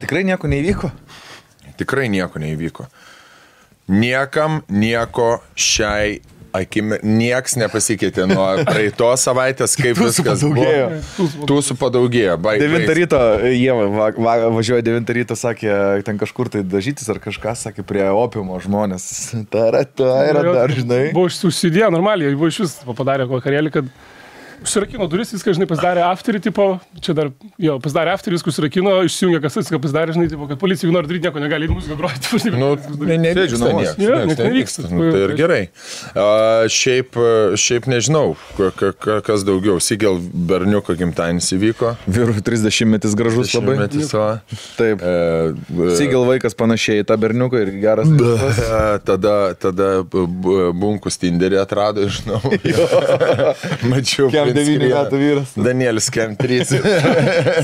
Tikrai nieko neįvyko? Tikrai nieko neįvyko. Niekam nieko šiai akimi, nieks nepasikeitė nuo praeitos savaitės, kaip viskas buvo. Tūsų padaugėjo. 9 ryto, jie važiuoja 9 ryto, sakė, ten kažkur tai dažytis ar kažką, sakė, prie opiumo žmonės. Yra dar, žinai. Buvo užsidėjo normaliai, buvo iš vis padarė vakarėlį, kad užsirakino duris, viską, žinai, pasidarė afterį, tipo, čia dar, jo, pasidarė afterį, viską užsirakino, išsijungė kasas, viską pasidarė, žinai, tipo, kad policija nori daryti nieko, negali muziką groti. Nu, nevyksta. Nu, tai ir gerai. Šiaip nežinau, kas daugiau. Sigel berniuko gimtadienis įvyko. Vyrų 30-metis gražus labai. Taip. Sigel vaikas panašiai į tą berniuką ir geras. Tada bunkus Tinderį atrado, žinau. Mačiau. 9 metų vyras. Danielis Kem 3.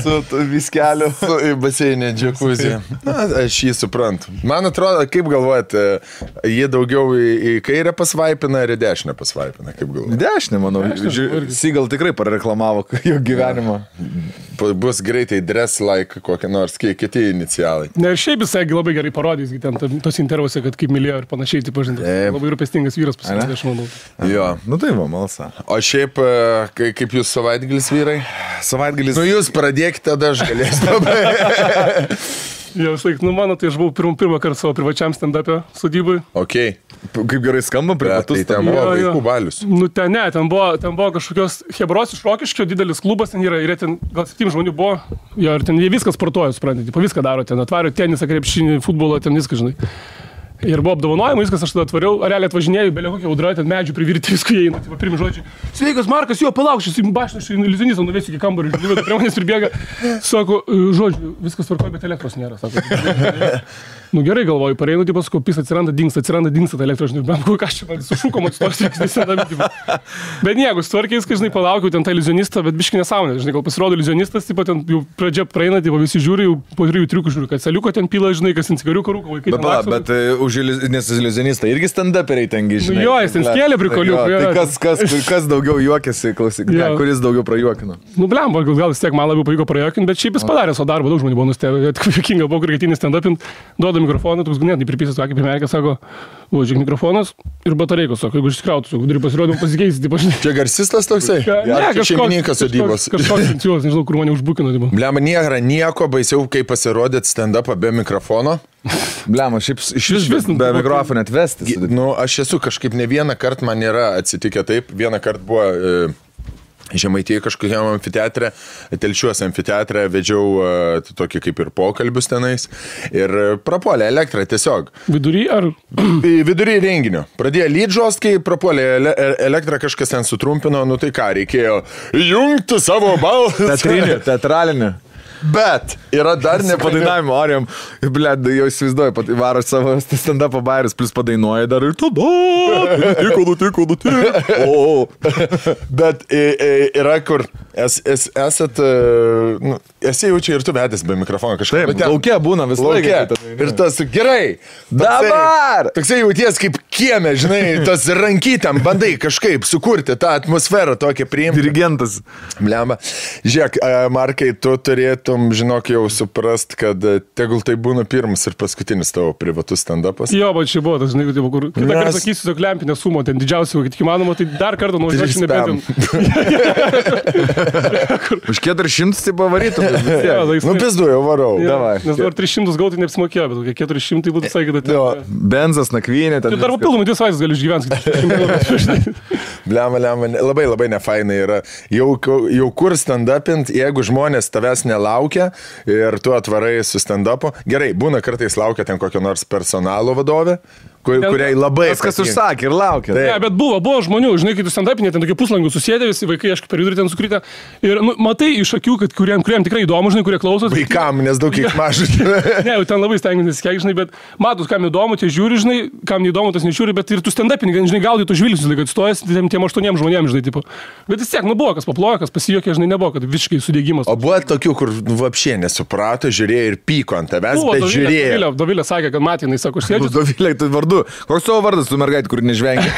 Su viskeliu. Su baseinė džekuzė. Aš jį suprantu. Man atrodo, kaip galvojat, jie daugiau į kairę pasvaipina ar į dešinę pasvaipina, kaip galvojat? Dešinę, manau. Sigel tikrai pareklamavo jo gyvenimą. Bus greitai dress like kokie nors kiti inicialai. Ne, ir šiaip jisai labai gerai parodys, ten tos intervuose, kad kaip mylėjo ir panašiai, taip pažintas. Labai rūpestingas vyras pasirodė, aš manau. Jo. Nu tai va, malsa. O šiaip, kaip jūs savaitgalis vyrai? Savaitgalis. Nu jūs pradėkite, tada aš galėsiu. Jo, mano, tai aš buvau pirmą kartą savo privačiam stand-up'e sodybai. Ok. Kaip gerai skamba, privatus. Tai ten buvo vaikų balius. Nu, ten buvo kažkokios Hebros iš Rokiškio, didelis klubas ten yra, ir ten gal 7 žmonių buvo. Jo, ir ten jie viskas sportuoja, suprantate, viską daro, ten atvario tenisą, krepšinį, futbolą, ten viską, žinai. Ir buvo apdovanojimai, viskas, aš tada atvariau, realiai atvažinėjau, belė kokia audra, ten medžių privirti, viską įeina, tai pirmi žodžiai. Sveikas, Markas, jo, palauk, šis baštas, šis iliuzionistą nuvesiu iki kambarį, žinai, prie manęs pribėga, sako, žodžiu, viskas tvarkoja, bet elektros nėra, sako. Nu gerai galvoju, pareinu, tipo, sakau, pis atsiranda, dingsta ta elektra, žinai, bent ką aš čia sušūkom atstos, bet nieko, sutvarkiais, kai, žinai, palaukiau ten tą iliuzionistą, bet biški nesąmonė, žinai, gal pasirodo iliuzionistas, tipo, ten jau pradžia praeina, tipo, visi žiūri, jau po 3 triukų žiūri, kad saliuko ten pila, žinai, kas ant cigariuko rūko, vaikai ten laksto. Bet už iliuzionistą irgi stand-uperiai tengi, žinai. Nu jo, jis ten skėlė prikoliukų. Tai kas daugiau juokėsi, klausyk, kuris daugiau prajuokino? Nu blem, gal vis tiek man labiau pavyko prajuokinti, bet šiaip jis padarė savo darbą, daug žmonių buvo nustebę, juokinga buvo, kur ketinį stand-upint, duoda mikrofoną, toks ganėtinai pripysęs, kaip primerkė, sako, žiūrėk mikrofonas ir batareikos, sako, jeigu išsikrautų, turi pasirodymą pasikeisti, taip aš. Čia garsistas toksai? Ne, šeimininkas sodybos. Kažkoks inicijuos, nežinau, kur mane užbukino. Blem, nėra nieko baisiau, kaip pasirodėt stand-upą be mikrofono. Blem, šiaip iš vis be mikrofono atvesti. Nu, aš esu kažkaip ne vieną kartą, man nėra atsitikę taip, vieną kartą buvo... Žemaitėje kažkokiam amfiteatre, Telšiuose amfiteatre vedžiau tokį kaip ir pokalbius tenais ir prapuolė elektrą tiesiog. Vidury ar? Vidury renginio. Pradėjo lydžost, kai prapuolė elektrą, kažkas ten sutrumpino, nu tai ką, reikėjo jungti savo balsą. Teatralinį. Bet yra dar nepadainavimo, Arijam, blėd, jau įsivaizduoju, varo savo stand-up'o bairis, plus padainuoja dar ir tada, nutiko. Bet yra kur, esat, esi jau čia ir tu vedęs be mikrofono kažkaip. Taip, laukia būna vis laiką. Ir tas, gerai, dabar! Toksai jauties kaip kieme, žinai, tas rankytėm, bandai kažkaip sukurti tą atmosferą tokią priimti. Dirigentas. Blemba. Žiūrėk, Markai, tu turėtum, žinok, jau suprast, kad tegul tai būna pirmas ir paskutinis tavo privatus stand-upas. Jo, bet čia buvo tas, žinai, kur kitą kartą sakysiu, tokį lempinę sumą, ten didžiausią, kad tik įmanoma, tai dar kartą nuvažiuočiau nebent. Už 400 tai pavarytum. Nu, pizdu, jau varau. Nes dabar 300 gautai neapsimokėjo, bet kokie 400 būtų visai kitą. Benzas, nakvynė. Tai dar papildomai 2 savaitės gali išgyventi. Blemba, labai nefainai yra. Jau kur stand-upint, jeigu žmonės tavęs nelaukia ir tu atvarai su stand-upu. Gerai, būna kartais laukia ten kokio nors personalo vadovė, kuriai labai... Kas užsakė ir laukia. Ne, bet buvo žmonių, žinai, kai tu stand-upinė, ten tokie puslangų susėdė, visi vaikai, aš per vidurį ten sukrytę. Ir matai iš akių, kad kuriem tikrai įdomu, žinai, kurie klausosi. Vaikam, nes daug kiek mažai. Ne, jau ten labai stengiantis kiek, žinai, bet matus, kam įdomu, tie žiūri, žinai, kam neįdomu, tas nežiūri, bet ir tu stand-upinė, žinai, gaudai tu žvilgsnius, kad stojas tiem 8 žmonėms, žinai, tipo. Bet vis tiek, buvo, kas paplojo, kas pasijuokė, žinai, nebuvo, kad visiškai sudėgymas. O buvo tokių, kur vapšė nesuprato, žiūrėjo ir pyko ant tavęs, bet žiūrėjo. Dovilė sakė, kad matė, jinai sako, aš sėdžiu. Dovilė, tu vardu. Koks tavo vardas, tu mergaitė, kur nežvengia?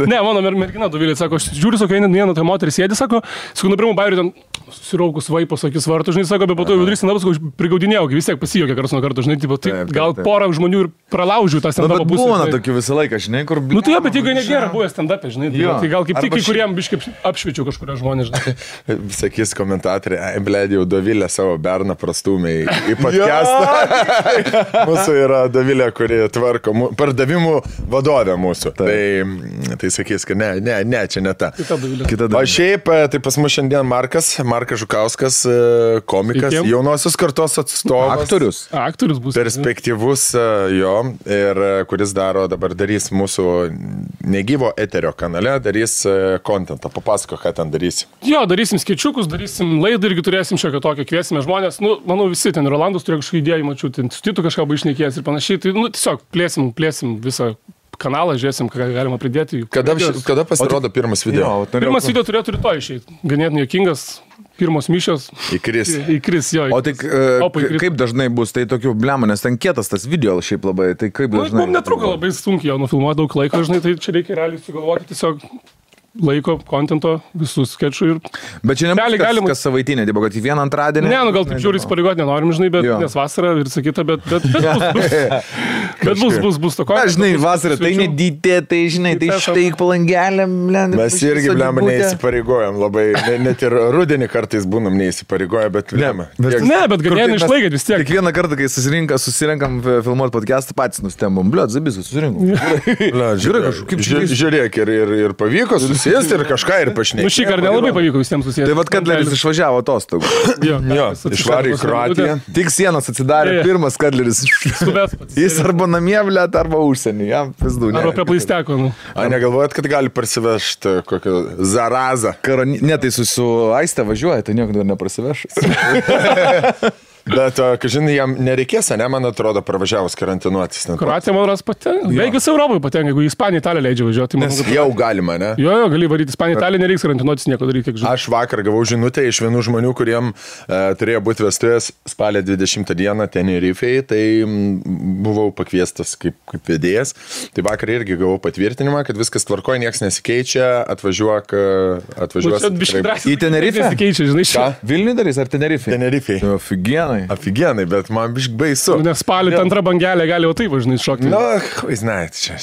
Ne, mano mergina Dovilė, sako, aš žiūriu, sako, viena ta moteris sėdi, sako, nubrimų bairių ten susiraukus vaipos akis vartų, žinai, sako, bet po to vidurys stand-up, sako, prigaudinėjau, vis tiek pasijokė karas nuo karto, žinai, tipo, tai gal porą žmonių ir pralaužiu tą stand-up pusę. Būna tokių visą laiką, žinai, kur... Nu tai jo, bet jeigu nėra buvę stand-up, žinai, tai gal kaip tik kai kuriem biškai apšviečiu kažkurio žmonės, žinai. Sakys komentatoriai, blėdė, jau Dovilė savo berną prastumė į podcastą. Mūsų yra Dovilė, kuri tvarko pardavimų vadovė mūsų. Tai sakys, kad ne, čia ne ta. O šiaip, tai pas mus šiandien Markas Žukauskas, komikas, jaunosios kartos atstovas. Aktorius bus. Perspektyvus jo, ir kuris darys mūsų negyvo eterio kanale, darys kontentą. Papasako, ką ten darysi. Jo, darysim skečukus, darysim laidą irgi turėsim šią tokią, kviesime žmonės. Nu, manau, visi ten Rolandas turėjo kažkokį idėją, mačiau, ten su Titu kažką išnekėjęs ir panašiai. Tai, nu, tiesiog plėsim visą kanalą, žiūrėsim, ką galima pridėti. Kada pasirodo pirmas video? Pirmas video turėtų rytoj išeiti. Ganėtinai juokingas. Pirmos mišios. Įkris, jo. O tai kaip dažnai bus, tai tokių blemų, nes ten kietas tas video šiaip labai, tai kaip dažnai? Mums netruko labai sunkiai, jau nufilmuoja daug laiko, žinai, tai čia reikia realiai sugalvoti tiesiog laiko, kontento, visus skečų ir... Bet čia nebus kas savaitinė, tipo, kad į vieną antradienį... Ne, nu gal taip žiūri įsipareigoti nenorim, žinai, bet nes vasara ir sakyta, bet bus to kontento. Žinai, vasara, tai nedytė, tai žinai, tai štai palangelė, blem. Mes irgi, blem, neįsipareigojam labai, net ir rudenį kartais būnam neįsipareigoję, bet blem. Ne, bet ganėtinai išlaikėt vis tiek. Kiekvieną kartą, kai susirenkam filmuoti podcastą, patys nustembom, bliot, zabis, susirinkom. Žiūrėk, ir pavyko susėsti ir kažką ir pašnekėti. Nu šį kartą nelabai pavyko visiems susėsti. Tai vad Kadleris išvažiavo atostogų. Jo, išvarė į Kroatiją. Tik sienas atsidarė, pirmas Kadleris. Jis arba namie, blėt, arba užsienį. Jam pizdu. Arba prie plaisteko. Negalvojat, kad gali parsivežti kokią zarazą? Ne, tai su Aiste važiuoja, tai nieko dar neprasiveš. Bet, žinai, jam nereikės, ne, man atrodo, pravažiavus karantinuotis. Kroatija, man ras patenka. Beveik visą Europoje patenka, jeigu į Ispaniją, Italiją leidžia važiuoti. Nes jau galima, ne? Jo, gali varyti Ispaniją, Italiją, nereiks karantinuotis nieko daryti, kiek žinai. Aš vakar gavau žinutę iš vienų žmonių, kuriem turėjo būti vestuvės spalio 20 dieną Tenerifei, tai buvau pakviestas kaip vedėjas. Tai vakar irgi gavau patvirtinimą, kad viskas tvarkoja, niekas nesikeičia, atvažiuos. Į Tenerifę? Nesikeičia, žinai, ką? Vilniui darys ar Tenerifei? Tenerifei. Afigenai, bet man biškai baisu. Nes spalį antrą bangelę gali jau taip važinai šokti. Nu, žinai, čia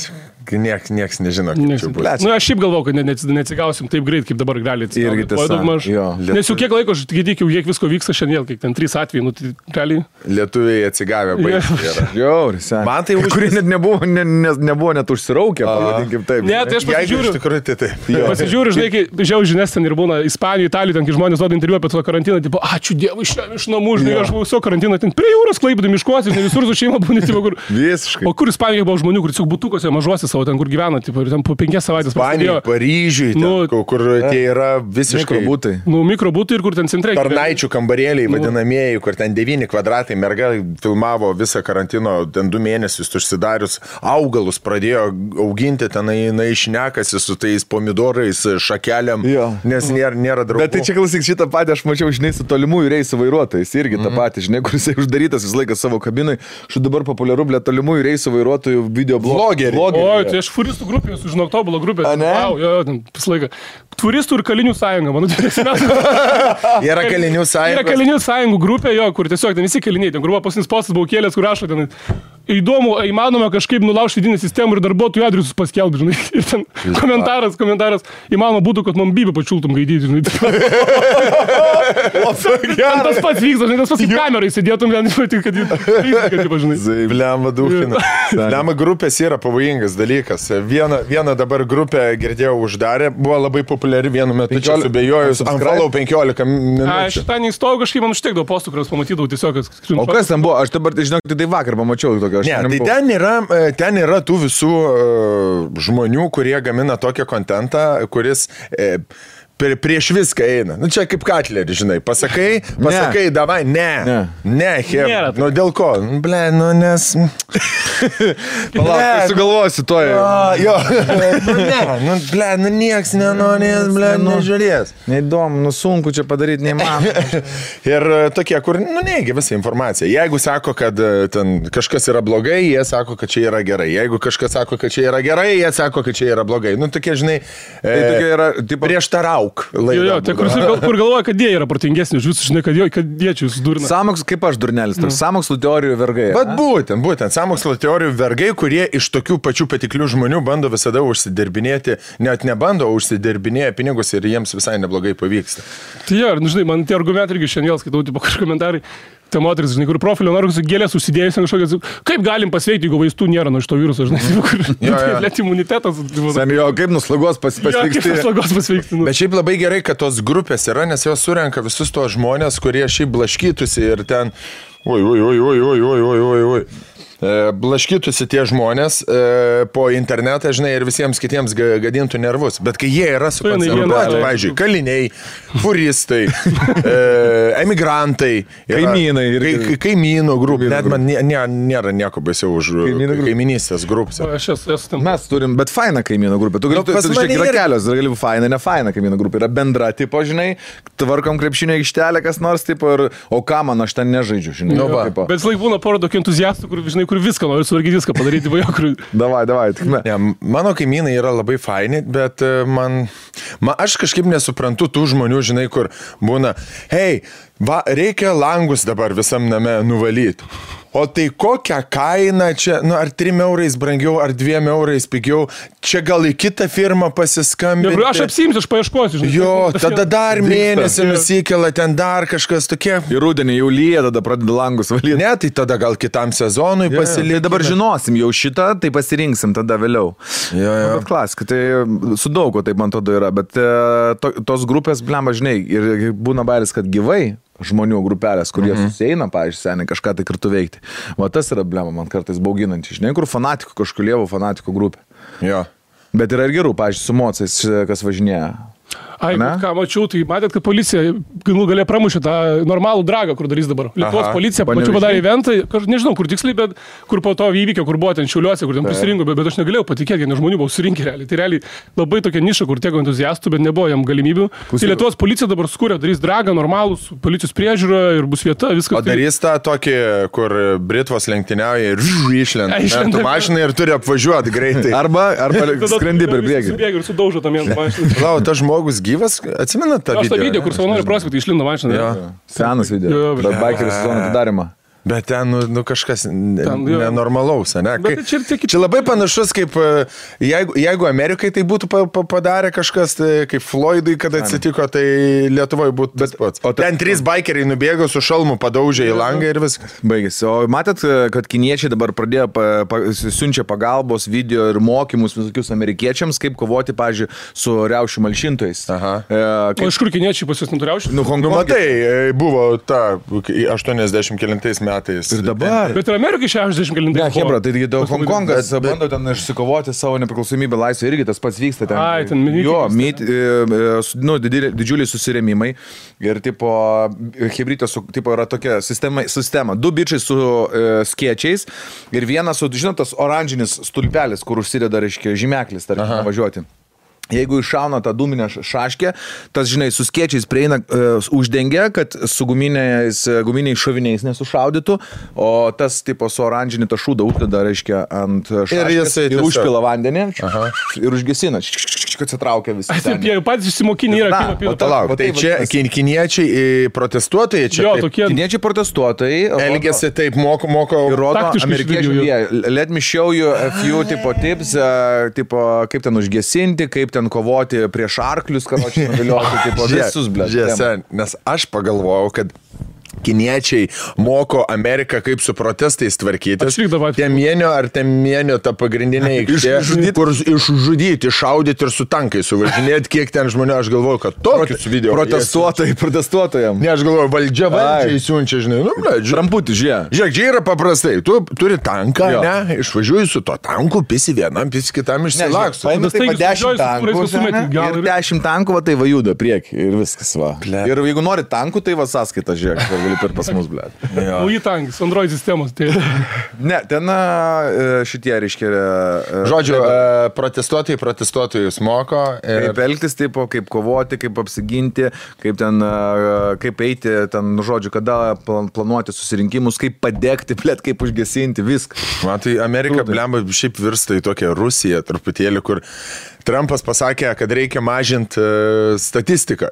nieks nežino, kaip čia bus. Nu, aš šiaip galvoju, kad neatsigausim taip greit, kaip dabar gali atsigaut. Nes jau kiek laiko, aš tik kiek visko vyksta šiandien, kiek ten 3 atvejai, nu tai realiai. Lietuviai atsigavę baigti. Man tai kurie net nebuvo net užsiraukę, pavadinkim taip. Ne, tai aš pasižiūriu. Iš tikrųjų, tai taip. Pasižiūriu, žinai, kai žiau žinias ten ir būna Ispanijoje, Italijoje, ten kai žmonės duoda interviu apie to karantiną, tipo, ačiū Dievui, iš namų, žinai, aš buvau viso karantino, ten prie jūros Klaipėdoj miškuose, ne visur su šeima būna, tipo, kur... Visiškai. O kur Ispanijoje buvo žmonių, kur tiesiog butukuose mažuose savo, ten kur gyvena, tipo, ir ten po 5 savaitės prasidėjo. Paryžiui, kur tie yra visiškai mikrobutai. Nu, mikrobutai ir kur ten centrai. Tarnaičių kambarėliai vadinamieji, kur ten 9 kvadratai, merga filmavo visą karantino, ten 2 mėnesius užsidarius, augalus pradėjo auginti, ten išnekasi su tais pomidorais, šakeliam, nes nėra draugų. Bet tai čia klausyk, šitą patį aš mačiau, žinai, su tolimųjų reisų vairuotojais, irgi tą patį, žinai, kur jisai uždarytas visą laiką savo kabinai, štai dabar populiaru, blė, tolimųjų reisų vairuotojų videoblogeriai. Oi, tai aš furistų grupė, sužinau, tobulą grupę. Wow, jo, ten visą laiką. Turistų ir kalinių sąjunga, mano Yra kalinių sąjunga. Yra kalinių sąjungų grupė, jo, kur tiesiog ten visi kaliniai, ten kur buvo pasinis postas, buvau kėlęs, kur rašo ten. Įdomu, įmanoma kažkaip nulaužti vidinę sistemą ir darbuotojų adresus paskelbti, žinai. Ir ten komentaras, įmanoma būtų, kad man bybę pačiultum gaidyti, žinai. Tas pats vyksta, žinai, tas pats į kamerą įsidėtum, kad žinai. Blema duhina. Blema grupės yra pavojingas dalykas. Vieną dabar grupę girdėjau uždarė, buvo labai populiari vienu metu, čia subėjojus, unfollow 15 minučių. Aš tą neįstojau, kažkaip man užtekdavo postų, kuriuos pamatydavau tiesiog. O kas ten buvo? Aš dabar, žinok, tai vakar pamačiau tokio. Ne, tai ten yra tų visų žmonių, kurie gamina tokią kontentą, kuris prieš viską eina. Nu, čia kaip Katlerį, žinai. Pasakai, davai, ne, Hebra. Nu, dėl ko? Ble, nu, nes... Palauk, tai sugalvosi to jau. Jo, ble, nieks nenorės, ble, nežiūrės. Neįdomu, sunku čia padaryti, neįmanoma. Ir tokie, kur, neigia visą informaciją. Jeigu sako, kad ten kažkas yra blogai, jie sako, kad čia yra gerai. Jeigu kažkas sako, kad čia yra gerai, jie sako, kad čia yra blogai. Nu, tokie, žinai, tokie yra, prieštarauk. Jo, tai kur galvoja, kad jie yra protingesni, už visus, žinai, kad jie čia jūs durina. Samokslo, kaip aš durnelis, toks sąmokslo teorijų vergai. Bet būtent, sąmokslo teorijų vergai, kurie iš tokių pačių patiklių žmonių bando visada užsidirbinėti, net nebando, užsidirbinėja pinigus ir jiems visai neblogai pavyksta. Tai jo, žinai, man tie argumentai irgi šiandien skaitau, tipo kažkokie komentarai. Tai moteris, žinai, kur profilio nori gėlės užsidėjus ant kažkokios, kaip galim pasveikti, jeigu vaistų nėra nuo šito viruso, žinai, kur net imunitetas. Sami, kaip nuslagos pasveikti. Bet šiaip labai gerai, kad tos grupės yra, nes jos surenka visus tos žmonės, kurie šiaip blaškytųsi ir ten, blaškytųsi tie žmonės po internetą, žinai, ir visiems kitiems gadintų nervus. Bet kai jie yra sukoncentruoti, pavyzdžiui, kaliniai, furistai, emigrantai, kaimynų grupė, net man nėra nieko baisiau už kaiminystės grupę. Mes turim, bet faina kaimynų grupė. Tu gali, yra kelios, gali faina, ne faina kaimynų grupė. Yra bendra, tipo, žinai, tvarkom krepšinio aikštelę, kas nors, tipo, o ką man, aš ten nežaidžiu, žinai. Bet laik būna pora tokių entuziastų, kur, žinai, kur viską nori suvargyti, viską padaryti, vajokrui. Davai, tik ne. Mano kaimynai yra labai faini, bet aš kažkaip nesuprantu tų žmonių, žinai, kur būna, hei, reikia langus dabar visam name nuvalyti. O tai kokią kainą čia, ar 3 eurais brangiau, ar 2 eurais pigiau, čia gal į kitą firmą pasiskambinti. Aš apsimsiu, aš paieškosiu. Jo, tada dar mėnesį nusikela, ten dar kažkas tokie. Ir rudenį jau lyja, tada pradeda langus valyti. Ne, tai tada gal kitam sezonui pasilikti. Dabar žinosim jau šitą, tai pasirinksim tada vėliau. Bet klasika, tai su daugo taip man tada yra, bet tos grupės, blemba, žinai, ir būna bairis, kad gyvai žmonių grupelės, kurie susieina, pavyzdžiui, seniai kažką tai kartu veikti. Va tas yra blema, man kartais bauginanti. Žinai, kur fanatikų, kažkur lievų fanatikų grupė. Jo. Bet yra ir gerų, pavyzdžiui, su mocais, kas važinėja. Ai, ką mačiau, tai matėt, kad policija galė pramušė tą normalų dragą, kur darys dabar. Lietuvos policija, pačiu padarė eventą, nežinau, kur tiksliai, bet kur po to įvykio, kur buvo ten Šiauliuose, kur ten prisirinko, bet aš negalėjau patikėti, nes žmonių buvo surinkę realiai. Tai realiai labai tokia niša, kur tiek entuziastų, bet nebuvo jam galimybių. Tai Lietuvos policija dabar skūrė, darys dragą, normalus, policijos priežiūra ir bus vieta, viskas. O darys tą tokį, kur Britvos lenktyniauja ir išlenda mašiną ir turi apvažiuoti greitai. Arba skrendi per priekį. Ir sudaužo tam vieną mašiną. Lau, tas žmogus gyvas, atsimenat tą video? Aš tą video, kur savanorių prospektai išlindo mašiną. Senas video, bet bikerio sezono atidarimą. Bet ten, kažkas nenormalaus, ne? Čia labai panašus, kaip jeigu Amerikai tai būtų padarę kažkas, kaip Floydui, kad atsitiko, tai Lietuvoje būtų tas pats. O ten 3 bikeriai nubėgo su šalmu, padaužė į langą ir viskas. Baigėsi. O matėt, kad kiniečiai dabar pradėjo siunčia pagalbos video ir mokymus visokius amerikiečiams, kaip kovoti, pavyzdžiui, su riaušių malšintojais. O iš kur kiniečiai pas jūs neturiaušių? Matai, buvo ta 80 metais. Ir dabar. Bet ir Amerikai 60 galintai. Ne, Hebra, tai Hongkongas bando ten išsikovoti savo nepriklausomybę laisvę, irgi tas pats vyksta ten. Ai, ten didžiuliai susirėmimai. Ir tipo, Hebrytė yra tokia sistema. 2 bičiai su skėčiais ir vienas su, žinot, tas oranžinis stulpelis, kur užsideda, reiškia, žymeklis, tarkim, važiuoti. Jeigu iššauna tą dūminę šaškę, tas, žinai, su skėčiais prieina, uždengia, kad su guminiais šoviniais nesušaudytų, o tas, tipo, su oranžinį tą šūdą uždeda, reiškia, ant šaškės ir užpila vandenį ir užgesina, kad atsitraukia visi. Jie patys išsimokinė yra kino palauk, tai čia kiniečiai protestuotojai čia? Jo, tokie. Kiniečiai protestuotojai. Elgiasi taip, moko. Ir rodo amerikiečiai. Let me show you a few tipo tips, tipo, kaip ten užgesinti, kaip ten kovoti prieš arklius, karočiui nuvilioti, tipo, visus, blėt. Nes aš pagalvojau, kad kiniečiai moko Ameriką, kaip su protestais tvarkytis. Temienio ta pagrindinė aikštė, kur išžudyti, šaudyti ir su tankai suvažinėti, kiek ten žmonių, aš galvoju, kad tokius video. Protestuotojam. Ne, aš galvoju, valdžiai siunčia, žinai, Tramputį, žiūrėk. Žiūrėk, čia yra paprastai, tu turi tanką, ne, išvažiuoji su to tanku, pisi vienam, pisi kitam išsilakstu. Paimė taip 10 tankų ir 10 tankų, tai va juda prieki ir viskas, va. Ir jeigu nori tankų, tai va sąskaita, žiūrėk, gali per pas mus, blėt. O į tankis, Android sistemos. Tai... Ne, ten šitie, reiškia... Žodžiu, protestuotojus moko. Kaip elgtis, taip, kaip kovoti, kaip apsiginti, kaip eiti, ten, žodžiu, kada planuoti susirinkimus, kaip padegti, blėt, kaip užgesinti, viską. Matai, Amerika, blemba, šiaip virsta į tokią Rusiją truputėlį, kur Trumpas pasakė, kad reikia mažinti statistiką.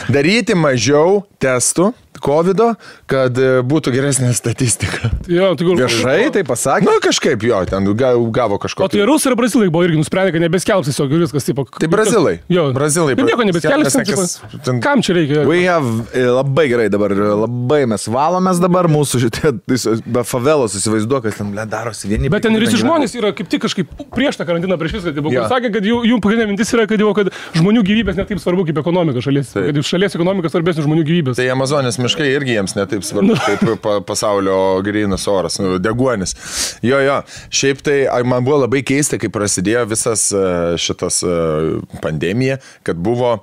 Daryti mažiau testų COVID-o, kad būtų geresnė statistika. Jo, viešai tai pasakė? Na, kažkaip jo, ten gavo kažko. O tai Rusai ir Brazilai buvo irgi nusprendė, kad nebeskelbs tiesiog viskas. Tipo, tai Brazilai. Jo. Brazilai. Ir nieko nebeskelbs. Kam čia reikia? Labai gerai dabar, labai mes valomės dabar, mūsų šitie favelos įsivaizduoja, kad ten darosi vieni. Bet ten visi žmonės yra kaip tik kažkaip prieš tą karantiną, prieš viską. Tipo, sakė, kad jų pagrindinė mintis yra, kad žmonių gyvybės net taip svarbu kaip ekonomika šalies. Kad šalies ekonomika svarbesnė žmonių gyvybės. Tai Amazonės miškai irgi jiems netaip svarbu, kaip pasaulio grynas oras, deguonis. Jo. Šiaip tai man buvo labai keista, kai prasidėjo visas šitas pandemija, kad buvo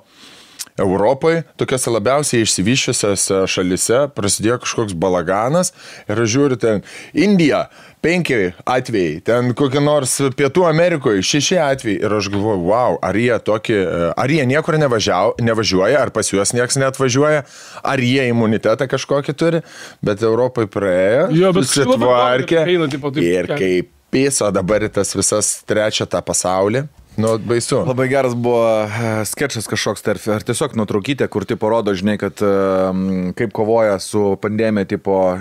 Europoje, tokiose labiausiai išsivyščiusiose šalise, prasidėjo kažkoks balaganas ir aš žiūriu ten Indija, 5 atvejai, ten kokie nors Pietų Amerikoje 6 atvejai ir aš galvoju, wow, ar jie niekur nevažiuoja, ar pas juos nieks neatvažiuoja, ar jie imunitetą kažkokį turi, bet Europai praėjo, susitvarkė ir kaip piso dabar tas visas trečia tą pasaulį. Nu, baisu. Labai geras buvo skečas kažkoks ar tiesiog nuotraukytė, kur tipo rodo, žinai, kad kaip kovoja su pandemija, tipo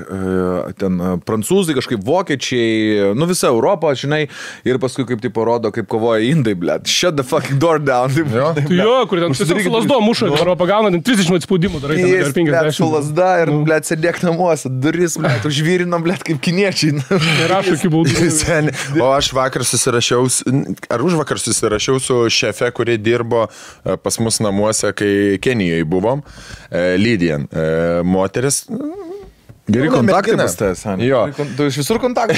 ten prancūzai, kažkaip vokiečiai, nu visa Europa, žinai, ir paskui kaip tipo rodo, kaip kovoja indai, blėt. Shut the fucking door down. Jo, kur ten tiesiog su lasdo muša, Europą gauna, ten 30 spaudimų darai, ten per 50. Su lasda ir, blėt, sėdėk namuose, duris, blėt, užvyrinom, blėt, kaip kiniečiai. Nerašo iki baudų. O aš vakar susirašiau su šefe, kuri dirbo pas mus namuose, kai Kenijoje buvom, Lydian, moteris. Geri kontaktai pas tavęs, jo. Tu iš visur kontaktai.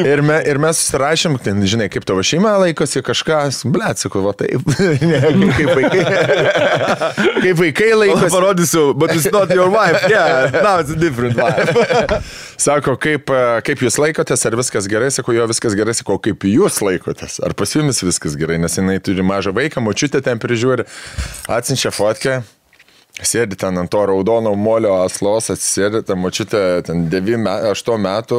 ir mes susirašėm, ten, žinai, kaip tavo šeima laikosi, kažkas, blėt, sakau, va taip, kaip vaikai laikosi. Parodysiu, but it's not your wife, yeah, now it's a different wife. Sako, kaip jūs laikotės, ar viskas gerai, sako, jo, viskas gerai, sako, kaip jūs laikotės, ar pas jumis viskas gerai, nes jinai turi mažą vaiką, močiutę ten prižiūri, atsiunčia fotkę. Sėdi ten ant to raudono molio aslos, atsisėdi, ta močiutė ten 8 metų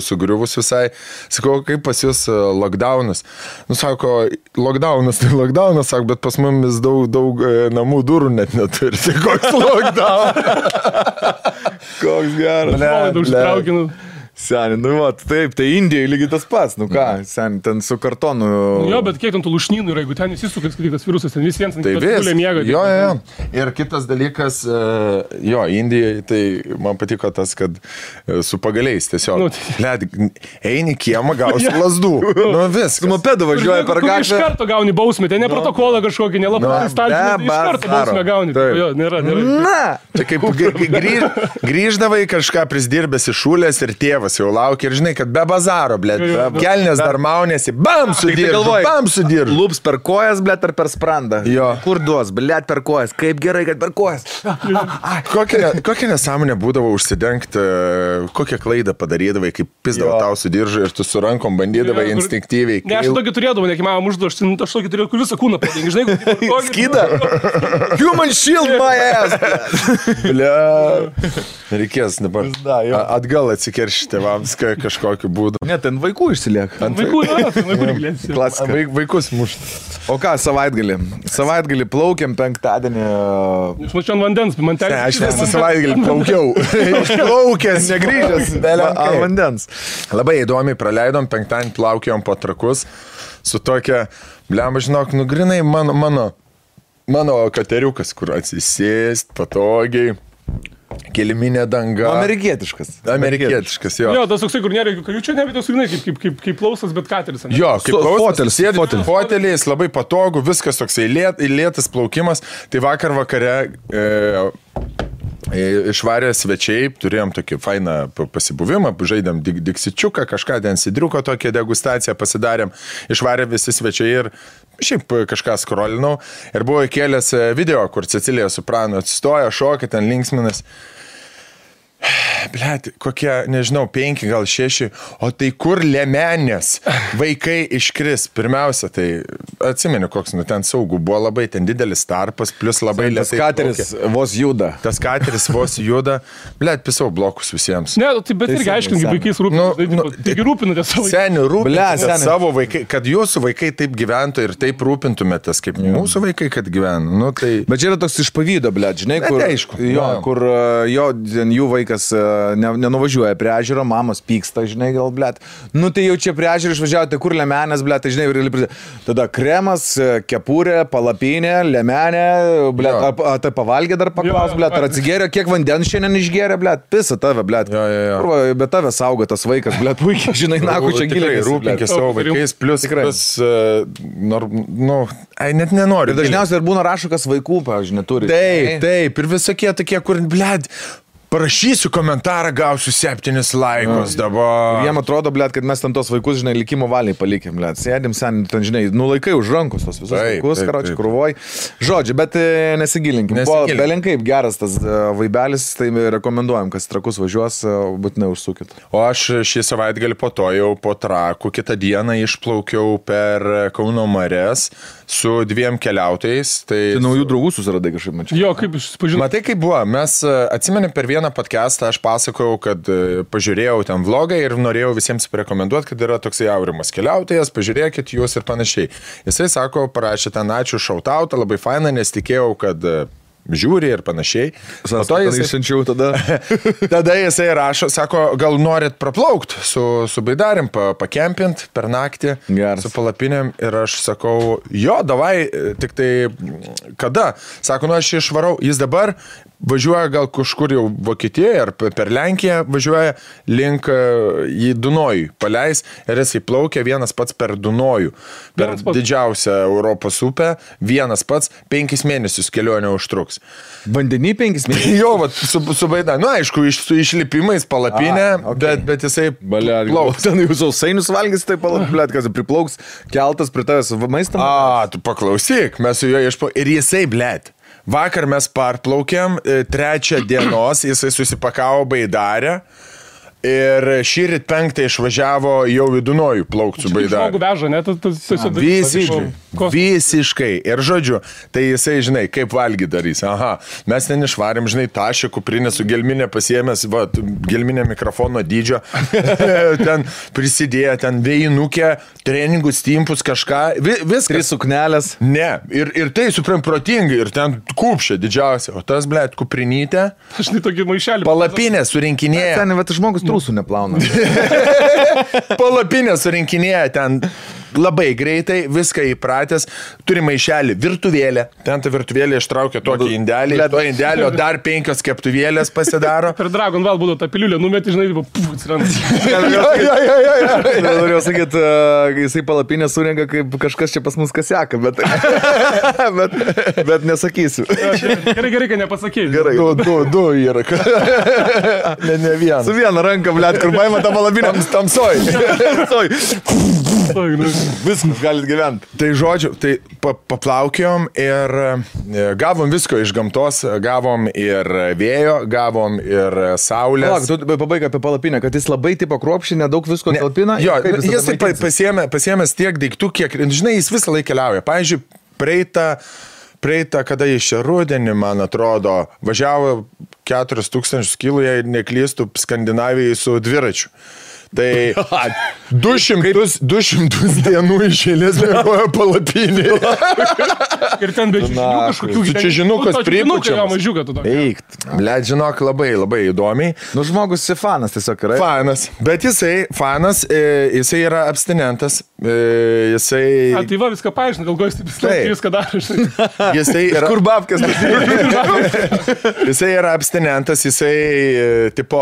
sugriuvus visai. Sakau, kaip pas jūs lockdownas? Nu, sako, lockdownas, sako, bet pas mumis daug namų durų net neturi. Tai koks lockdown? Koks geras. Seni, nu va, taip, tai Indijai lygiai tas pats, nu ką, seni, ten su kartonu. Jo, bet kiek ten tų lušnynų yra, jeigu ten įsisukas, kad tas virusas, ten visiems tai gulė miega. Jo. Ir kitas dalykas, jo, Indijai, tai man patiko tas, kad su pagaliais tiesiog, eini kiemą, gausi lasdų. Nu vis. Su mopedu važiuoja per gatvę. Iš karto gauni bausmę, ten ne protokolą kažkokį, nelapą stalčių, iš karto bausmę gauni. Jo, nėra. Čia kaip grįždavai kažką prisdirbęs iš šūlės ir tėvas jau laukia ir žinai, kad be bazaro, blėt, kelnės dar maunėsi, bam sudiržu. Lūps per kojas, blėt, ar per sprandą. Jo. Kur duos, blėt, per kojas, kaip gerai, kad per kojas. Kokia nesąmonė būdavo užsidengti, kokią klaidą padarydavai, kaip pizdavo tau sudiržu ir tu su rankom bandydavai instinktyviai. Ne, aš tokį turėdavau, nekimavau užduošti, aš tokį turėjau, kur visą kūną padengi, žinai, skydą. Human shield my ass. Blėt. Reikės dabar atgal atsikeršti tėvams kažkokiu būdu. Ne, ten vaikų išsilieka. Vaikus mušti. O ką, savaitgalį plaukiam penktadienį. Aš mačiau ant vandens, man ten. Aš visą savaitgalį plaukiau. Išplaukęs, negrįžęs. Ant vandens. Labai įdomiai praleidom, penktadienį plaukiom po trakus su tokia, blemba, žinok, nu grinai mano mano kateriukas, kur atsisėst patogiai. Keliminė danga. Amerikietiškas, jo. Jo, tas toksai, kur nėra jokių kajučių, ne, bet tas, kaip klausas, bet kateris. Jo, kaip klausas, sėdi foteliais, labai patogu, viskas toksai lėtas plaukimas. Tai vakar vakare išvarė svečiai, turėjom tokį fainą pasibuvimą, žaidėm diksičiuką, kažką ten sidriuko tokią degustaciją pasidarėm, išvarė visi svečiai ir šiaip kažką skrolinau ir buvo įkėlęs video, kur Cecilija Soprano atsistoja, šoka, ten linksminas. Blet, kokie, nežinau, 5, gal 6, o tai kur liemenės vaikai iškris? Pirmiausia, tai atsimenu, koks, ten saugų, buvo labai ten didelis tarpas, plus labai lėtai. Tas kateris vos juda. Blet, pisau blokus visiems. Ne, tai bet irgi aiškingai, vaikais rūpinatės. Taigi rūpinatės savo vaikais. Seniai rūpinatės savo vaikai, kad jūsų vaikai taip gyventų ir taip rūpintumėtės, kaip mūsų vaikai, kad gyvena. Nu, tai... Bet čia yra toks iš pavydo, blet, žinai, kur, aišku, kur jų vaikas nenuvažiuoja prie ežero, mamos pyksta, žinai, gal, blet. Nu, tai jau čia prie ežero išvažiavo, tai kur liemenės, blet, tai, žinai, tada kremas, kepurė, palapinė, liemenė, blet, tai pavalgė dar paklaus, blet, ar atsigėrė, kiek vandens šiandien išgėrė, blet, pisa tave, blet. Bet tave saugo tas vaikas, blet, puikiai, žinai, naku, čia giliai. Rūpinkis savo vaikais, plus, net nenori. Dažniausiai ir būna rašukas vaikų, pavyzdžiui, neturi. Taip, ir visokie tokie, kur, blet, parašysiu komentarą, gausiu 7 laikus dabar. Jiem atrodo, blet, kad mes ten tos vaikus, žinai, likimo valiai palikėm, blet. Sėdim sen, ten, žinai, nulaikai už rankos tos visus vaikus, karočiui, krūvoj. Žodžiu, bet nesigilinkim. Belenkaip geras tas vaibelis, tai rekomenduojam, kas trakus važiuos, būtinai užsukit. O aš šį savaitgalį po to jau po Trakų kitą dieną išplaukiau per Kauno marias su 2 keliautojais. Tai naujų draugų susiradai kažkaip, mačiau. Jo, kaip susipažinai. Matai, kaip buvo. Mes atsimenėm per vieną podcastą, aš pasakojau, kad pažiūrėjau ten vlogą ir norėjau visiems rekomenduoti, kad yra toksai Aurimas keliautojas, pažiūrėkit jūs ir panašiai. Jisai sako, parašė ten ačiū šautautą, labai faina, nes tikėjau, kad žiūri ir panašiai. Tada jisai rašo, sako, gal norit praplaukt su baidarim, pakempint per naktį, su palapinėm ir aš sakau, jo, davai, tik tai kada? Sako, nu aš išvarau, jis dabar važiuoja gal kažkur jau Vokietijoje ar per Lenkiją važiuoja link į Dunojų, paleis ir jisai plaukia vienas pats per Dunojų, per didžiausią Europos upę, vienas pats 5 mėnesius kelionė užtruks. Vandenį 5 mėnesius? Jo, vat, su baida. Nu, aišku, su išlipimais palapinė, bet jisai plauks. Ten jūs sausainius valgys, tai palapinė, kas priplauks, keltas prie tavęs maistą. Tu paklausyk, mes su juo išplaukėm. Ir jisai, blet. Vakar mes parplaukėm, 3 dienos, jisai susipakavo baidarę ir šįryt 5 išvažiavo jau į Dunojų plaukti su baidarė. Žmogų veža, ne? Visiškai. Ir žodžiu, tai jisai, žinai, kaip valgy darys. Aha, mes ten išvarėm, žinai, tašę kuprinę su gelminė pasiėmęs, va, gelminė mikrofono dydžio, ten prisidėjo, ten vėjinukė, treningus, timpus, kažką, viskas. 3 suknelės. Ne, ir tai supram protingai, ir ten kupšė didžiausia, o tas, blet, kuprinytė. Aš tai tokį maišelį. Palapinė surinkinėja. Ten, bet žmogus trūsų neplauna. Palapinė surinkinėja ten labai greitai, viską įpratęs, turi maišelį, virtuvėlę, ten ta virtuvėlė ištraukia tokį indelį, to indelio dar 5 keptuvėlės pasidaro. Per Dragon Ball būdavo tą piliulę numetį, žinai, atsiranda. Norėjau sakyti, jisai palapinę surenka, kaip kažkas čia pas mus kaseka, bet nesakysiu. Gerai, kad nepasakėjai. Gerai. Du yra. Ne vieną. Su viena ranka, blet, kur paima tą palapinę. Tamsoj. Viskas galit gyventi. Tai žodžiu, tai paplaukėjom ir gavom visko iš gamtos, gavom ir vėjo, gavom ir saulės. Tu pabaig apie palapinę, kad jis labai tipo kruopščiai, nedaug visko talpina. Jo, jis pasiėmęs tiek daiktų, kiek, žinai, jis visą laiką keliauja. Pavyzdžiui, praeitą, kada iš rudenį, man atrodo, važiavo 4000 kilų, jei neklystų, Skandinavijai su dviračiu. Tai 200 dienų išėlės mėgojo palapinį. Ir ten be čiažinų kažkokių. Su čiažinukas pripučiamas. Eikt. Blet, žinok, labai įdomiai. Nu, žmogus fanas tiesiog yra. Fanas. Bet jisai yra abstinentas. jisai... Tai va, viską paaiškina, gal gojas taip viską daro. Jisai yra... Kur babkas? Jisai yra abstinentas, jisai, tipo,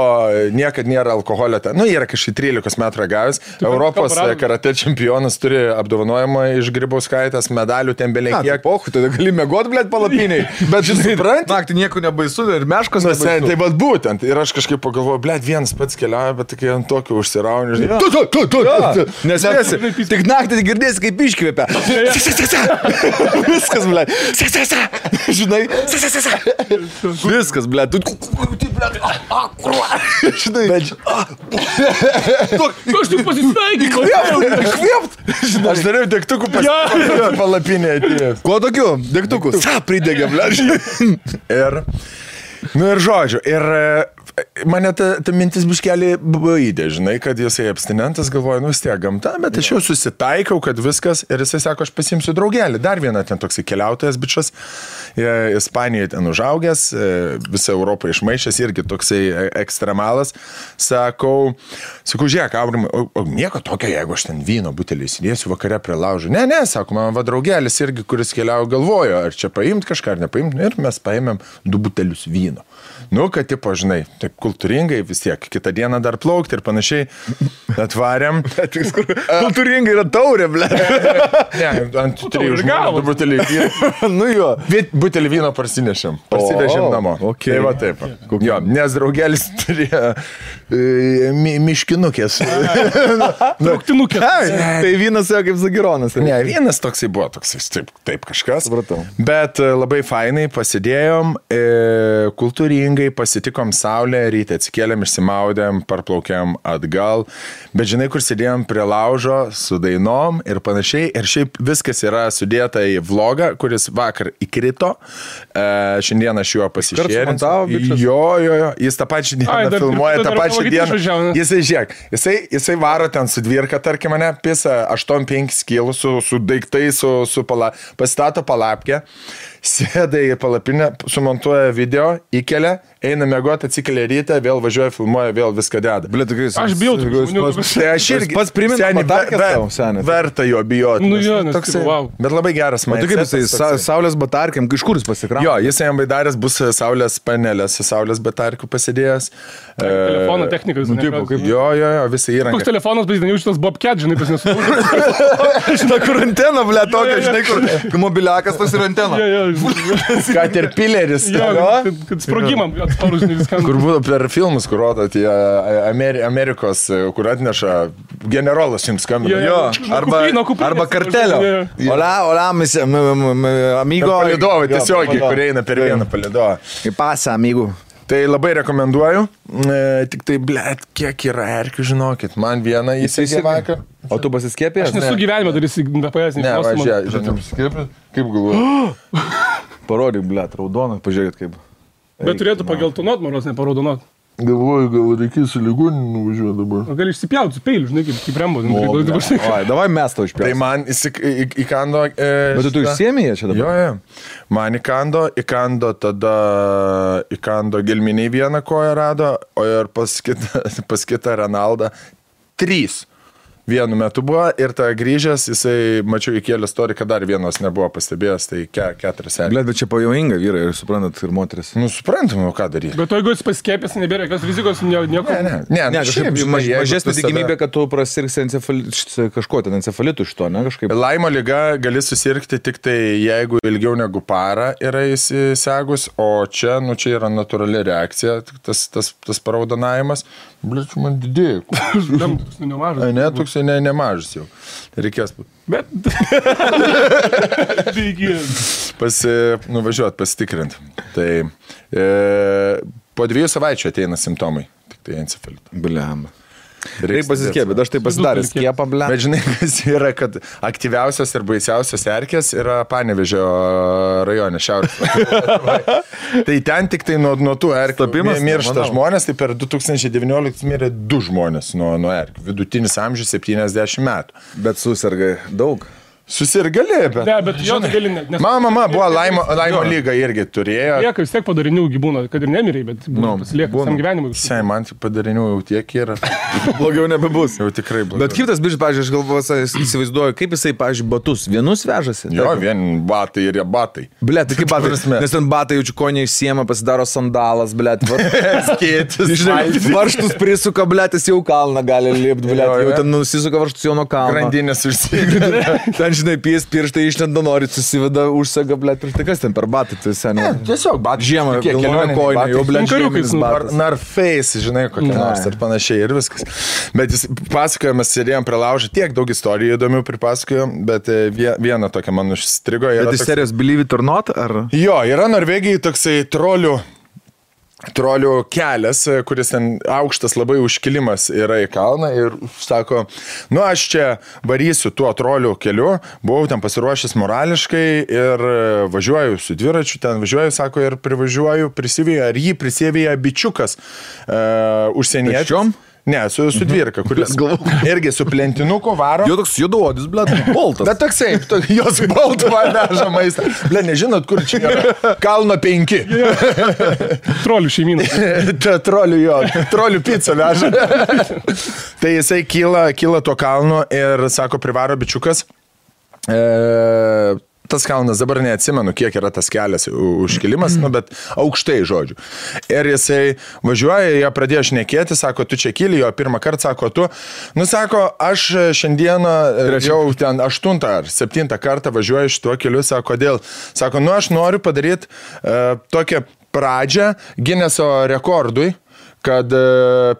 niekad nėra alkoholio. Nu, yra kažkaip 13 metų ragavęs. Europos karate čempionas turi apdovanojimą iš Grybauskaitės, medalių ten beveik kiek. Pochu, tada gali mėgot, blėt, palapiniai. Bet žinai, naktį nieko nebaisu ir meškos nebaisu. Tai bet būtent. Ir aš kažkaip pagalvoju, blėt, vienas pats keliauja, bet tokie ant tokio užsirauni. Nes tik naktį girdėsi, kaip iškvėpia. Viskas, blėt. Žinai, viskas, blėt. Žinai, aš tik pasisveikinau. Aš dariau degtukų palapinę atėjęs. Kuo tokiu? Degtukų. Pridegė, blėt. Ir žodžiu, ir mane ta mintis biškelį baidė, žinai, kad jisai abstinentas, galvoja, vis tiek gamta, bet aš jau susitaikau, kad viskas, ir jisai sako, aš pasimsiu draugelį. Dar vieną ten toksai keliautojas bičas, Ispanijoje ten užaugęs, visą Europą išmaišęs, irgi toksai ekstremalas. Sakau, žiūrėk, Aurimai, o nieko tokio, jeigu aš ten vyno butelį įsidėsiu vakare prie laužo. Ne, sako, man va draugelis irgi, kuris keliauja, galvojo, ar čia paimt kažką, ar nepaimt, ir mes paėmėm 2 butelius vyno. Nu, kad, tipo, žinai, taip kultūringai vis tiek, kitą dieną dar plaukti ir panašiai atvarėm. Kultūringai yra taurė, ble. Ne, ant 3 žmonių butelį vyno. Nu jo. Butelį vyno parsinešėm namo. Okay. Tai va taip. Jo, nes draugelis turėjo miškinukės. Trauktinukės. Tai vynas jau kaip Zagironas. Ne, vynas toksai buvo, toksai taip kažkas. Supratau. Bet labai fainai pasidėjom, kultūringai pasitikom saulę, ryte atsikėlėm, išsimaudėm, parplaukėm atgal. Bet žinai, kur sėdėjom prie laužo su dainom ir panašiai. Ir šiaip viskas yra sudėta į vlogą, kuris vakar įkrito. Šiandien aš juo pasišėrinsiu. Jo. Jis tą pačią dieną filmuoja, tą pačią dieną. Jisai varo ten su dvirka, tarkim, mane, pisa 8-5 kilų su daiktai, pasistato palapkę, sėda į palapinę, sumontuoja video, įkelia, eina mėgoti, atsikelia rytą, vėl važiuoja, filmuoja, vėl viską deda. Aš bijau tų žmonių. Tai aš irgi pats primenu, verta jo bijoti. Nu jo, nes toksai, wow. Bet labai geras man. O tu kaip jisai, saulės batarkiam, iš kur jis pasikramo? Jo, jisai jam baidarės bus saulės panelės, su saulės batarkių pasidėjęs. Telefono technikas. Jo, visą įrangą. Koks telefonas, bet jau šitas Bobcat, žinai, pas nesuprantu. Žinai, kur antena, ble, tokia, žinai, kur mobiliakas tas ir antena. Caterpillaris. Kad sprogimam atsparus, žinai, viskam. Kur būtų per filmus, kur rodo tie Amerikos, kur atneša generolas jums skambina. Jo, arba kartelio. Hola, amigo. Palidovai tiesiogiai, kur eina per vieną palidovą. Pasa, amigo. Tai labai rekomenduoju, tik tai, blėt, kiek yra erkių, žinokit, man vieną įsigė vakar. O tu pasiskėpė? Aš nesu gyvenime dar įsigapajęs. Ne, žinai, pasiskėpė, kaip galvoju. Parodyk, blėt, raudoną, pažiūrėkit kaip. Bet turėtų pageltonot, maros, neparaudonuot. Galvoju, gal reikės į ligoninį nuvažiuoti dabar. O gali išsipjauti su peiliu, žinai, kaip Rembo. Davai mes tau išpjauti. Tai man įkando... Bet tu išsiemėjai čia dabar? Jo. Man įkando tada gelminiai vieną koją rado, o ir pas kitą Renaldą 3. Vienu metu buvo ir ta grįžęs, jisai, mačiau, įkėlė storį, kad dar vienos nebuvo pastebėjęs, tai 4 serijas. Bet čia pavojinga vyrai, ir suprantat, ir moteris. Nu, suprantam, o ką daryti. Bet jeigu jis paskėpęs, nebėra jokios rizikos, nieko. Ne, kažkaip mažesnė tikimybė, kad tu prasirgsi kažko ten encefalitų iš to, ne kažkaip. Laimo liga gali susirgti tik tai, jeigu ilgiau negu parą yra įsisegus, o čia, nu, čia yra natūrali reakcija, tas paraudonavimas. Blet, man didėjai. Ne, toksai nemažas jau. Reikės būti. Bet... Nuvažiuot, pasitikrinti. Tai po 2 savaičių ateina simptomai. Tik tai encefalito. Bliamba. Reikia pasiskėpti, bet aš tai pasidaręs skiepą, ble. Bet žinai, kas yra, kad aktyviausios ir baisiausios erkės yra Panevėžio rajone, šiaurės. Tai ten tik tai nuo tų erkių miršta žmonės, tai per 2019 mirė 2 žmonės nuo erkių. Vidutinis amžius 70 metų. Bet susirga daug. Susirgali, bet... Ne, bet jo tai gali net. Mama buvo laimo lyga irgi turėjo. Lieka vis tiek padarinių gyvūno, kad ir nemiriai, bet pasilieka visam gyvenimui. Sai, man padarinių jau tiek yra. Blogiau nebebus. Jau tikrai blogiau. Bet kaip tas bičias, pavyzdžiui, aš galvoju, įsivaizduoju, kaip jisai, pavyzdžiui, batus vienus vežasi. Jo, vien batai ir jie batai. Blet, tai kaip batai. Nes ten batai jaučiu, ko neišsiema, pasidaro sandalas, blet. Skėtis. Žinai, varštus prisuka, blet, jis jau kalną gali lipti, blet. Jau ten nusisuka varštus jau nuo kalno. Grandinės užsideda. Ten, žinai, pirštai išlenda, nori, susiveda, užsega, blet. Tai kas ten per batai, tai seniai. Tiesiog batai. Žiemą, kelionė koinė, jau, blet, žieminis batas. Narface, žinai, kokia nors ir panašiai ir viskas. Bet jis pasakojamas, sėdėjom prie laužą, tiek daug istorijų įdomių pripasakojom, bet viena tokia man užstrigo. Bet iš serijos Believe it or not, ar? Jo, yra Norvegijai toksai trolių kelias, kuris ten aukštas labai užkilimas yra į kalną ir sako, nu aš čia varysiu tuo trolių keliu, buvau ten pasiruošęs morališkai ir važiuoju su dviračiu, ten važiuoju, sako, ir privažiuoju, prisivėja, ar jį prisivėja bičiukas užsienietis. Pėsčiom? Ne, su dvirka, kuris irgi su plentinuku varo. Jo toks juoduodis, blet, boltas. Bet toksai, jos boltų veža maistą. Blet, nežinot, kur čia yra. Kalno 5. Trolių šeimyną. Trolių pizzą veža. Tai jisai kyla tuo kalnu ir sako, privaro bičiukas. Tas kalnas, dabar neatsimenu, kiek yra tas kelias užkilimas, bet aukštai, žodžiu. Ir jisai važiuoja, jie pradėjo šnekėti, sako, tu čia kyli, jo pirmą kartą, sako, tu. Nu, sako, aš šiandieną jau ten 8 ar 7 kartą važiuoju šituo keliu, sako, kodėl? Sako, nu, aš noriu padaryti tokią pradžią Gineso rekordui, kad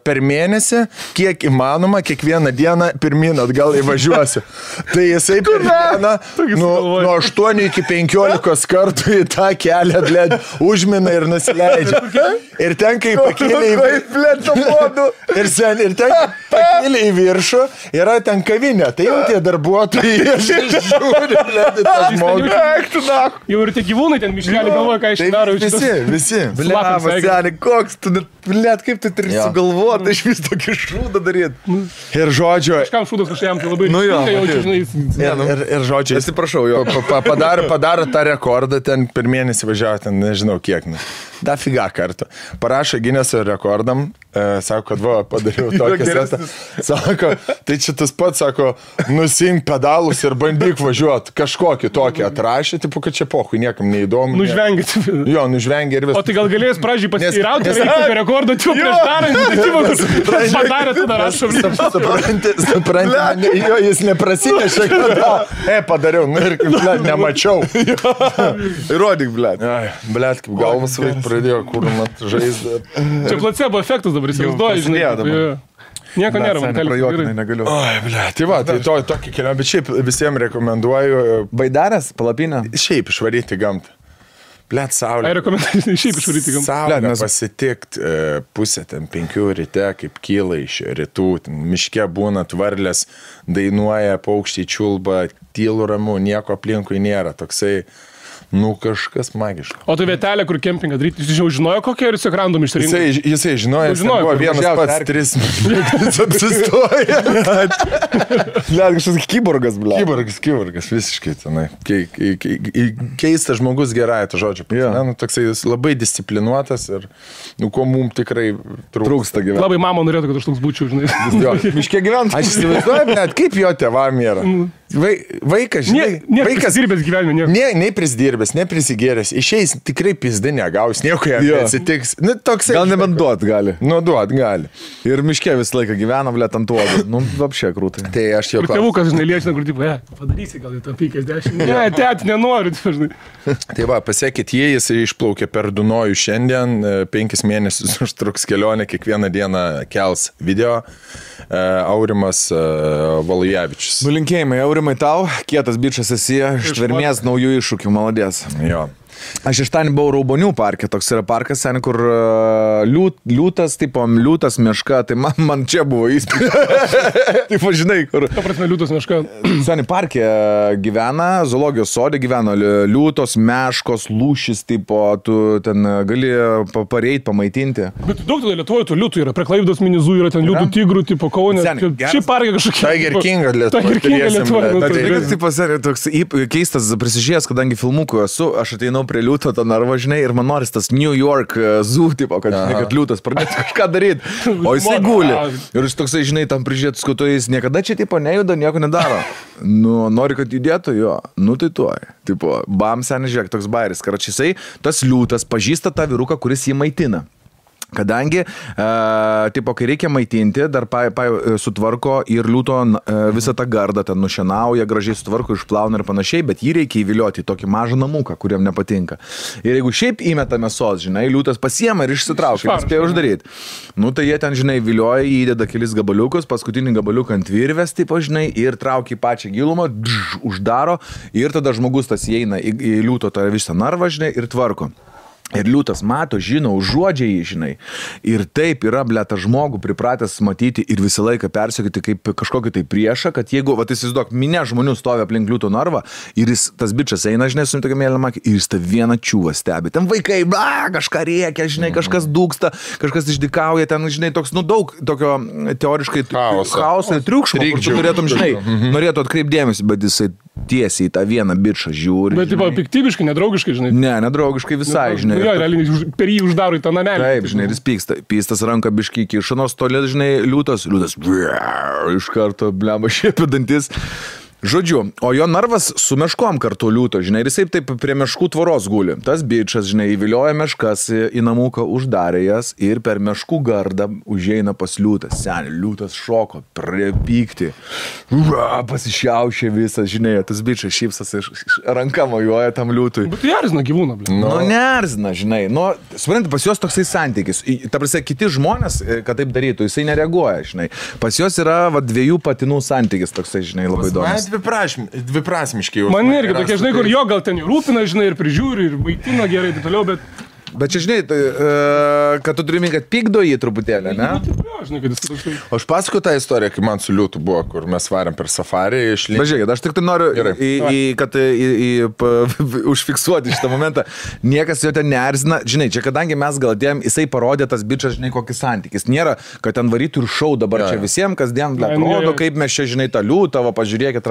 per mėnesį, kiek įmanoma, kiekvieną dieną pirmin atgal įvažiuosiu. Tai jisai per dieną nuo 8 iki 15 kartų į tą kelią, blėd, užmina ir nusileidžia. Ir ten, kai pakėlė į viršų, yra ten kavinė. Tai jau tie darbuotojai žiūri, blėd, tą žmogų. Jau ir tie gyvūnai ten miškelį galvoja, ką išdaro. Visi. Blėt, koks tu, blėt, kaip tu turi sugalvoti, iš vis tokį šūdą daryti. Ir žodžio... Kažkam šūdas kažkam tai labai... Nu jo, ir žodžiu... Atsiprašau, jo. Padaro tą rekordą, ten per mėnesį važiavo, ten nežinau kiek. Da figa kartą. Parašo Gineso rekordam, sako, kad va, padariau tokį setą. Sako, tai čia tas pats, sako, nusink pedalus ir bandyk važiuoti. Kažkokį tokį atrašė, tipo, kad čia pohui, niekam neįdomu. Nužvengit. Jo, nužvengė ir viskas. O tai gal galėjęs pradžiai pasiteirauti, ar reikia rekordą, tu prieš darant, tai padarė, tada rašom. Supranti, jo, jis neprasinešė, kad padariau, nu ir kaip, blėt, nemačiau. Įrodyk, blėt. Blėt, kaip galvas vaikai pradėjo kūrumat žaizdą. Čia placebo efektas dabar įsivaizduoji, žinai. Nieko nėra, man prajuokinai negaliu. Oi, blėt, tai va, tai tokį kelionę, bet šiaip visiems rekomenduoju. Baidarės, palapinę? Šiaip išvaryti gamtą. Blet, saulė. Ai, rekomenduoju šiaip išvaryti gamtą. Saulė pasitikti pusę ten 5 ryte, kaip kyla iš rytų, miške būna varlės, dainuoja, paukščiai čiulba, tylu ramu, nieko aplinkui nėra, toksai, nu kažkas magiško. O tai vietelė, kur kempingą daryti, jis jau žinojo kokią ir jis random išsirinko? Jisai žinojo, buvo vienas pats 3 minutės apsistoja. Blet, kažkas kiborgas, blet. Kiborgas, visiškai tenai. Keistas žmogus gerąją to žodžio. Nu, toksai jis labai disciplinuotas ir, nu, ko mums tikrai trūksta gyventi. Labai mama norėtų, kad aš toks būčiau, žinai. Jo, miške gyventi. Aš įsivaizduoju, net kaip jo tėvam yra. Vaikas, žinai. Vaikas prisidirbęs gyvenime, nieko. Nei prisidirbęs, nei prisigėręs. Išeis tikrai pizdi negaus, nieko jam neatsitiks. Nu, toksai. Gal nebent duot gali. Nu, duot gali. Ir miške visą laiką gyvena, blet, ant uodų. Nu, apšė krūtai. Tai aš jau... Ir tėvukas, žinai, liečina, kur tipo, padarysi gal į tą 50. Ne, tėti, nenoriu, žinai. Tai va, pasiekit jis išplaukė per Dunojų šiandien, 5 mėnesius užtruks kelionę, kiekvieną dieną kels video. Aurimas Valujevičius. Nulinkėjimai, Aurimai tau, kietas bičas esi, ištvermės naujų iššūkių, maladės. Jo. Aš iš ten buvau Raubonių parke, toks yra parkas, sen, kur liūtas, tipo, liūtas meška, tai man čia buvo įspūdis. Taip, žinai, kur. Ta prasme, liūtas meška. Seni parke gyvena, zoologijos sode gyvena liūtos, meškos, lūšis, tipo, tu ten gali pareiti, pamaitinti. Bet daug tada Lietuvoje tų liūtų yra, prie Klaipėdos minizų yra ten liūtų tigrų, tipo, Kaune. Šiaip parke kažkokie. Tiger King Lietuvoje. Tipo, seni, toks keistas prisižiūrėjęs, kadangi filmukų esu, aš ateinau prie liūto tą narvą, žinai, ir man noris tas New York zoo, tipo, kad liūtas pradėtų kažką daryti, o jisai guli. Ir jis toksai, žinai, tam prižiūrėtų skuto, jis niekada čia, tipo, nejuda, nieko nedaro. Nu, nori, kad judėtų, jo, nu tai tuoj. Tipo, bam, seniai, žiūrėk, toks bairis, karačisai, tas liūtas pažįsta tą vyruką, kuris jį maitina. Kadangi, tipo, kai reikia maitinti, dar sutvarko ir liūto visą tą gardą, ten nušienauja, gražiai sutvarko, išplauna ir panašiai, bet jį reikia įvilioti į tokį mažą namuką, kuriam nepatinka. Ir jeigu šiaip įmeta mėsos, žinai, liūtas pasiema ir išsitraukia, ir spėjo uždaryti. Nu, tai jie ten, žinai, vilioja, įdeda kelis gabaliukus, paskutinį gabaliuką ant virvės, tipo, žinai, ir traukia į pačią gilumą, uždaro, ir tada žmogus tas įeina į liūto tą visą narvą, žinai, ir tvarko. Ir liūtas mato, žino, užuodžia jį, žinai. Ir taip yra, ble, tą žmogų pripratęs matyti ir visą laiką persiekti kaip kažkokį tai priešą, kad jeigu, va, įsivaizduok, minė žmonių stovi aplink liūto narvą ir jis, tas bičas eina, žinai, su tokia mėlyna makė, ir jis tą vieną čiūvą stebi. Ten vaikai, kažką rėkia, žinai, kažkas dūksta, kažkas išdykauja, ten, žinai, toks, nu, daug tokio teoriškai chaoso ir triukšmo, kur tu norėtum, žinai, norėtų atkreipdėmėsi, bet jisai tiesiai į tą vieną bičą žiūri. Bet, tipo, piktybiškai, nedraugiškai, žinai. Ne, nedraugiškai visai, žinai. Jo, realiai per jį uždaro į tą namelį. Taip, žinai, ir jis pyksta. Pystas ranką biškį kiša, nors toli, žinai, liūtas iš karto, blema, šiepia dantis. Žodžiu, o jo narvas su meškom kartu liūto, žinai, ir jisai taip prie meškų tvoros guli. Tas bičas, žinai, įvilioja meškas į namuką, uždarė jas ir per meškų gardą užeina pas liūtas. Seniai, liūtas šoko, prie pasišiaušė visas, žinai, tas bičas šypsas ranka mojuoja tam liūtui. Bet tai erzina gyvūną, blė. Nu, neerzina, žinai. Nu, supranti, pas juos toksai santykis. Ta prasme, kiti žmonės, kad taip darytų, jisai nereaguoja, žinai. Pas juos yra dviejų patinų santykis toksai, žinai, labai įdomus. Dviprasmiškai jau. Man irgi tokie, žinai, kur jo gal ten rūpina, žinai, ir prižiūri, ir maitina gerai, tai toliau, Bet čia, žinai, kad tu turime, kad pykdo jį truputėlį, ne? O aš pasakoju tą istoriją, kai man su liūtu buvo, kur mes varėm per safarį išlįsti. Žiūrėkit, aš tik tai noriu, kad užfiksuoti šitą momentą. Niekas jo ten neerzina. Žinai, čia kadangi mes gal dėjom, jisai parodė tas bičas, žinai, kokį santykis. Nėra, kad ten varytų ir šau dabar čia visiems, kasdien rodo, kaip mes čia, žinai, tą liūtą, va, pažiūrėkit,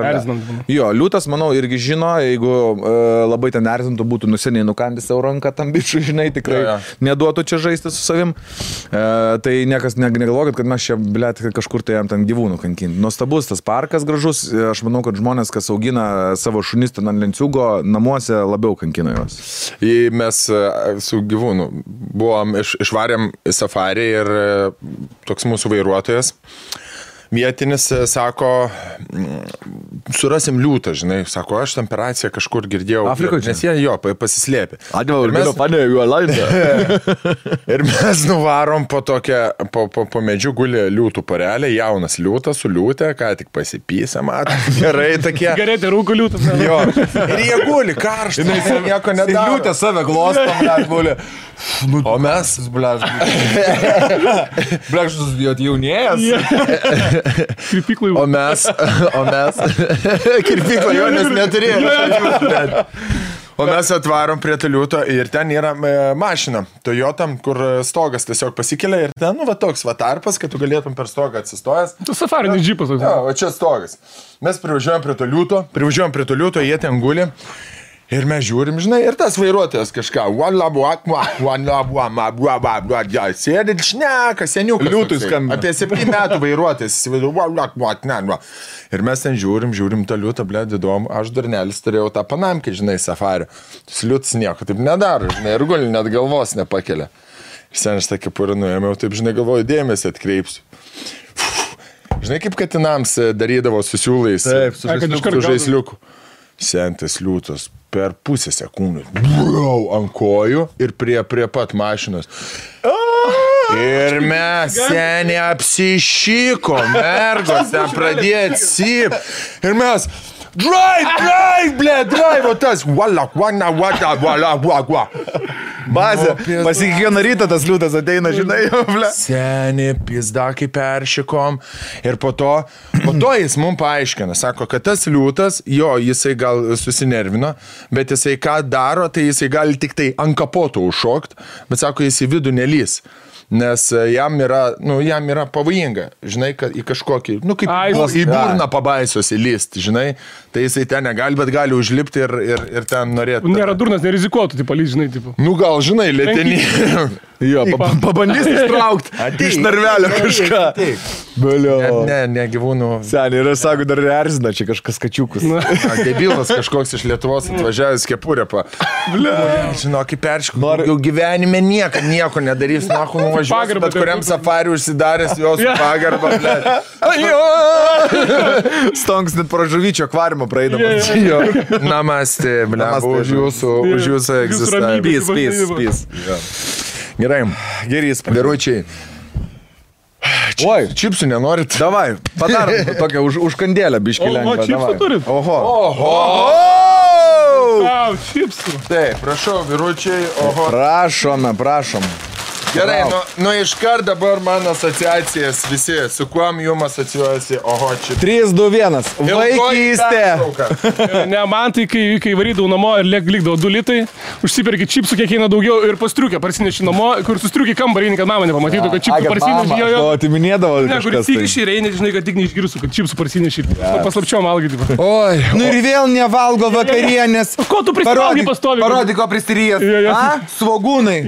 jo, liūtas, manau, irgi žino, jeigu labai ten erzintų, būtų nuseniai nukandęs savo ranką tam bičui, žinai, tikrai neduotų čia žaisti su savim. Tai niekas negalvokit, kad mes čia, blėt, kažkur tai jam ten gyvūnų kankinti. Nuostabus tas parkas gražus. Aš manau, kad žmonės, kas augina savo šunis ten ant lenciūgo, namuose labiau kankina juos. Mes su gyvūnu buvom, išvarėm į safarį ir toks mūsų vairuotojas vietinis sako, surasim liūtą, žinai, sako, aš temperaciją kažkur girdėjau. Afrikoje? Nes jie jo pasislėpė. Ir mes nuvarom po tokią, po medžių guli liūtų porelė, jaunas liūtas su liūtė, ką tik pasipysė, matai, gerai tokie. Gerai, tai rūko liūtas. Jo. Ir jie guli karštą, nieko nedaro. Liūtė save glostam, guli. O mes, blekštus jaunėjas. Kirpiklai. O mes kirpiklai jo nes neturėjome. O mes atvarom prie liūto ir ten yra mašina Toyota, kur stogas tiesiog pasikelia ir ten, nu, va toks va tarpas, kad tu galėtum per stogą atsistojęs. Tu safarinis džipas. Jo, va čia stogas. Mes privažiuojam prie to liūto, jie ten guli. Ir mes žiūrim, žinai, ir tas vairuotojas kažką, sėdi šneka, seniukas. Liūtui skambina. Apie 7 metų vairuotojas. Ir mes ten žiūrim tą liūtą, blėd, įdomu. Aš darnelis turėjau tą panamkę, žinai, safarį. Tas liūtas nieko taip nedaro, žinai, ir guli net galvos nepakelia. Ir sen aš tą kepurę nuėmiau, taip, žinai, galvoju, dėmesį atkreipsiu. Žinai, kaip katinams darydavo su siūlais, su žaisliuku. Sentas liūtas per pusę sekundės ant kojų ir prie pat mašinos. Ir mes seniai apsišyko, mergos ten pradėjo cyp. Ir mes Drive, ble, drive, o tas, wala. Bazė, pas kiekvieną rytą tas liūtas ateina, žinai, ble. Seni, pizda, kaip peršikom. Ir po to jis mums paaiškina, sako, kad tas liūtas, jo, jisai gal susinervino, bet jisai ką daro, tai jisai gali tik tai ant kapoto užšokti, bet sako, jis į vidų nelys. Nes jam yra pavojinga, žinai, kad į kažkokį, kaip į burną pabaisos įlysti, žinai, tai jisai ten negali, bet gali užlipti ir ten norėti. Nėra durnas, nerizikuotų, tipo, lys, žinai, tipo. Gal, žinai, lėtenį. Jo, pabandys ištraukti iš narvelio kažką. Ne, gyvūnų. Seniai, ir sako, dar erzina čia kažkas kačiukus. Debilas kažkoks iš Lietuvos atvažiavęs kepurė. Žinok, kaip perškų. Jau gyvenime nieko nedarys, nuvažiuos, bet kuriam safariu užsidaręs jos pagarbą. Stonks net pro žuvyčio akvariumą praeidamas. Namaste, už jūsų egzistavimą. Peace. Gerai. Gerys. Vyručiai. Oi, čipsų nenorit? Davai, padarom tokią užkandėlę biškį lengvą. O, čipsų turit? Oho. Čipsų. Taip, prašau, vyručiai, oho. Prašom. Gerai, iškart dabar mano asociacijas visi, su kuom jums asociuojasi, oho, čia. 3, 2, 1. Vaikystė. Ne, man tai, kai varydavau namo ir likdavo 2 litai, užsiperki čipsų kiek eina daugiau ir pastriukę parsineši namo, kur sustriuki kambarį, kad mama nepamatytų, kad čipsų parsineši. O, atiminėdavo kažkas. Ne, kur tik išeini, žinai, kad tik neišgirsiu, kad čipsų parsineši. Paslapčiom valgyti. Oi. Ir vėl nevalgo vakarienės. Ko tu prisivalgai pastovi? Parodyk, ko pristirijęs. Svogūnai.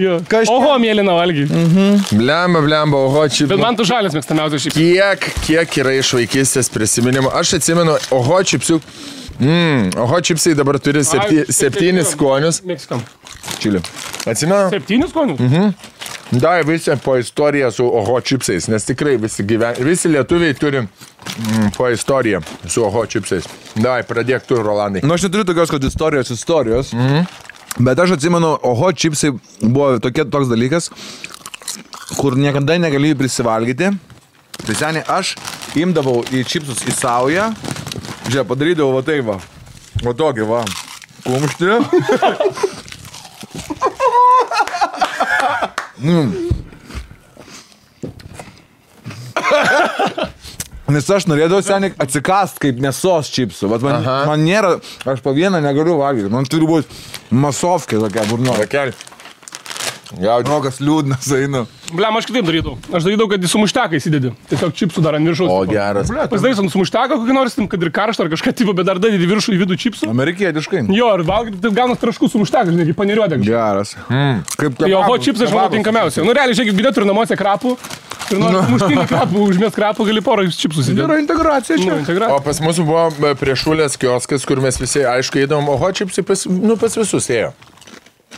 Oho, mėlyna valgy. Blemba, oho, čipsai. Bet man tu žalės mėgstamiausias čipsai. Kiek yra iš vaikystės prisiminimų. Aš atsimenu, oho, čipsių. Oho, čipsai dabar turi 7 skonius. Meksikam. Čili. Atsimenu? 7 skonius? Da, visi po istoriją su oho čipsais, nes tikrai visi lietuviai turi po istoriją su oho čipsais. Da, pradėk tu, Rolandai. Aš neturiu tokios, kad istorijos. Bet aš atsimenu, oho čipsai buvo toks dalykas, kur niekada negalėjai prisivalgyti. Tai seniai, aš imdavau į čipsus į saują, žiūrėjau, padarydavau va tai va. O tokį va. Kumštį. Nes aš norėdavau seniai atsikast kaip mėsos čipsų. Man nėra, aš po vieną negaliu valgyti. Man turi būti masovkė tokia burno. Rokas liūdnas einu. Blem, aš kitaip darydavau. Aš darydavau, kad į sumušteką įsidedi. Tiesiog čipsų dar ant viršaus. O, geras. Pasidarys ant sumušteką kokį nors, kad ir karštą ar kažką tipo, bet dar dadedi viršų į vidų čipsų. Amerikietiškai. Jo, ir valgyti, taip gaunas traškų sumušteką, žinai, kaip paniriuodė. Geras. Jo, oho čipsai aš manau tinkamiausia. Nu, realiai, žiūrėk, bidė turi namuose krapų. Ir nors muštinį krapų, užmės krapų, gali porą čipsų įsidėti. Yra integracija čia. O pas mūsų buvo prie Šulės kioskas, kur mes visi, aišku, įdom, oho čipsai pas visus ėjo.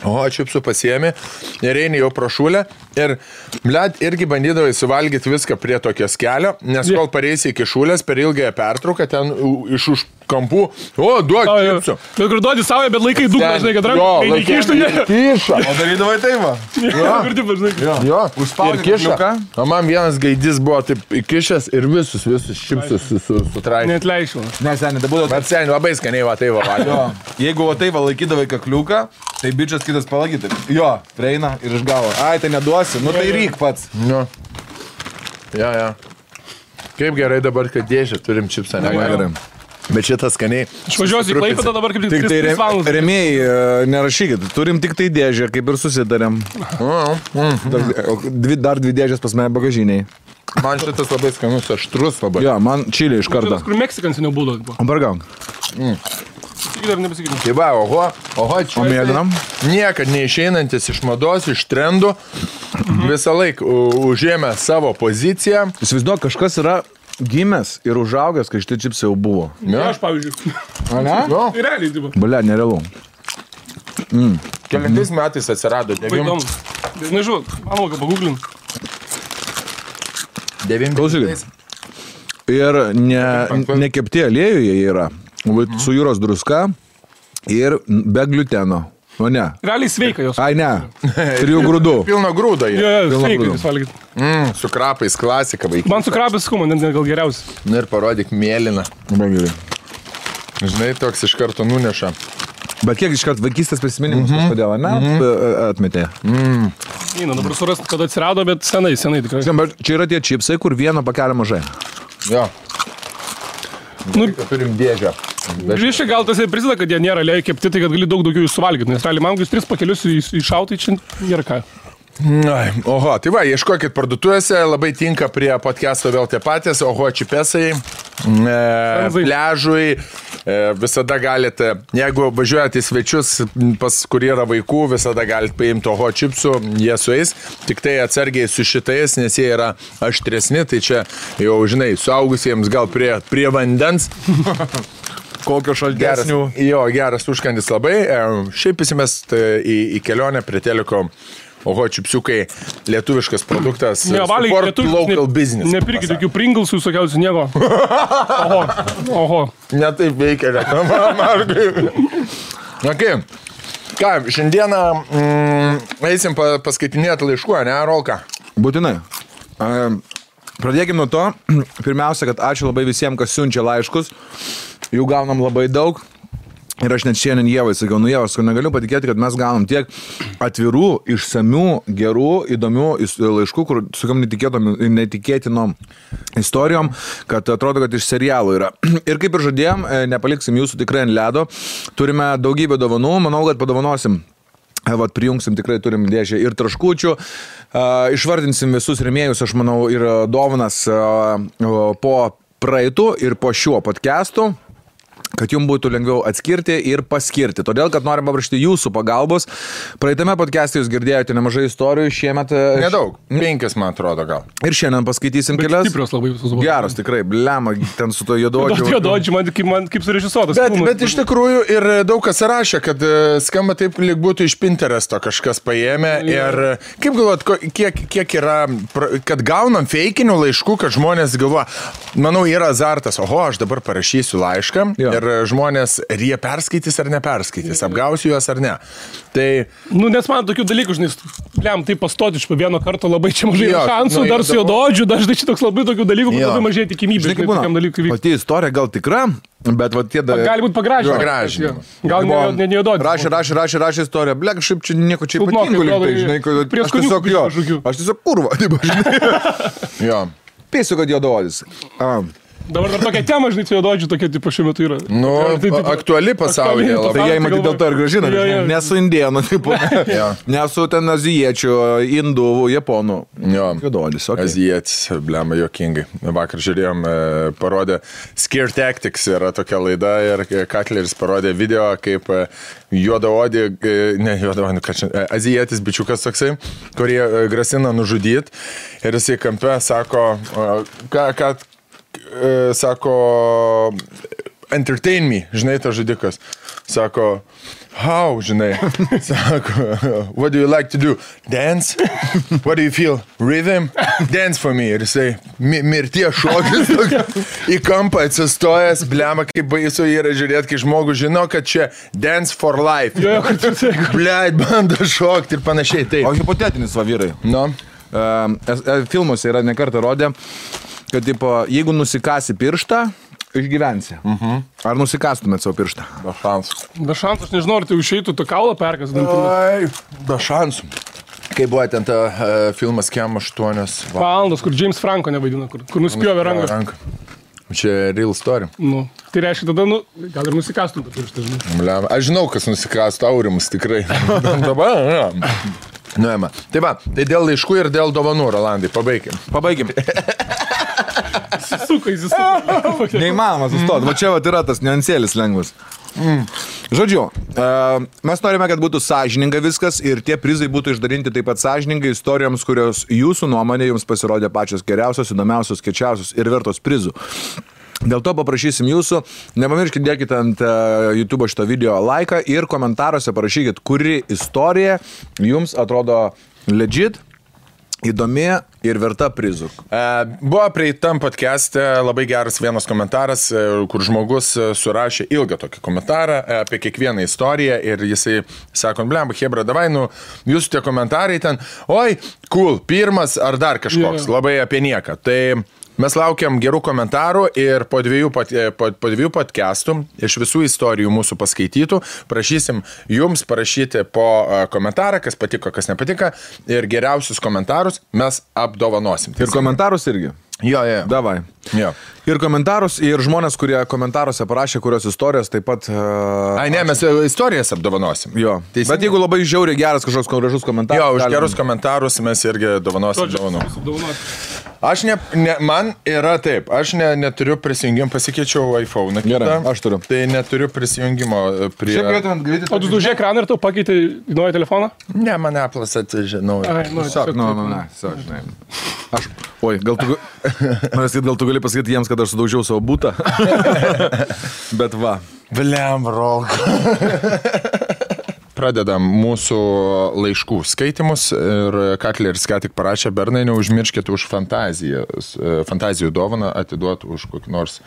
O, čipsų pasiėmė ir eini jau pro Šulę ir, bled, irgi bandydavai suvalgyti viską prie tokios kelio, nes kol pareisi iki Šulės per ilgąją pertrauką, ten iš už kampų, o, duok čipsų. Bet kur duodi savo, bet laikai dugną, žinai, kad ranką neįkištų, ne? Kiša. O darydavai tai va? Jo, ir kiša. O man vienas gaidys buvo taip įkišęs ir visus čipsus sutraikė. Net leišiu. Ne, seniai, tai būdavo... Bet seniai labai skaniai va tai va valgė. Jeigu va tai va laikydavai kakliuką, tai bičias kitas palagyti. Jo, prieina ir išgavo. Ai, tai neduosi, nu tai ryk pats. Jo. Ja. Kaip gerai dabar, kad dėžę turim čipsą, negalim. Bet šitas skaniai. Aš važiuosiu į Klaipėdą dabar kaip tik 3 valandas. Remėjai, nerašykit, turim tik tai dėžę, kaip ir susitarėm. Dar 2 dėžės pas mane bagažiniai. Man šitas labai skanus, aštrus labai. Jo, man čilė iš karto. Kur Meksikans seniau būdavo. Bargauk. Sakyt ar nepasakytum. Tai va, oho, čia niekad neišeinantis iš mados, iš trendų, visą laiką užėmė savo poziciją. Įsivaizduok, kažkas yra gimęs ir užaugęs, kai šitie čipsai jau buvo. Ne, aš pavyzdžiui. A ne? Tai realiai, tipo. Balia, nerealu. Kelintais metais atsirado 9. Nežinau, manau, kad pagūglin. 9. Klausykit. Ir nekepti aliejuje yra. Su jūros druska ir be gliuteno. O ne. Realiai sveika jos. Ai, ne. 3 grūdų. Pilno grūdo jie. Jo, sveika jūs valgyti. Su krapais klasika vaikai. Man su krapais skuma, net gal geriausia. Na ir parodyk mėlyną. Labai gerai. Žinai, toks iš karto nuneša. Bet kiek iškart vaikystės prisiminimus, kodėl, ne? Atmetė. Dabar surasti, kada atsirado, bet senai tikrai. Bet čia yra tie čipsai, kur vieno pakelio mažai. Jo. Turim dėžę. Grįžtai gal tas ir prisideda, kad jie nėra lėjai kepti, tai kad gali daug daugiau jų suvalgyti, nes realiai man 3 pakelius iššautai čia nėra ką. Oho, tai va, ieškokit parduotuvėse, labai tinka prie podcast'o vėl tie patys, oho, čipesai, pliažui, visada galite, jeigu važiuojate į svečius, pas kur yra vaikų, visada galite paimti oho čipsų, jie sueis, tik tai atsargiai su šitais, nes jie yra aštresni, tai čia jau, žinai, suaugusiems gal prie vandens. Kokio šaltesnių. Geras užkandis labai, šiaip įsimest į kelionę prie teliko. Oho, čipsiukai, lietuviškas produktas, support local business. Nepirkit tokių Pringlesų, visokiausių nieko. Oho. Ne taip veikia reklama, Markai. Okay. Ką, šiandieną eisim paskaitinėti laiškų, ne, Rolka? Būtinai. Pradėkime nuo to, pirmiausia, kad ačiū labai visiems, kas siunčia laiškus. Jų gaunam labai daug. Ir aš net šiandien Ievai sakiau, Ievas, negaliu patikėti, kad mes gaunam tiek atvirų, išsamių, gerų, įdomių laiškų, kur sukiam netikėtinom istorijom, kad atrodo, kad iš serialų yra. Ir kaip ir žadėjom, nepaliksim jūsų tikrai ant ledo. Turime daugybę dovanų, manau, kad padovanosim. Prijungsim, tikrai turim dėžę ir traškučių, išvardinsim visus rėmėjus, aš manau, ir dovanas po praeitų ir po šiuo podcastu, kad jums būtų lengviau atskirti ir paskirti. Todėl, kad norim paprašyti jūsų pagalbos. Praeitame podcast'e jūs girdėjote nemažai istorijų, šiemet... Nedaug, 5, man atrodo, gal. Ir šiandien paskaitysim kelias. Stiprios labai visus buvo. Geras, tikrai, blema, ten su to juododžiu. Juododžiu, man kaip surežisuotas. Bet iš tikrųjų ir daug kas rašė, kad skamba taip, lyg būtų iš Pinteresto kažkas paėmė. Ir kaip galvot, kiek yra, kad gaunam feikinių laiškų, kad žmonės galvoja, manau, yra azartas, oho, aš dabar parašysiu laišką. Ir žmonės, ar jie perskaitys ar neperskaitys, apgausiu juos ar ne. Tai... nes man tokių dalykų, žinai, tai pastoti iš vieno karto labai čia mažai šansų, dar su juododžiu, dažnai čia toks labai tokių dalykų, labai mažai tikimybė. Žinai, kaip būna, pati istorija gal tikra, bet va tie... Gali būti pagražinimo. Gal ne juododžiu. Rašė istoriją, blek, šiaip čia nieko čia ypatingo liktai, žinai, aš tiesiog kurva, taip, žinai. Jo. Pėsiu, kad juododis. Dabar dar tokia tema, žinai, juododžių tokia, tipo, šiuo metu yra. Aktuali pasaulyje labai. Tai jie matyti dėl to ir gražina, nesu indienų, tipo, nesu ten azijiečių, indų, japonų. Juododis, okei. Azijietis, blema, juokingai. Vakar žiūrėjom, parodė Scare Tactics, yra tokia laida ir Katleris parodė video, kaip juodaodį, azijietis bičiukas toksai, kurie grasina nužudyti ir jisai kampe sako, sako, entertain me, žinai, tas žudikas. Sako, how, žinai. Sako, what do you like to do? Dance? What do you feel? Rhythm? Dance for me. Ir jisai, mirties šokis, į kampą atsistojęs, blema, kaip baisu yra žiūrėti, kai žmogus žino, kad čia dance for life. Bleit, bando šokti ir panašiai. Taip. O hipotetinis va vyrai. No. Filmuose yra nekartą rodė, kad, tipo, jeigu nusikasi pirštą, išgyvensi. Ar nusikastumėt savo pirštą? Be šansų. Be šansų, aš nežinau, ar tai išeitų tą kaulą perkas. Be šansų. Kai buvo ten ta filmas Kem 8 valandos, kur James Franco nevaidina, kur nuspjovė ranką. Čia real story. Tai reiškia tada, gal ir nusikastum tą pirštą, žinai. Aš žinau, kas nusikastų, Aurimas tikrai. Dabar, Nuėma. Tai va, tai dėl laiškų ir dėl dovanų, Rolandai, pabaikim. Neįmanoma sustoti. Va čia va yra tas niuansėlis lengvas. Žodžiu, mes norime, kad būtų sąžininga viskas ir tie prizai būtų išdalinti taip pat sąžiningai istorijoms, kurios jūsų nuomonė jums pasirodė pačios geriausios, įdomiausios, kečiausios ir vertos prizų. Dėl to paprašysim jūsų, nepamirškit, dėkite ant YouTube šito video laiką ir komentaruose parašykit, kuri istorija jums atrodo legit, įdomi ir verta prizų. Buvo prieitam podcast'e labai geras vienas komentaras, kur žmogus surašė ilgą tokį komentarą apie kiekvieną istoriją ir jisai sako, blemba, hebra, davai, jūsų tie komentarai ten, oi, cool, pirmas ar dar kažkoks, labai apie nieką. Tai Mes laukiam gerų komentarų ir po dviejų podcastų iš visų istorijų mūsų paskaitytų prašysim jums parašyti po komentarą, kas patiko, kas nepatiko ir geriausius komentarus mes apdovanosim. Ir komentarus irgi. Jo. Davai. Jo. Ir komentarus, ir žmonės, kurie komentaruose parašė, kurios istorijos taip pat... Mes istorijas apdovanosim. Jo. Bet jeigu labai žiauriai geras kažkoks gražus komentaras... Jo, už gerus komentarus mes irgi dovanosim dovanų. Man yra taip, aš neturiu prisijungimą, pasikeičiau iPhone. Gerai, aš turiu. Tai neturiu prisijungimo prie... O tu dužė ekraną ir tu pakeitai į naują telefoną? Ne, man Apple'as atžinau. Gal tu gali pasakyti jiems, kad aš sudaužiau savo butą. Bet va. Bliam, rolk. Pradedam mūsų laiškų skaitimus ir Katleris ką tik parašė, Bernai, neužmirškit už fantazijų dovaną atiduoti už kokį nors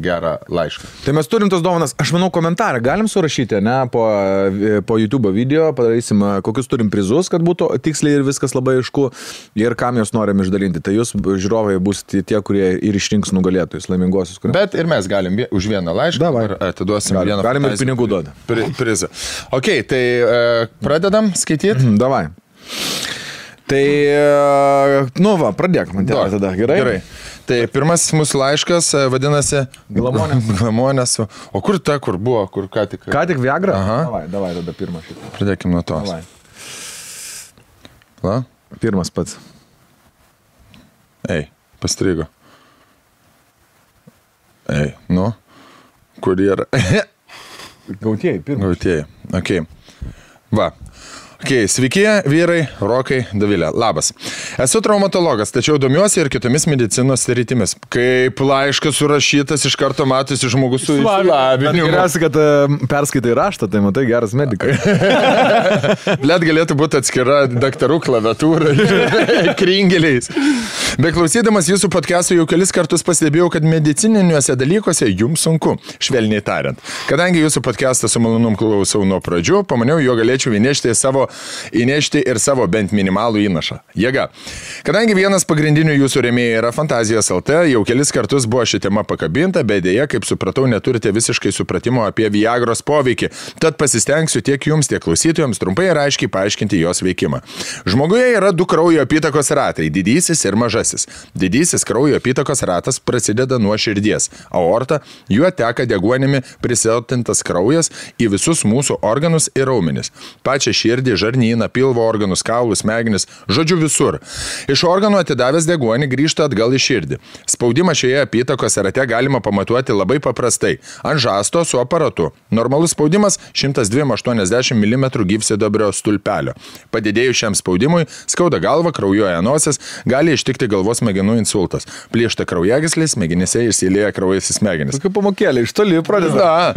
gerą laišką. Tai mes turim tos dovanas, aš manau, komentarą galim surašyti, ne, po YouTube video, padarysim, kokius turim prizus, kad būtų tiksliai ir viskas labai aišku ir kam jos norim išdalinti. Tai jūs, žiūrovai, bus tie, kurie ir išrinks nugalėtojus, laimingosius. Bet ir mes galim už vieną laišką ir atiduosim vieną galim ir pinigų duoti. Prizą. Ok, tai pradedam skaityti? Davai. Tai, pradėk man tada, gerai? Tai pirmasis mūsų laiškas vadinasi Glamonės. O kur buvo, kur ką tik? Ką tik Viagra? Davai, tada pirmą šitą. Pradėkim nuo tos. Davai. Pirmas pats. Pastrigo. Kur yra? Gautieji, pirmas. Gautieji, okei. Va. Sveiki, vyrai, Rokai, Dovilė. Labas. Esu traumatologas, tačiau domiuosi ir kitomis medicinos sritimis. Kaip laiškas surašytas, iš karto matosi žmogus su išsilavinimu. Geriausia, kad perskaitai raštą, tai matai, geras medikas. Blet galėtų būti atskira daktarų klaviatūra kringeliais. Beklausydamas jūsų podcastų jau kelis kartus pastebėjau, kad medicininiuose dalykuose jums sunku, švelniai tariant. Kadangi jūsų podcastą su malonum klausau nuo pradžių, pamaniau, jo galėčiau įnešti ir savo bent minimalų įnašą. Jėga. Kadangi vienas pagrindinių jūsų rėmėjų yra Fantazijos LT, jau kelis kartus buvo ši tema pakabinta, bet dėja, kaip supratau, neturite visiškai supratimo apie Viagros poveikį. Tad pasistengsiu tiek jums, tiek klausytojams trumpai ir aiškiai paaiškinti jos veikimą. Žmoguje yra du kraujo apytakos ratai – didysis ir mažasis. Didysis kraujo apytakos ratas prasideda nuo širdies. Aorta, juo teka deguonimi prisilpnintas kraujas į visus mūsų organus ir raumenis. Pačią širdį, žarnyną, pilvo organus, kaulus, smegenis, žodžiu visur. Iš organų atidavęs deguonį grįžta atgal į širdį. Spaudimą šioje apytakos rate galima pamatuoti labai paprastai. Ant žasto su aparatu. Normalus spaudimas 102,80 mm gyvsidabrio stulpelio. Padidėjus šiam spaudimui skauda galva, kraujuoja nosis, gali ištikti galvos smegenų insultas. Plyšta kraujagyslės, smegenyse išsilieja kraujas į smegenis. Tokių pamokėlė, iš toli pradeda.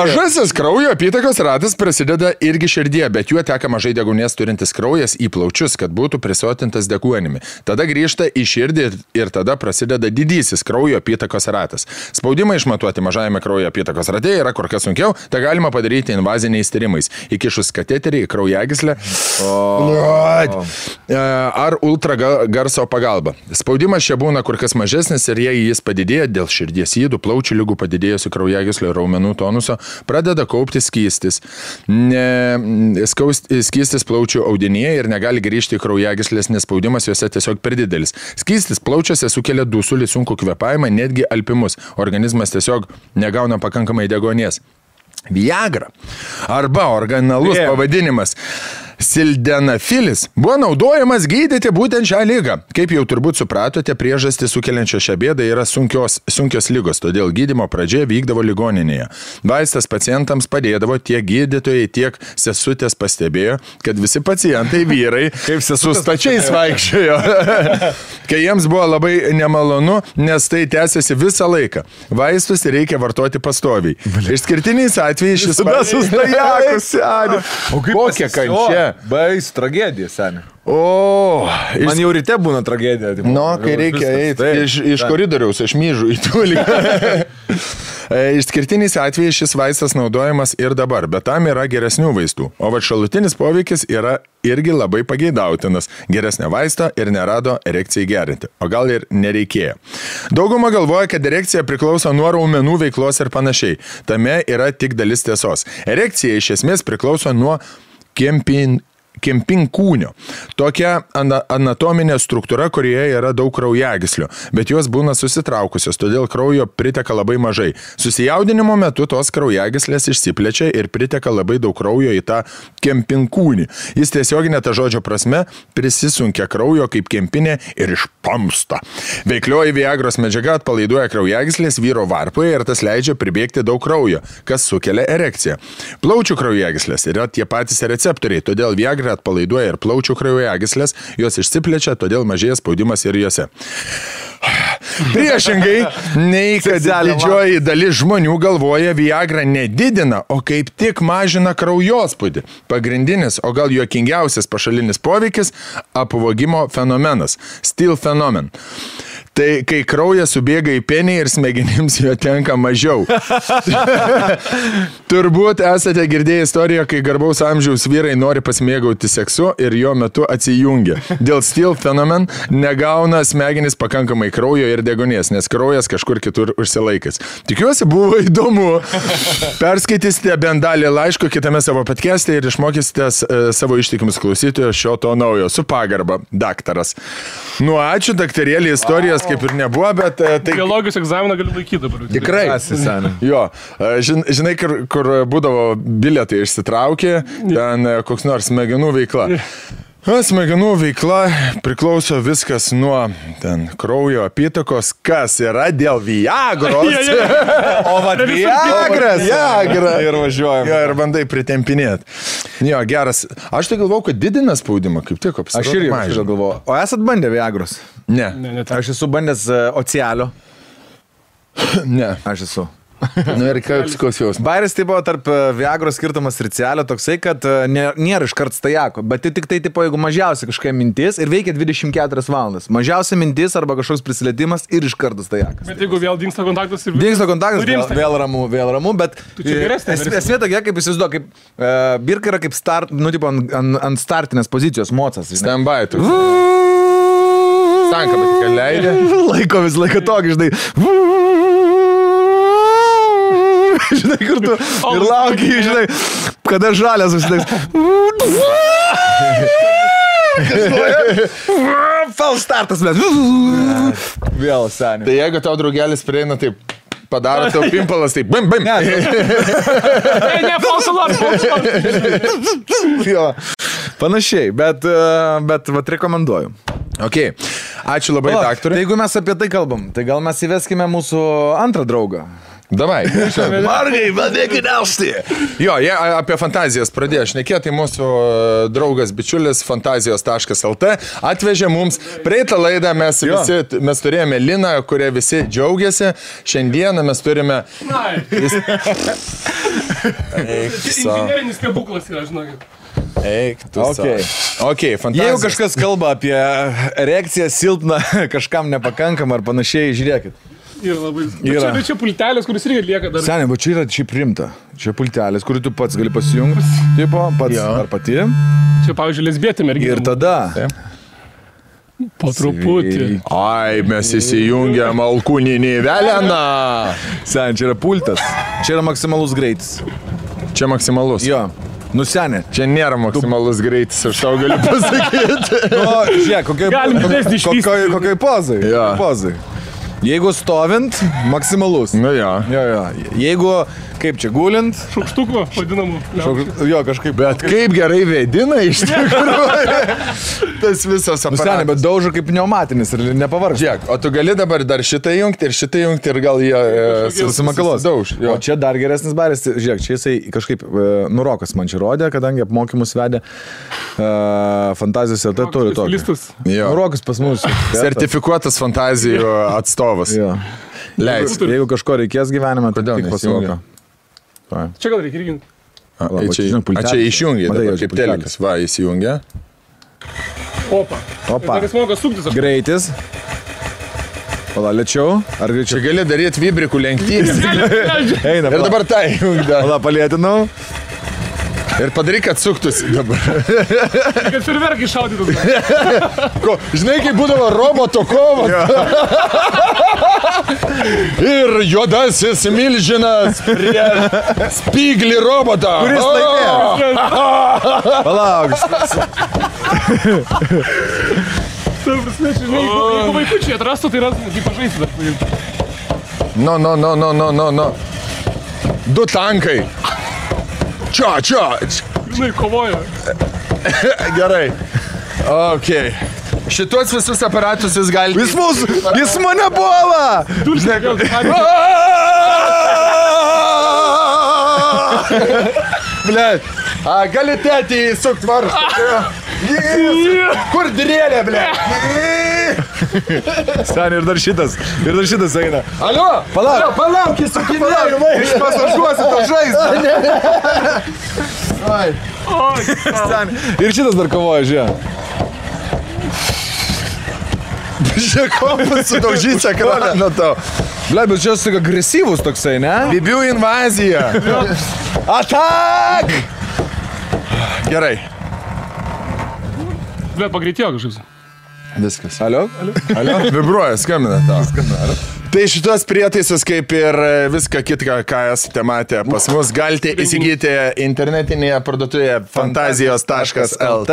Mažasis kraujo apytakos ratas prasideda irgi širdie, bet juo teka mažai deguonies turintis kraujas į plaučius, kad būtų prisotintas deguonimi. Tada grįžta į širdį ir tada prasideda didysis kraujo apytakos ratas. Spaudimą išmatuoti mažajame kraujo apytakos rate yra kur kas sunkiau, tai galima padaryti invaziniais tyrimais, įkišus kateterį į kraujagyslę ar ultragarso pagalba. Spaudimas čia būna kur kas mažesnis ir jei jis padidėja dėl širdies ydų, plaučių ligų padidėjusių kraujagyslio raumenų tonuso, pradeda kaupti skystis. Skystis plaučių audinyje ir negali grįžti į kraujagyslės, nes spaudimas juose tiesiog per didelis. Skystis plaučiuose sukelia dusulį, sunkų kvėpavimą, netgi alpimus. Organizmas tiesiog negauna pakankamai deguonies. Viagra arba originalus pavadinimas sildenafilis buvo naudojamas gydyti būtent šią ligą. Kaip jau turbūt supratote, priežastį sukeliančią šią bėdą yra sunkios ligos, todėl gydymo pradžia vykdavo ligoninėje. Vaistas pacientams padėdavo, tiek gydytojai, tiek sesutės pastebėjo, kad visi pacientai vyrai su stačiais vaikščiojo, kai jiems buvo labai nemalonu, nes tai tęsiasi visą laiką. Vaistus reikia vartoti pastoviai. Išskirtiniais atvejais šis kokia kančia. Bais, tragedija, seniai. Man jau ryte būna tragedija. Kai reikia eiti iš koridoriaus, aš myžu į tolį. Išskirtiniais atvejais šis vaistas naudojamas ir dabar, bet tam yra geresnių vaistų. O va šalutinis poveikis yra irgi labai pageidautinas. Geresnio vaisto ir nerado erekcijai gerinti. O gal ir nereikėjo. Dauguma galvoja, kad erekcija priklauso nuo raumenų veiklos ir panašiai. Tame yra tik dalis tiesos. Erekcija iš esmės priklauso nuo kempinkūnio. Tokia anatominė struktūra, kurioje yra daug kraujagyslių, bet jos būna susitraukusios, todėl kraujo priteka labai mažai. Susijaudinimo metu tos kraujagyslės išsiplečia ir priteka labai daug kraujo į tą kempinkūnį. Jis tiesioginė ta žodžio prasme prisisunkia kraujo kaip kempinė ir išpamsta. Veiklioji Viagros medžiaga atpalaiduoja kraujagyslės vyro varpoje ir tas leidžia pribėgti daug kraujo, kas sukelia erekciją. Plaučių kraujagyslės yra tie patys receptoriai, todėl Viagra atpalaiduoja ir plaučių kraujagyslės, jos išsiplečia, todėl mažėja spaudimas ir juose. Priešingai, nei kad didžioji dalis žmonių galvoja, Viagra nedidina, o kaip tik mažina kraujospūdį. Pagrindinis, o gal juokingiausias pašalinis poveikis – apvogimo fenomenas, steal fenomen. Tai kai kraujas subėga į penį ir smegenims jo tenka mažiau. Turbūt esate girdėję istoriją, kai garbaus amžiaus vyrai nori pasimėgauti seksu ir jo metu atsijungia. Dėl steal fenomen negauna smegenys pakankamai kraujo ir degonės, nes kraujas kažkur kitur užsilaikęs. Tikiuosi buvo įdomu. Perskaitysite bent dalį laiško kitame savo podcast'e ir išmokysite savo ištikimus klausytojus šio to naujo. Su pagarba, daktaras. Nu, ačiū, daktarėlį, istorijas kaip ir nebuvo, bet... Tai... Biologijos egzaminą galiu laikyti dabar. Tikrai. Jo, žinai, kur būdavo bilietai išsitraukė, ten koks nors smegenų veikla. Smegenų veikla priklauso viskas nuo ten kraujo apytakos, kas yra dėl Viagros. O va, Viagra. Ir važiuojam. Jo, ir bandai pritempinėti. Jo, geras. Aš tai galvau, kad didina spaudimą, kaip tik apsirodė. Aš irgi galvoju. O esat bandę Viagros? Ne. Aš esu bandęs Ocialio. Ne. Aš esu. Nu ir koks jausmas. Bairis tai buvo tarp Viagros skirtumas ir Cialio toksai, kad nėra iškart stajako, bet tai tik tai, tipo, jeigu mažiausia kažkokia mintis ir veikia 24 valandas. Mažiausia mintis arba kažkoks prisilietimas ir iškart stajakas. Bet jeigu vėl dingsta kontaktas ir... Dingsta kontaktas, vėl ramu, bet esmė tokia, kaip įsivaizduoju, kaip birka yra kaip ant startinės pozicijos mocas. Stand-by. Stanka, bet tik leidė. Laiko vis laiką tokį, žinai. Žinai, kur tu ir laukiai, žinai, kada žalias užsidėks. False startas, bet vėl seniai. Tai jeigu tau draugelis prieina, taip padaro tau pimpalas, taip bim, bim. Ne, false alarm. Jo, panašiai, bet vat rekomenduoju. Ok, ačiū labai, daktarui. Tai jeigu mes apie tai kalbam, tai gal mes įveskime mūsų antrą draugą. Davai. Margai, vadėkit elsti. Jo, jie apie fantazijas pradėjo šnekėti, tai mūsų draugas bičiulis fantazijos.lt atvežė mums praeitą laidą, mes turėjome Liną, kurie visi džiaugiasi, šiandieną mes turime... Inžinerinis stebuklas yra, žinokit. Eik, tu okay, fantazijos. Jeigu kažkas kalba apie erekciją silpną, kažkam nepakankam ar panašiai, žiūrėkit. Yra labai... Bet čia pultelis, kuris irgi lieka dar... Seniai, bet čia yra šiaip rimta. Čia pultelis, kurį tu pats gali pasijungti. Tipo, pats ar pati. Čia, pavyzdžiui, lesbietė mergina. Ir tada... Po truputį. Ai, mes įsijungiam alkūninį veleną. Seniai, čia yra pultas. Čia yra maksimalus greitis. Čia maksimalus. Jo. Nu, seniai. Čia nėra maksimalus greitis, aš tau galiu pasakyti. Nu, žiūrėk, kokioj pozai. Jo. Pozai. Jeigu stovint, maksimalus. Nu jo. Jeigu, kaip čia, gulint. Šaukštukų, vadinamų. Jo, kažkaip. Bet kaip gerai vėdina iš tikrųjų. Tas visas aparatas. Seniai, bet daužo kaip pneumatinis ir nepavargs. Žiūrėk, o tu gali dabar dar šitą jungti ir gal jie susimakalos. Dauž. O čia dar geresnis baris. Žiūrėk, čia jisai kažkaip Nurokas man čia rodė, kadangi apmokymus vedė fantazijos ir tai turi tokį. Nurokas pas mus. Sertifikuotas fantazijų atstovas. Leis. Jeigu kažko reikės gyvenime, tai tik pasimoka. Čia gal reikia irgi. Čia išjungia, kaip telikas. Va, įsijungia. Opa. Dar jis moka suktis. Greitis. Pala, lėčiau? Ar greičiau? Čia gali daryti vibrikų lenktynės. Eina, Ir dabar tai. Pala, palėtinau. Ir padaryk, kad suktųsi dabar. Kad ferverkai šaudytų. Žinai, kaip būdavo roboto kovas. Ir juodasis milžinas prie spyglį robotą. Kuris laimėjo? Palauk. Tai prasme, žinai, jeigu vaikučiai atrastų, tai rastų, kaip pažaisti dar. No. 2 tankai. Čia. Žinai, kovoja. Gerai. Ok. Šitos visus aparatus jūs galite... Jis mane puola! Blet. Gali tėtį įsukt varstą. Kur drėlė, blet? Sani, ir dar šitas eina. Alio? Palauk, įsukinėjau. Iš pasažuosi to žaizdą. Sani, ir šitas dar kovoja, žiūrė. Žiūrėk, kompas sudaužys ekraną tau. Ble, bet čia toks agresyvus toksai, ne? Bibių invazija. Atak! Gerai. Bet pagreitėjo kažkas. Viskas. Alio? Vibruoja, skambina tau. Tai šitos prietaisus, kaip ir viską kitką, ką esate matę pas mus, galite įsigyti internetinėje parduotuvėje fantazijos.lt.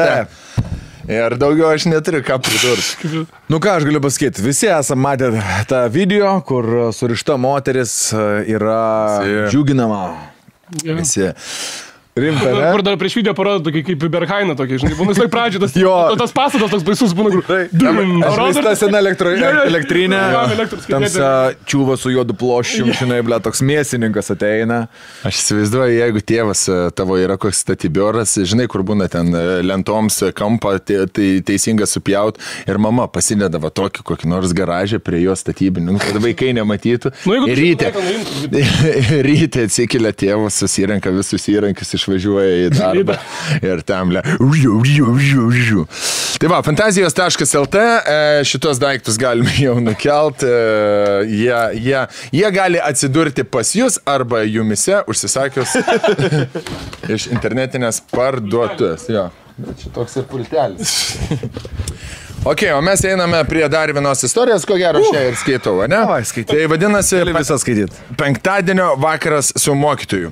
Ir daugiau aš neturiu ką pridurti. Nu ką aš galiu pasakyti, visi esame matę tą video, kur surišta moteris yra džiuginama. Visi. Rimta, ne? Kur dar prieš video parodo tokį kaip Berhaina tokį, žinai, būna visai pradžio, tas pastatas toks baisus būna, kur... Išvaista sena elektrinė, tamsa čiūva su juodu ploščium, žinai, ble, toks mėsininkas ateina. Aš įsivaizduoju, jeigu tėvas tavo yra koks statybioras, žinai, kur būna ten lentoms kampą teisinga supjaut ir mama pasidedavo tokį kokį nors garažę prie jo statybinių, kad vaikai nematytų. Ryte atsikelia tėvas, susirenka visus įrankius, išvažiuoja į darbą ir tam Tai va, fantazijos.lt, šitos daiktus galime jau nukelt, jie gali atsidurti pas jūs arba jumise užsisakius iš internetinės parduotuvės. Jo, čia toks ir pultelis. Ok, o mes einame prie dar vienos istorijos, ko gero šią ir skaitau, ne? Tai vadinasi penktadienio vakaras su mokytoju.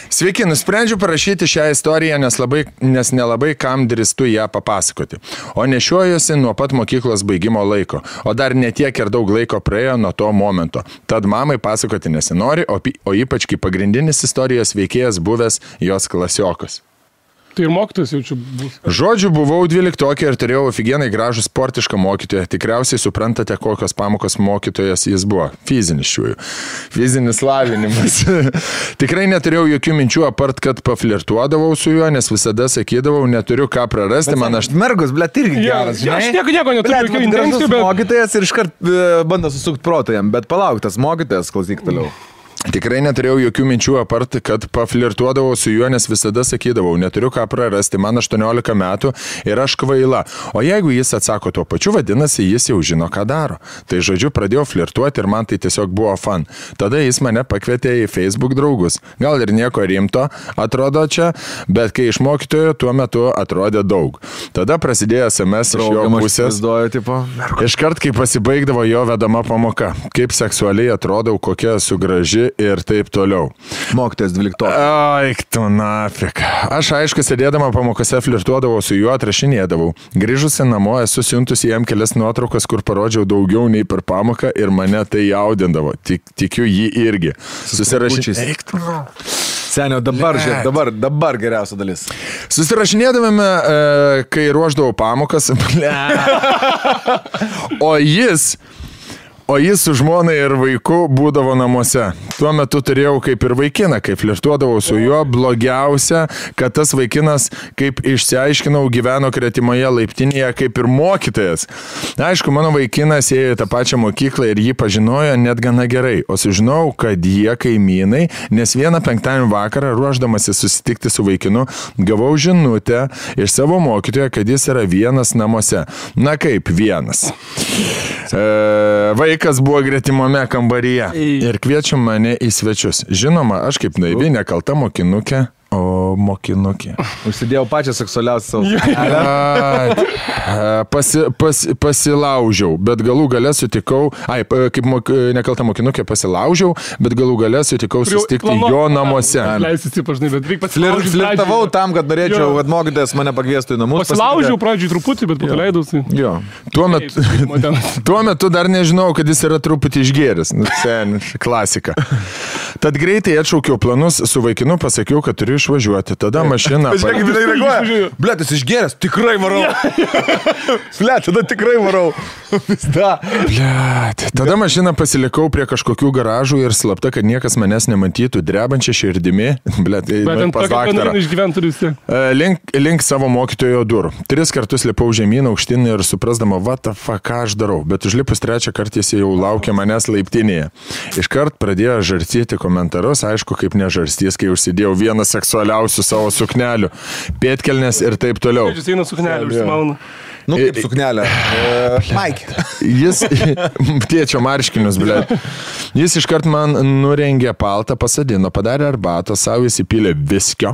Sveiki, nusprendžiu parašyti šią istoriją, nes nelabai kam drįstu ją papasakoti. O nešiojuosi nuo pat mokyklos baigimo laiko, o dar netiek ir daug laiko praėjo nuo to momento. Tad mamai pasakoti nesinori, o ypač kaip pagrindinis istorijos veikėjas buvęs jos klasiokas. Tai ir mokytojas jaučiu bus. Žodžiu, buvau 12 ir turėjau ofigenai gražų sportišką mokytoją. Tikriausiai suprantate, kokios pamokos mokytojas jis buvo. Fizinis lavinimas. Tikrai neturėjau jokių minčių, apart, kad paflirtuodavau su juo, nes visada sakydavau, neturiu ką prarasti. Mergus, blet, irgi geras. Aš nieko neturiu jokių intencijų, bet... Mokytojas ir iškart bando susukti protą jam, bet palauk, tas mokytojas, klausyk toliau. Tikrai neturėjau jokių minčių, apart, kad paflirtuodavau su juo, nes visada sakydavau, neturiu ką prarasti, man 18 metų ir aš kvaila. O jeigu jis atsako tuo pačiu, vadinasi, jis jau žino, ką daro. Tai žodžiu, pradėjau flirtuoti ir man tai tiesiog buvo fan. Tada jis mane pakvietė į Facebook draugus. Gal ir nieko rimto atrodo čia, bet kai iš mokytojo tuo metu atrodė daug. Tada prasidėjo SMS iš jo pusės. Iškart, kai pasibaigdavo jo vedama pamoka. Kaip seksualiai atrodau, kokia esu graži ir taip toliau. Mokytojas 12. Aik tu nafik. Aš aišku, sėdėdama pamokose flirtuodavau su juo, atrašinėdavau. Grįžusi namo esu siuntusi jam kelias nuotraukas, kur parodžiau daugiau nei per pamoką ir mane tai jaudindavo. Tikiu jį irgi. Eik tu. Senio, dabar geriausia dalis. Susirašinėdavome, kai ruoždavau pamokas. O jis su žmonai ir vaiku būdavo namuose. Tuo metu turėjau kaip ir vaikiną, kai flirtuodavau su juo. Blogiausia, kad tas vaikinas, kaip išsiaiškinau, gyveno kretimoje laiptinėje kaip ir mokytojas. Aišku, mano vaikinas ėjo į tą pačią mokyklą ir jį pažinojo net gana gerai. O sužinau, kad jie kaimynai, nes vieną penktadienį vakarą, ruoždamasi susitikti su vaikinu, gavau žinutę iš savo mokytojo, kad jis yra vienas namuose. Na kaip vienas. vaikas buvo gretimame kambaryje ir kviečiu mane į svečius. Žinoma, aš kaip naivi, nekalta mokinukė. O mokinukė. Užsidėjau pačią seksualiausią savo. Pasilaužiau, bet galų gale sutikau, kaip nekalta mokinukė pasilaužiau, bet galų gale sutikau susitikti jo namuose. Flirtavau tam, kad norėčiau, kad mokytojas mane pakviestų į namus. Pasilaužiau pradžiui truputį, bet paleidausi. Tuo metu dar nežinau, kad jis yra truputį išgėręs. Klasika. Tad greitai atšaukiau planus su vaikinu, pasakiau, kad turiu išvažiuoti. Tada mašina... Žiūrėk, kaip tai reaguoja. Blet, jis išgėręs, tikrai varau. Blet, tada tikrai varau. Blet. Tada mašiną pasilikau prie kažkokių garažų ir slapta, kad niekas manęs nematytų, drebančią širdimi. Blet, pas daktarą. Link savo mokytojo durų. 3 kartus lipau žemyn aukštyn ir suprasdama, what the fuck, ką aš darau. Bet užlipus 3 kartą jis jau laukia manęs laiptinėje. Iškart pradėjo žarstyti komentarus, aišku, kaip nežarstys, kai užsidėjau vieną seksualiausių savo suknelių, pėtkelnes ir taip toliau. Jis eina suknelį, užsimauna. Nu, kaip suknelė. Mike. Jis, tėčio marškinius, ble. Jis iškart man nurengė paltą, pasadino, padarė arbatą, savo įsipylė viskio,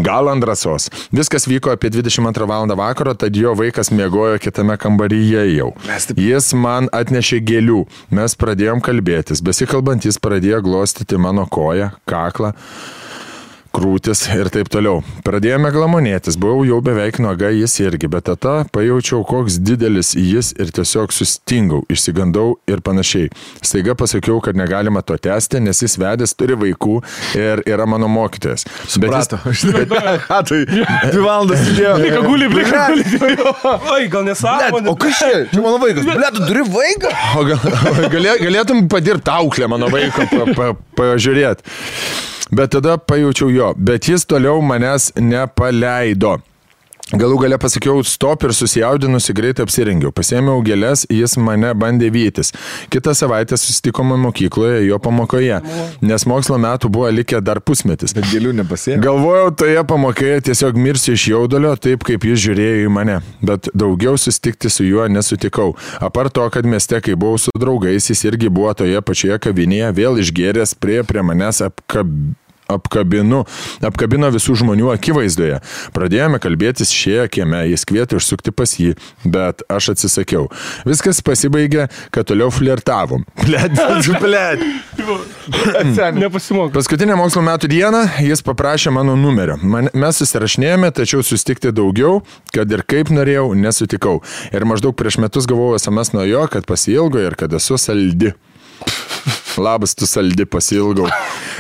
gal ant drąsos. Viskas vyko apie 22 valandą vakaro, tad jo vaikas miegojo kitame kambaryje jau. Jis man atnešė gėlių. Mes pradėjom kalbėtis. Besikalbant, jis pradėjo glostyti mano koją, kaklą, krūtis ir taip toliau. Pradėjome glamonėtis, buvau jau beveik nuoga, jis irgi, bet tada pajaučiau, koks didelis jis ir tiesiog sustingau, išsigandau ir panašiai. Staiga pasakiau, kad negalima to tęsti, nes jis vedęs, turi vaikų ir yra mano mokytojas. Suprato. Tai 2 valandas sėdėjo. Plika guli. Oi, gal nesąmonė. O kas čia? Čia mano vaikas. Blet, tu turi vaiką? O galėtum padirbti auklę mano vaiką, pažiūrėti. Bet tada pajaučiau jo, bet jis toliau manęs nepaleido. Galų gale pasakiau stop ir susijaudinusi greitai apsirengiau. Pasėmiau gėles, jis mane bandė vytis. Kitą savaitę susitikome mokykloje jo pamokoje, nes mokslo metų buvo likę dar pusmetis. Bet gėlių nepasėmė. Galvojau, toje pamokoje tiesiog mirsiu iš jaudulio, taip kaip jis žiūrėjo į mane. Bet daugiau susitikti su juo nesutikau. Apart to, kad mieste, kai buvau su draugais, jis irgi buvo toje pačioje kavinėje, vėl išgėręs prie manęs apkabino visų žmonių akivaizdoje. Pradėjome kalbėtis šioje kieme, jis kvietė užsukti pas jį, bet aš atsisakiau. Viskas pasibaigė, kad toliau flirtavom. Blet. Nepasimok. Paskutinę mokslo metų dieną jis paprašė mano numerio. Mes susirašinėjome, tačiau susitikti daugiau, kad ir kaip norėjau, nesutikau. Ir maždaug prieš metus gavau SMS nuo jo, kad pasiilgo ir kad esu saldi. Labas, tu saldi, pasiilgau.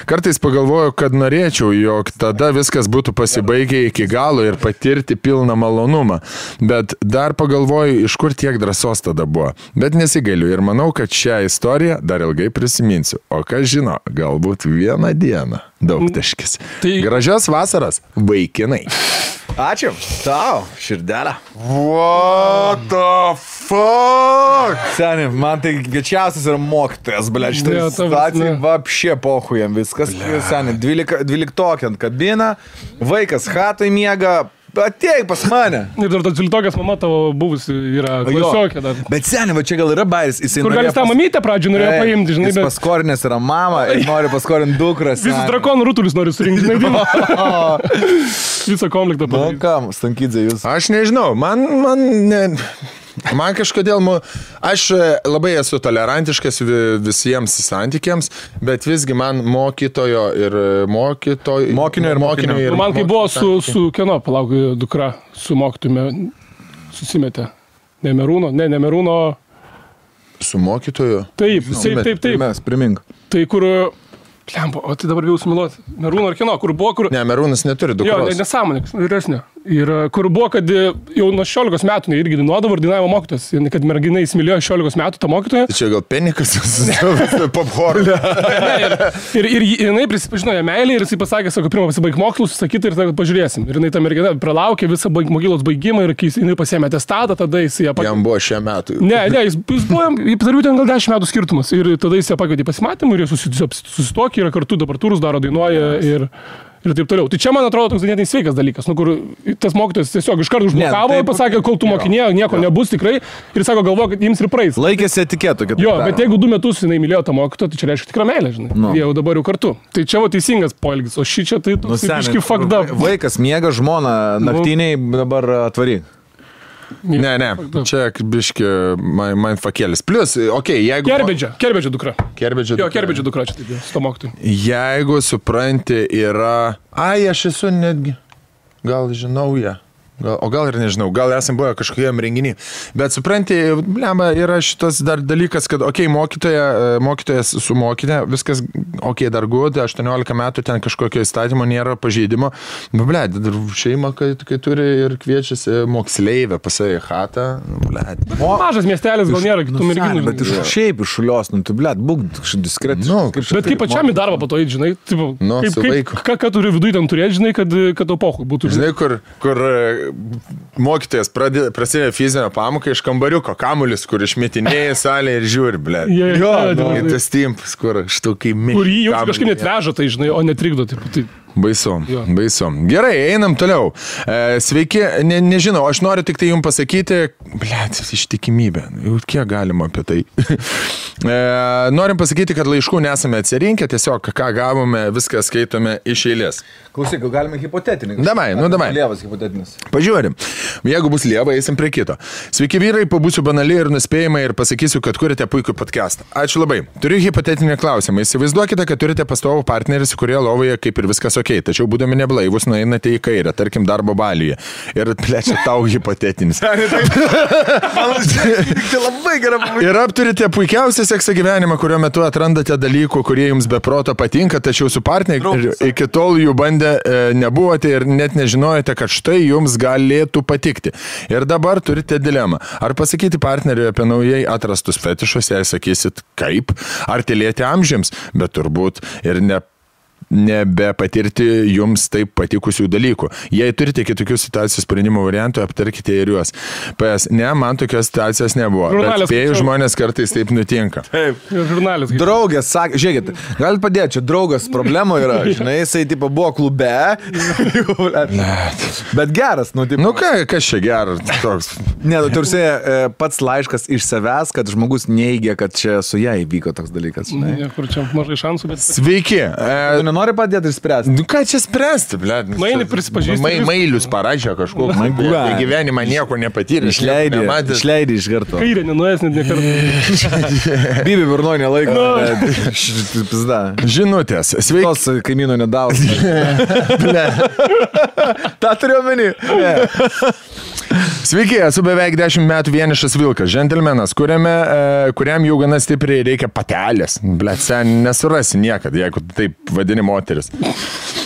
Kartais pagalvoju, kad norėčiau, jog tada viskas būtų pasibaigę iki galo ir patirti pilną malonumą. Bet dar pagalvoju, iš kur tiek drąsos tada buvo. Bet nesigailiu ir manau, kad šią istoriją dar ilgai prisiminsiu. O kas žino, galbūt vieną dieną. Daugtaškis. Gražios vasaros, vaikinai. Ačiū. Tau, širdelę. What the fuck? Seni, man tai gečiausias yra mokytojas, ble, šitą situaciją vapšė pohujam viskas. Seni, 12 ant kabina, vaikas hatoj miega, ateik pas mane. Ir dar tas 12 mama tavo buvusi yra klasiokė dar. Bet seni, va čia gal yra bairis. Kur gal jis tą mamytę pradžią norėjo paimti, žinai. Jis paskorinės yra mama ir nori paskorinti dukras. Visą drakonų rutulius nori surinkti, žinai. Visą konfliktą padaryti. Nu kam, Stankydze, jūs? Aš nežinau, man kažkodėl, aš labai esu tolerantiškas visiems santykiams, bet visgi man mokinio ir mokinio. Man kai buvo su kieno, palauk, dukra, su mokytume, susimetė. Ne Merūno. Su mokytoju? Taip. Mes, primink. Tai kur... Plempo, o tai dabar bijau sumiluoti. Merūno ar kino, kur buvo, kur... Ne, Merūnas neturi dukros. Jo, nesąmonė, vyresnė. Ir kur buvo, kad jau nuo 16 metų irgi dainuodavo ir dainavo mokytojas. Kad mergina įsimylėjo 16 metų tą mokytoją. Tai čia gal penikas popcorn. Ir jinai prisipažino ją meilį ir jisai pasakė, sako, pirmą pasibaig mokslus, sakyti ir tada pažiūrėsim. Ir jinai ta mergina pralaukė visą mokyklos baigimą ir kai jinai pasiėmė atestatą, tada jis ją pakvietė. Jam buvo šie metų. Ne, jis buvo, tarp ten gal 10 metų skirtumas. Ir tada jis ją pakvietė pasimatymą ir jie susitokė, yra kartu, dabar turus daro, dainuoja ir taip toliau. Tai čia, man atrodo, toks ganėtinai sveikas dalykas, kur tas mokytojas tiesiog iš karto užblokavo ir pasakė, kol tu mokinė, nieko nebus tikrai, ir sako, galvoja, kad jiems ir praeis. Laikėsi etiketų, kad... Jo, bet jeigu 2 metus jinai mylėjo tą mokytoją, tai čia reiškia tikra meilė, žinai. No. Jie jau dabar jau kartu. Tai čia teisingas poelgis, o ši čia tai biški fucked up. Vaikas miega, žmona naktiniai dabar atvaryk. Ne, čia biški mindfuckėlis. Plus, jeigu... Kerbedžio dukra. Jo, Kerbedžio dukra čia taip, su to mokytoju. Jeigu supranti yra... Aš esu netgi... Gal žinau ją. O gal ir nežinau, gal esam buvę kažkokiam renginį. Bet supranti, blemba, yra šitas dar dalykas, kad, mokytojas su mokinė, viskas, dar gud, 18 metų ten kažkokio įstatymo nėra pažeidimo. Bled, šeima, kai turi ir kviečiasi moksleivę pasai chatą. Mažas miestelis gal nėra kitų merginų. Bet šiaip iš šulios, tu bled, būk diskretiškai. Bet kaip pačiam į darbą po to eiti, žinai, ką turi viduje ten turėti, žinai, kad to pohui būtų. Žinai, kur mokytojas prasidėjo fizinę pamoką iš kambariuko, kamulis, kur išmetinėja salę ir žiūri, blė. Ir tas timpas, kur štukai mėg. Kur jį jau kažkaip net veža, tai žinai, o netrikdo. Baisu. Gerai, einam toliau. Sveiki, nežinau, aš noriu tik tai jums pasakyti, blėt, ištikimybė, jau kiek galima apie tai. Norim pasakyti, kad laiškų nesame atsirinkę, tiesiog ką gavome, viską skaitome iš eilės. Klausyk, galime hipotetinį. Davai. Lievas hipotetinis. Pažiūrim. Jeigu bus lieva, eisim prie kito. Sveiki vyrai, pabūsiu banaliai ir nuspėjimai ir pasakysiu, kad kurite puikų podcastą. Ačiū labai. Turiu hipotetinį klausimą. Įsivaizduokite, kad turite pastovų partnerį, su kurie lovoje kaip ir viskas tačiau būdami neblaivus, nueinate į kairę, tarkim darbo baliuje. Ir plečia tau hipotetinis. Ir apturite puikiausią seksą gyvenimą, kurio metu atrandate dalykų, kurie jums be proto patinka, tačiau su partneriu iki tol jų bandę nebuvote ir net nežinojate, kad štai jums galėtų patikti. Ir dabar turite dilemą. Ar pasakyti partneriui apie naujai atrastus fetišus, jei sakysit kaip, ar tylėti amžiams, bet turbūt ir nebepatirti jums taip patikusių dalykų. Jei turite kitokių situacijų sprendimo variantų, aptarkite ir juos. Man tokios situacijos nebuvo. Bet spėjų žmonės kartais taip nutinka. Taip. Draugės sakė, žiūrėkit, galit padėti, čia draugas problemų yra, žinai, jisai tipo buvo klube. Bet geras, kas čia geras toks? Ne, tursiai pats laiškas iš savęs, kad žmogus neigia, kad čia su ją įvyko toks dalykas. Kur čia mažai šansų, bet... Sveiki. Nori padėti ir spręsti. Ką čia spręsti, blėt? Mailį prisipažįsti. Mailius parašė kažkokį. Gyvenimą nieko nepatyrė. Išleidė iš karto. Kairė nenuės net nekartą. Bibi burnoj nelaiko. Žinutės. Sveiki. Tos kaimyno nedavos. Ta turiu omeny. Sveiki, esu beveik 10 metų vienišas vilkas, džentelmenas, kuriam jau gana stipriai reikia patelės. Blet, sen nesurasi niekad, jeigu taip vadini moteris.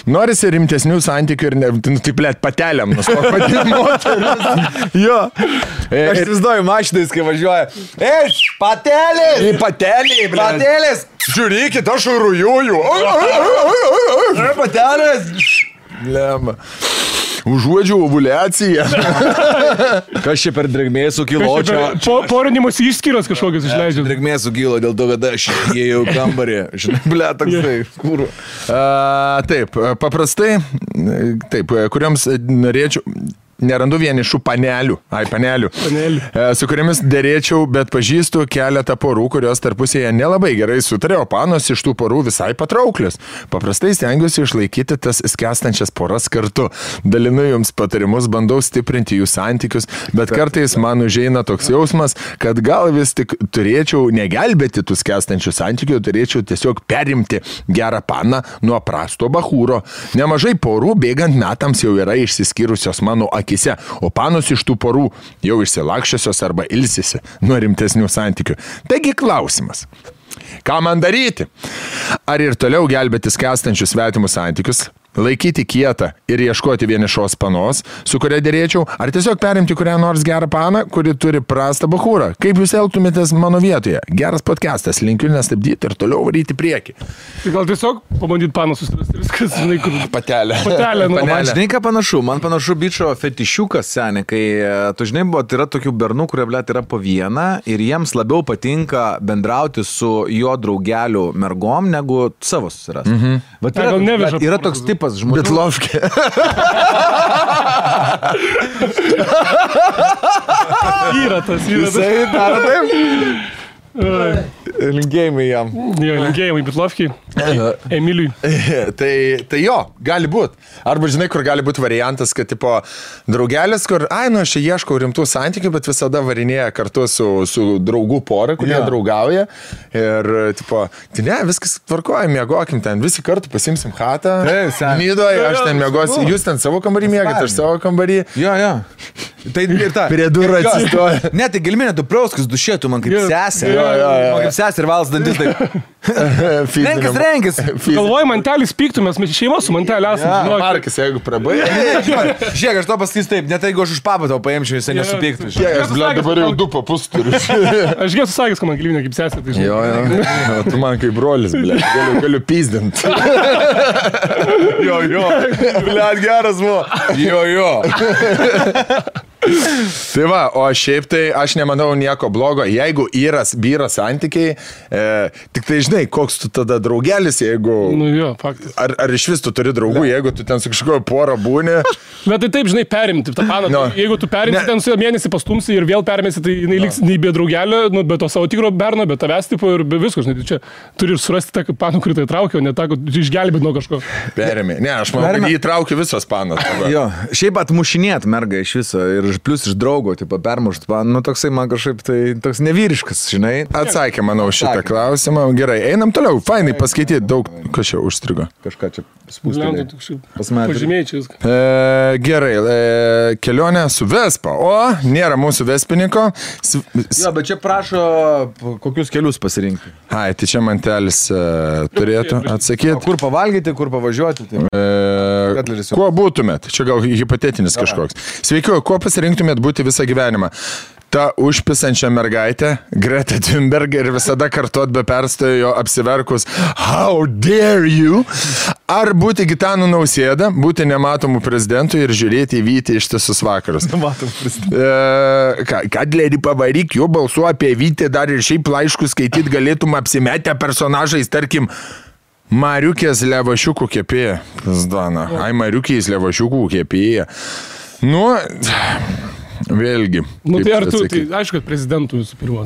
Norisi rimtesnių santykių ir taip, blet, patelėm nustok vadini moteris. Jo. Aš įsivaizduoju mašinais, kai važiuoja. Patelės! Patelė, blet. Patelės! Žiūrėkit, aš rujuoju. Patelės! Lemba. Užuodžiu ovuliaciją. Kas čia per drėgmė sukilo čia? Porinimus išskyros kažkokios išleidžia. Drėgmė sukilo dėl to, kad aš įėjau kambarį. Žinai, ble, toksai. Kur? Taip, paprastai, taip, kuriams norėčiau... Nerandu vienišų panelių, su kuriamis dėrėčiau, bet pažįstu keletą porų, kurios tarpusėje nelabai gerai sutarė, o panos iš tų porų visai patrauklios. Paprastai stengiuosi išlaikyti tas skęstančias poras kartu. Dalinu jums patarimus, bandau stiprinti jų santykius, bet kartais man užeina toks jausmas, kad gal vis tik turėčiau negelbėti tų skęstančių santykių, turėčiau tiesiog perimti gerą paną nuo prasto bachūro. Nemažai porų bėgant metams jau yra išsiskyrusios mano akise, o panos iš tų porų jau išsilakščiosios arba ilsisi nuo rimtesnių santykių. Taigi klausimas. Ką man daryti? Ar ir toliau gelbėti skęstančius svetimus santykius, laikyti kietą ir ieškoti vienišos panos, su kuria dėrėčiau, ar tiesiog perimti kurią nors gerą paną, kuri turi prastą bachūrą? Kaip jūs elgtumėtės mano vietoje? Geras podcastas, linkiu nestabdyti ir toliau varyti priekį. Tai gal tiesiog pabandyti paną susirasti viskas, žinai, kur... Patelė. Man žinai, ką panašu? Man panašu bičio fetišiukas, seniai, kai tu žinai, yra tokių bernų, kurie, blėt, yra po vieną ir jiems labiau patinka bendrauti su jo draugelių mergom, negu savo susirasti. Yra toks tipas, tipas žmonių. Bitlovkė. Yra tas, yra tas. Jisai daro taip. Linkėjimai jam. Jo, linkėjimai Bitlovkiai. Emiliui. Tai jo, gali būti. Arba žinai, kur gali būti variantas, kad tipo draugelis, kur, aš čia ieškau rimtų santykių, bet visada varinėja kartu su draugų pora, kurie draugauja. Ir tipo, tai ne, viskas tvarkoja, miegokim ten, visi kartu pasimsim chatą. Nidoje, aš ten miegosiu, jūs ten savo kambarį miegate, aš savo kambarį. Jo. Tai ir ta. Prie durų atsistoja. Ne, tai gelminė, tu prauskas dušėtų man kaip sesė. Man kaip sesė ir valas dantis taip. Renkis. Galvoju, mantelis pyktų, mes šeima su mantelį esame. Markas, jeigu prabai. Žiūrėk, aš to pasakys taip, net jeigu aš už papą tau paimčiau, jisai nesupyktų. Aš dabar jau 2 papus turiu. Aš gėsiu sakęs, kad man gelminė kaip sesė. Tai jo, tu man kaip brolis, galiu pyzdint. Jo, geras buvo. Jo. Tai va, o šiaip tai aš nemanau nieko blogo, jeigu vyra santykiai, tik tai žinai, koks tu tada draugelis, jeigu... Nu jo, faktas. Ar iš vis tu turi draugų, jeigu tu ten su kažkojo porą būni... Bet tai taip, žinai, perimti tą paną. No. Jeigu tu perimti ten su mėnesį pastumsi ir vėl perimėsi, tai jinai liks nei be draugelio, be to savo tikro berno, be tavęs tipo ir be visko, žinai, tai čia turi surasti tą paną, kurį tai traukia, o ne tą, kad išgelbėt nuo kažko. Perėmė. Ne, aš manau, kad jį traukia visos panas. Jo, šiaip atmušinėt mergą iš viso ir plus iš draugo, tipo, permušt, nu toksai man kažkaip tai toks nevyriškas, žinai. Atsakė, manau, šitą klausimą. Gerai, einam toliau. Fainai paskaityti daug, kas čia užstrigo. Kažką čia spūstelė. Pažymėjai čia viską. Gerai, kelionė su Vespa. O, nėra mūsų Vespininko. Jo, bet čia prašo, kokius kelius pasirinkti. Ai, tai čia mantelis turėtų atsakyti. Kur pavalgyti, kur pavažiuoti. Kuo būtumėt? Čia gal hipotetinis kažkoks. Sveiki, kuo pasirinktumėt būti visą gyvenimą? Ta užpisančia mergaitė, Greta Thunberg, ir visada kartuot be perstojo apsiverkus How dare you? Ar būti Gitanu Nausėda, būti nematomų prezidentų ir žiūrėti į Vytį ištisus vakarus? Nematomų prezidentų. Kadlerį pavaryk, jo balsu apie Vytį dar ir šiaip laiškus skaityti galėtum apsimetę personažais, tarkim, Mariukės levašiukų kepėja. Ai, Mariukės levašiukų kepėja. Nu... Vėlgi. Nu tai ar tu, tai aišku, kad prezidentų visų pirma.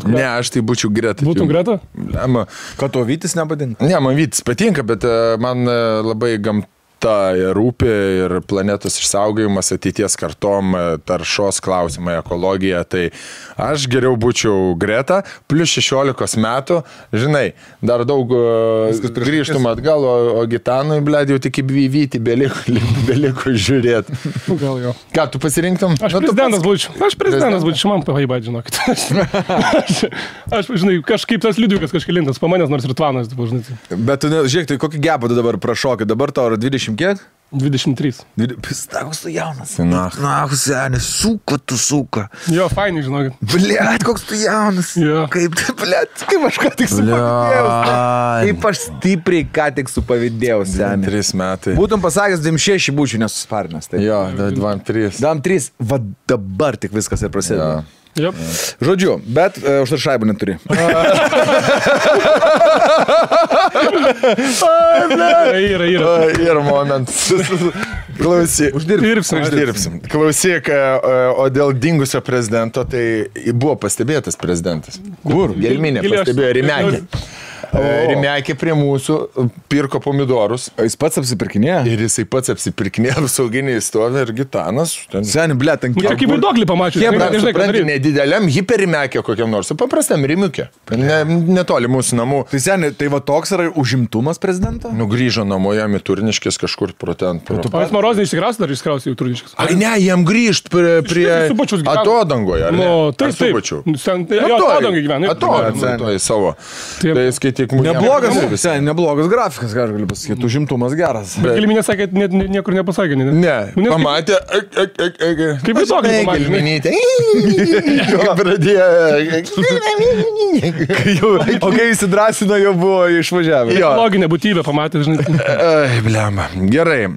Ne, aš tai būčiau Greta. Būtum Greta? Kad to Vytis nepadinka? Ne, man Vytis patinka, bet man labai gamta rūpi ir planetos išsaugojimas, ateities kartom, taršos klausimai, ekologija. Tai aš geriau būčiau Greta, plus 16 metų, žinai, dar daug grįžtum atgal, o Gitanui, blėd, jau tik į Vytį beliko žiūrėti. Gal jo. Ką, tu pasirinktum? Aš prezidentas būčiau, man pavaibat, žinokit. Aš, žinai, kažkaip tas liudiukas kažkelintas, pamanęs nors ir tvanas, žinai. Bet tu, žiūrėk, tai kokį gebą tu dabar prašokai, dabar tau yra 20 kiek? 23. Pistakus tu jaunas. Nahus, seniai, suka. Jo, fainai, žinokit. Blėt, koks tu jaunas. Jo. Kaip aš ką tik supavydėjau. Kaip aš stipriai ką tik supavydėjau, seniai. 3 metai. Būtum pasakęs, 26 būčiau nesusparnęs. Tai. Jo, 23. 23. Va dabar tik viskas ir prasideda. Yep. Žodžiu, bet užtar šaibų neturi. Yra momentas. Klausyk. Uždirbsim. Klausyk, o dėl dingusio prezidento, tai buvo pastebėtas prezidentas. Kur? Gelminė pastebėjo Rimekė. Rimekė prie mūsų pirko pomidorus. O jis pats apsipirkinėjo? Ir jisai pats apsipirkinėjo, sauginiai stovi ir Gitanas. Seniai, blėt, ant kiek. Kaip vaiduoklį pamačiau. Supranti, nedideliam hiperimekė kokiam nors, paprastam Rimiukė. Netoli mūsų namų. Tai seniai, tai va toks yra užimtumas prezidento? Nu, grįžo namo jam į Turniškės kažkur pro ten. Pats Marozinį išsikrausi, dar išsikrausi į Turniškės. Ai ne, jam grįžt prie atodangoje. Nu, taip. Atodangai gyvena. Atodangoje savo. Neblogas grafikas, ką aš galiu pasakyti, užimtumas geras. Bet Gelminė sakė, niekur nepasakė. Ne, pamatė. Kaip vaiduoklį pamatė. O kai įsidrasino, jau buvo išvažiavę. Loginė būtybė pamatė, žinai. Ai, blema. Gerai.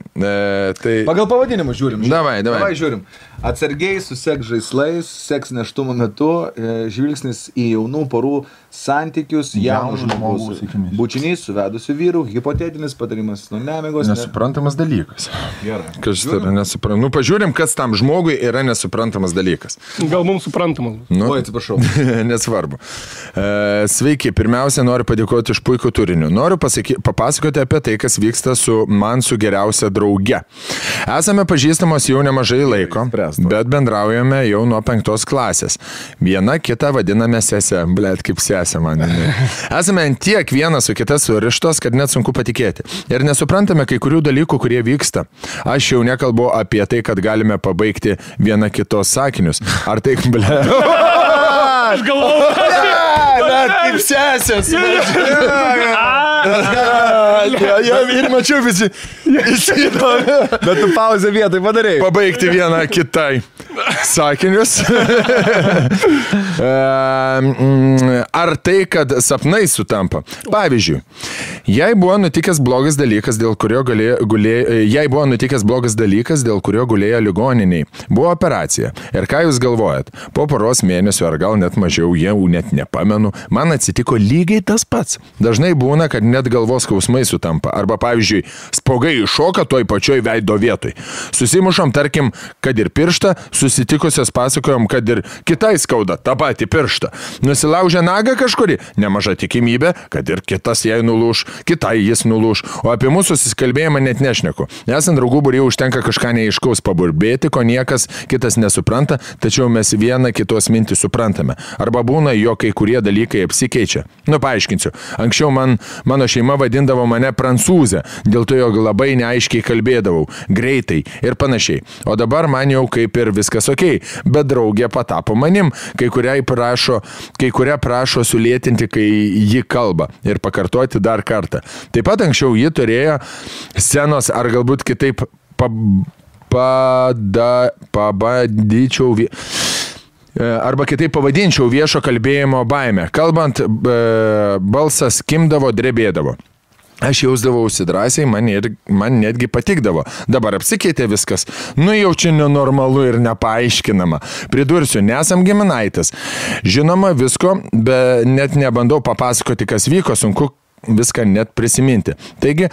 Pagal pavadinimą žiūrim. Davai. Žiūrim. Atsargiai susek žaislais, seks neštumo metu, žvilgsnis į jaunų porų santykius, jaunų žmogus. Bučinys su vedusiu vyru, hipotetinis patarimas nuo nemigos. Nesuprantamas dalykas. Gerai. Kas tai yra nesuprantamas? Nu, pažiūrim, kas tam žmogui yra nesuprantamas dalykas. Gal mums suprantamas. Nu, Oi, atsiprašau. Nesvarbu. Sveiki, pirmiausia, noriu padėkoti iš puikų turinių. Noriu papasakoti apie tai, kas vyksta su geriausia drauge. Esame pažįstamos jau nemažai laiko, bet bendraujame jau nuo 5 klasės. Viena kitą vadiname sesę. Blet, kaip sesė man. Esame tiek vienas su kita surištos, kad net sunku patikėti. Ir nesuprantame kai kurių dalykų, kurie vyksta. Aš jau nekalbu apie tai, kad galime pabaigti viena kitos sakinius. Ar tai, ble... Aš galvoju. Bet kaip sesės. Ir mačiau visi. Bet tu pauzę vietai padarėjai. Pabaigti vieną kitai sakinius. Ar tai, kad sapnai sutampa? Pavyzdžiui, jei buvo nutikęs blogas dalykas, dėl kurio gulėjo ligoniniai, buvo operacija. Ir ką jūs galvojat? Po poros mėnesių ar gal net mažiau, jau net nepamenu, man atsitiko lygiai tas pats. Dažnai būna, kad net galvos skausmai sutampa. Arba, pavyzdžiui, spuogai iššoka toj pačioj veido vietoj. Susimušom, tarkim, kad ir pirštą, susitikusios pasakojom, kad ir kitai skauda tą patį pirštą. Nusilaužė nagą kažkuri, nemaža tikimybė, kad ir kitas jai nulūš, kitai jis nulūš. O apie mūsų susikalbėjimą net nešneku. Esant draugų būryje užtenka kažką neaiškaus paburbėti, ko niekas kitas nesupranta, tačiau mes vieną kitos mintį suprantame. Arba būna, jo kai kurie dalykai apsikeičia. Paaiškinsiu. Anksčiau mano šeima vadindavo mane prancūzė, dėl to jog labai neaiškiai kalbėdavau, greitai ir panašiai. O dabar man jau kaip ir viskas okei, bet draugė patapo manim, kai kurią prašo sulėtinti, kai ji kalba ir pakartoti dar kartą. Taip pat anksčiau ji turėjo scenos ar galbūt kitaip arba kitaip pavadinčiau viešo kalbėjimo baimę. Kalbant, balsas kimdavo, drebėdavo. Aš jausdavausi drąsiai, man netgi patikdavo. Dabar apsikeitė viskas. Jau čia nenormalu ir nepaaiškinama. Pridursiu, nesam giminaitis. Žinoma, visko, bet net nebandau papasakoti, kas vyko, sunku viską net prisiminti. Taigi,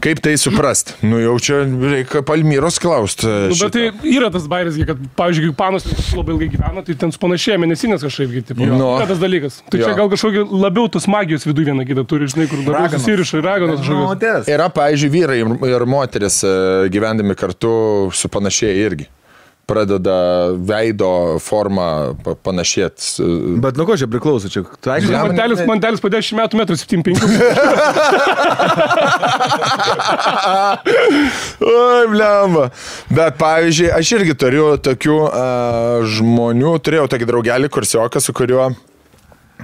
kaip tai suprast? Jau čia reikia Palmyros klaust. Bet tai yra tas bairis, kad, pavyzdžiui, kai panos labai ilgai gyvena, tai ten panašėja mėnesinės kažkaip. Yra tas dalykas. Tai čia gal kažkokį labiau tos magijos vidų vieną kitą turi, žinai, kur labiau susiriša ir raganos kažkokios. Yra, pavyzdžiui, vyrai ir moteris gyvendami kartu supanašėja irgi. Pradeda veido formą panašėti. Bet nuo ko čia priklauso? Čia mantelis po 10 metų 1,75 m. Oi, blemba. Bet, pavyzdžiui, aš irgi turiu tokių žmonių, turėjau tokį draugelį kursioką, su kuriuo,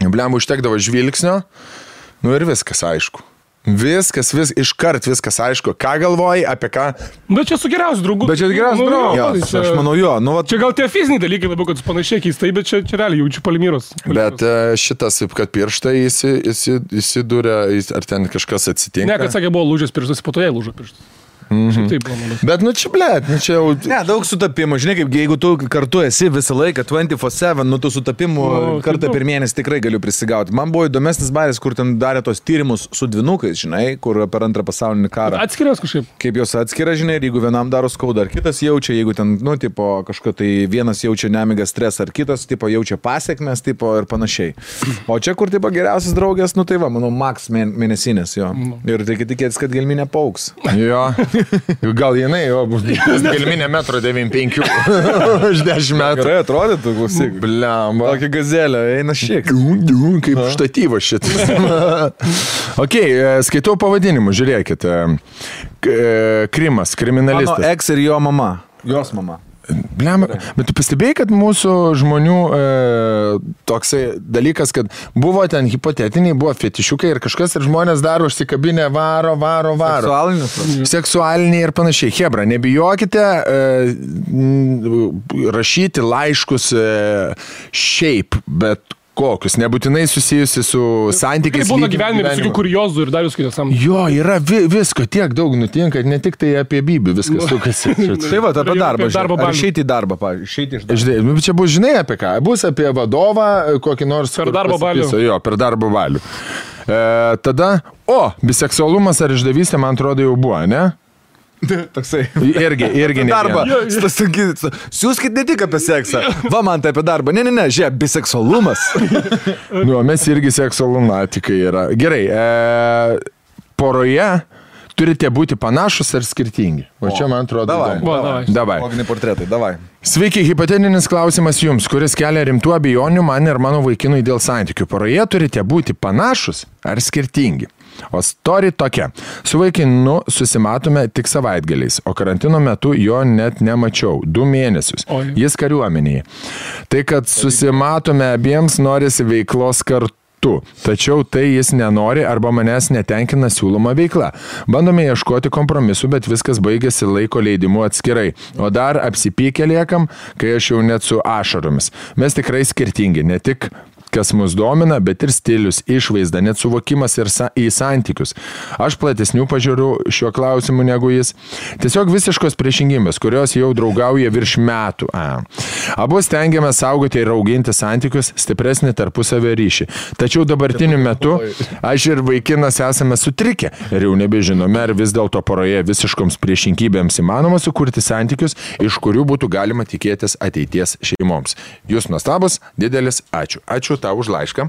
blemba, užtekdavo žvilgsnio, ir viskas aišku. Iškart viskas aišku. Ką galvoji, apie ką? Bet čia su geriausiu draugu. Aš manau jo. Čia gal tie fiziniai dalykai labiau, kad panašiai keistai, bet čia realiai jaučiu Palmyros. Bet šitas, kad pirštai įsidūrė, ar ten kažkas atsitinka? Ne, kad sakė, buvo lūžęs pirštas, po to jai lūžo pirštas. Taip, bet čia jau... Ne, daug sutapimų. Žinai, kaip jeigu tu kartu esi visą laiką 24/7, tų sutapimų kartą per mėnesį tikrai galiu prisigauti. Man buvo įdomesnis bairis, kur ten darė tos tyrimus su dvynukais, žinai, kur per antrą pasaulinį karą. Atskiras kažkaip. Kaip jos atskiria, žinai, ir jeigu vienam daro skaudą, ar kitas jaučia, jeigu ten, kažko tai vienas jaučia nemigą stresą, ar kitas, jaučia pasiekmes, ir panašiai. O čia, kur, geriausias draugės, manau, maks mėnesinės, jo. Ir tai tikėtis, kad gelminė pauks. Jo. Gal jinai, bus gelminė 1,95 m už 10 metų. Gerai atrodytų, klausyk. Blemba. Tokia gazelė, eina šiek. Kaip štatyvas šitas. Ok, skaitau pavadinimu, žiūrėkit. Krimas, kriminalistas. Mano ex ir jo mama. Jos mama. Blemba, bet tu pastebėjai, kad mūsų žmonių toksai dalykas, kad buvo ten hipotetiniai, buvo fetišiukai ir kažkas ir žmonės dar užsikabinę varo. Seksualiniai ir panašiai. Hebra, nebijokite rašyti laiškus šiaip, bet kokius, nebūtinai susijusi su santykiais. Kaip būna gyvenime visokių kuriozų ir dar jūs kitą samą. Jo, yra visko, tiek daug nutinka, ne tik tai apie Bibį viskas sukasi. Tai va, apie darbą. Ar išeiti į darbą, pavyzdžiui. Išeiti iš darbo. Čia bus, žinai, apie ką? Bus apie vadovą, kokį nors... Per darbo balių. Jo, per darbo balių. Tada, biseksualumas ar išdavystė, man atrodo, jau buvo, ne? Toksai. Irgi ne. Darbą. Siūskit ne tik apie seksą. Va, man tai apie darbą. Ne, žiūrėk, biseksualumas. Mes irgi seksualunatikai yra. Gerai, poroje turite būti panašus ar skirtingi. O čia, man atrodo, davai. Loginiai portretai, davai. Sveiki, hipotetinis klausimas jums, kuris kelia rimtų abejonių man ir mano vaikinui dėl santykių. Poroje turite būti panašus ar skirtingi. O story tokia. Su vaikinu susimatome tik savaitgaliais, o karantino metu jo net nemačiau. 2 mėnesius. Jis kariuomenėje. Tai, kad susimatome abiems, norisi veiklos kartu. Tačiau tai jis nenori arba manęs netenkina siūloma veikla. Bandome ieškoti kompromisų, bet viskas baigėsi laiko leidimu atskirai. O dar apsipykę liekam, kai aš jau net su ašaromis. Mes tikrai skirtingi, ne tik kas mus domina, bet ir stilius, išvaizda, net suvokimas ir į santykius. Aš platesnių pažiūrų šiuo klausimu negu jis. Tiesiog visiškos priešingybės, kurios jau draugauja virš metų. Abu stengiame saugoti ir auginti santykius, stipresnį tarpusavio ryšį. Tačiau dabartiniu metu aš ir vaikinas esame sutrikę ir jau nebežinome, ar vis dėlto poroje visiškoms priešingybėms įmanoma sukurti santykius, iš kurių būtų galima tikėtis ateities šeimoms. Jūs nuostabus, didelis ačiū. Ačiū tau už laišką.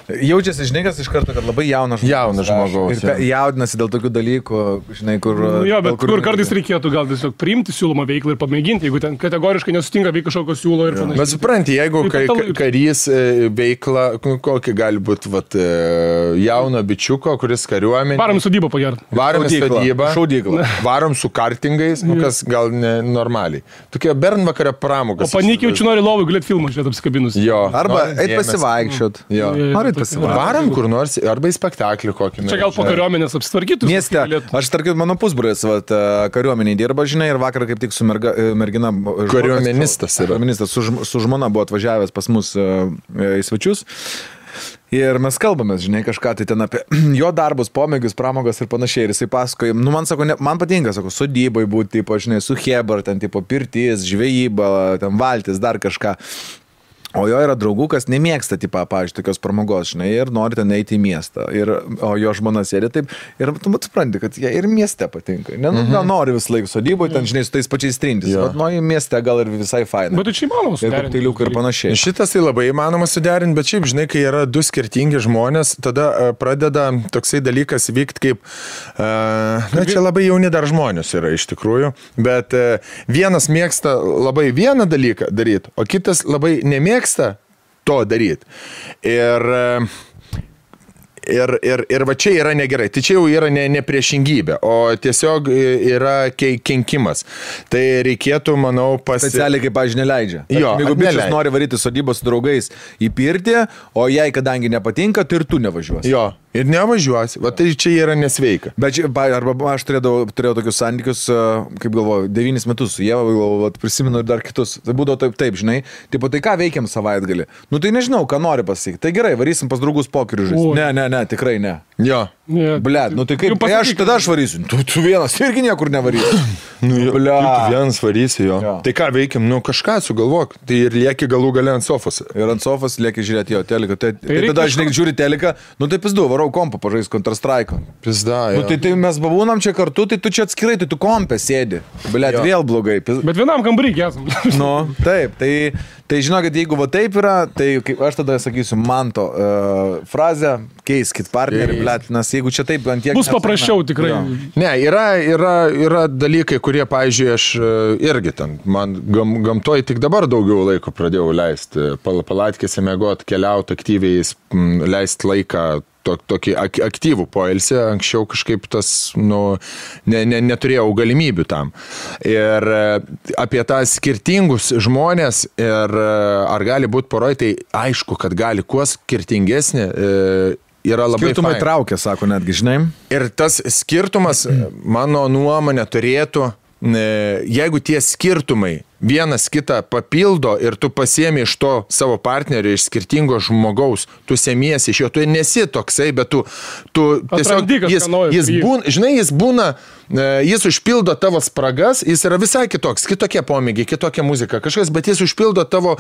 Jaučiasi, žinai, kas iš karto, kad labai jaunas žmogaus. Ir jaudinasi dėl tokių dalykų, žinai, kur... Jo, bet kur kartais reikėtų gal tiesiog priimti siūlomą veiklą ir pamėginti, jeigu ten kategoriškai nesutinka veikti kažkokio siūlo ir panašiai. Bet supranti, jeigu karys veikla, kokį gali būti jauno bičiuko, kuris kariuomenė... Varom į sodybą pagerti. Varom į sodybą. Šaudyklą. Varom su kartingais, kas gal ne normaliai. Tokie bernvakario pramogas. O panikiai jaučiu nori lovui galėti filmą žiūrėti apsikabinus. Jo. Arba eit pasivaikščiot. Jo. Varom kur nors, arba į spektaklį kokį. Čia gal po kariuomenės apsitvarkytų. Mieste, aš tarkim, mano pusbrolis kariuomeniai dirba, žinai, ir vakar kaip tik su mergina... Kariuomenistas yra. Kariuomenistas su žmona buvo atvažiavęs pas mus į svečius. Ir mes kalbamės, žinai, kažką tai ten apie jo darbus, pomėgius, pramogas ir panašiai. Ir jisai pasakoja, man sako, man patinka, sako, sodybai būti, tipo, žinai, su Hebar, ten, tipo, pirtis, žvejyba, ten valtis, dar kažką. O jo yra draugų, kas nemėgsta, tipo, pavyzdžiui, tokios pramogos, žinai, ir nori ten eiti į miestą. O jo žmona sėdi taip, ir tu supranti, kad jie ir mieste patinka. Gal nori vis laik sodyboje, ten, žinai, su tais pačiais trintis. Bet nuo į mieste gal ir visai faina. Bet tai čia įmanoma suderinti. Ir kokteiliukai ir panašiai. Šitas tai labai įmanoma suderinti, bet šiaip, žinai, kai yra 2 skirtingi žmonės, tada pradeda toksai dalykas vykti kaip, čia labai jauni dar žmonės yra iš tikrųjų, bet vienas mėgsta labai vieną dalyką daryti, o kitas labai nemėgsta to daryti. Ir va čia yra negerai. Tai čia jau yra ne priešingybė, o tiesiog yra kenkimas. Tai reikėtų, manau, specialiai, kaip, pavyzdžiui, neleidžia. Jeigu bičias nori varyti sodybos su draugais į pirtį, o jai, kadangi nepatinka, tai ir tu nevažiuosi. Jo. Ir nevažiuosi. Va tai čia yra nesveika. Bet arba aš turėjau tokius santykius, kaip galvoju, 9 metus su Ieva, prisimenu ir dar kitus. Tai būdavo taip, žinai. Tipo, tai ką veikiam savaitgalį? Nu tai nežinau, ką nori pasakyti. Tai gerai, varysim pas draugus pokerių žaisti. Ne, tikrai ne. Jo. Blet, nu tai kaip, tada aš varysiu. Tu vienas irgi niekur nevarysi. Blet. Tu vienas varysi, jo. Tai ką veikiam? Nu kažką sugalvok. Tai ir lieki galų gale ant sofos. Ir ant sofos lieki žiūrėti jo teliką. Tai tada, žinai, žiūri teliką, nu tai pizdu, varau kompą pažais Counter-Strike. Pizda, jo. Nu tai mes babūnam čia kartu, tai tu čia atskirai, tai tu kompę sėdi. Blet, vėl blogai. Bet vienam kambarį esam. Nu, taip, tai žinokit, jeigu va taip yra, tai kaip aš tada sakysiu Manto frazę, keiskit partnerį, blet, nes jeigu čia taip ant tiek... Bus paprasčiau tikrai. Jo. Ne, yra dalykai, kurie, pavyzdžiui, aš irgi ten, man gamtoj tik dabar daugiau laiko pradėjau leisti, palatkėse mėgot, keliauti aktyviai, leisti laiką, tokį aktyvų poilsį, anksčiau kažkaip tas, neturėjau galimybių tam. Ir apie tą skirtingus žmonės ir ar gali būti poroj, tai aišku, kad gali kuo skirtingesnė yra labai skirtumai traukia, sako netgi, žinai. Ir tas skirtumas, mano nuomonė, turėtų, jeigu tie skirtumai vienas kitą papildo ir tu pasiemi iš to savo partnerio, iš skirtingo žmogaus, tu semiesi iš jo, tu nesi toksai, bet tu tiesiog, jis būna, jis užpildo tavo spragas, jis yra visai kitoks, kitokie pomėgiai, kitokia muzika, kažkas, bet jis užpildo tavo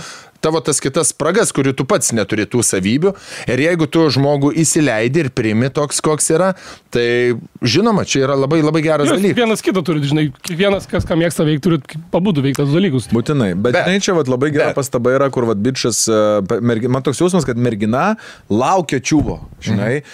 tas kitas spragas, kurių tu pats neturi tų savybių. Ir jeigu tu žmogų įsileidi ir priimi toks, koks yra, tai žinoma, čia yra labai, labai geras dalykas. Vienas kitą turi, žinai, kiekvienas, kas ką mėgsta veikti, turi pabudu veikti tas dalykus. Būtinai, bet čia labai gera pastaba yra, kur bičas, man toks jausmas, kad mergina laukia čiuvo, žinai.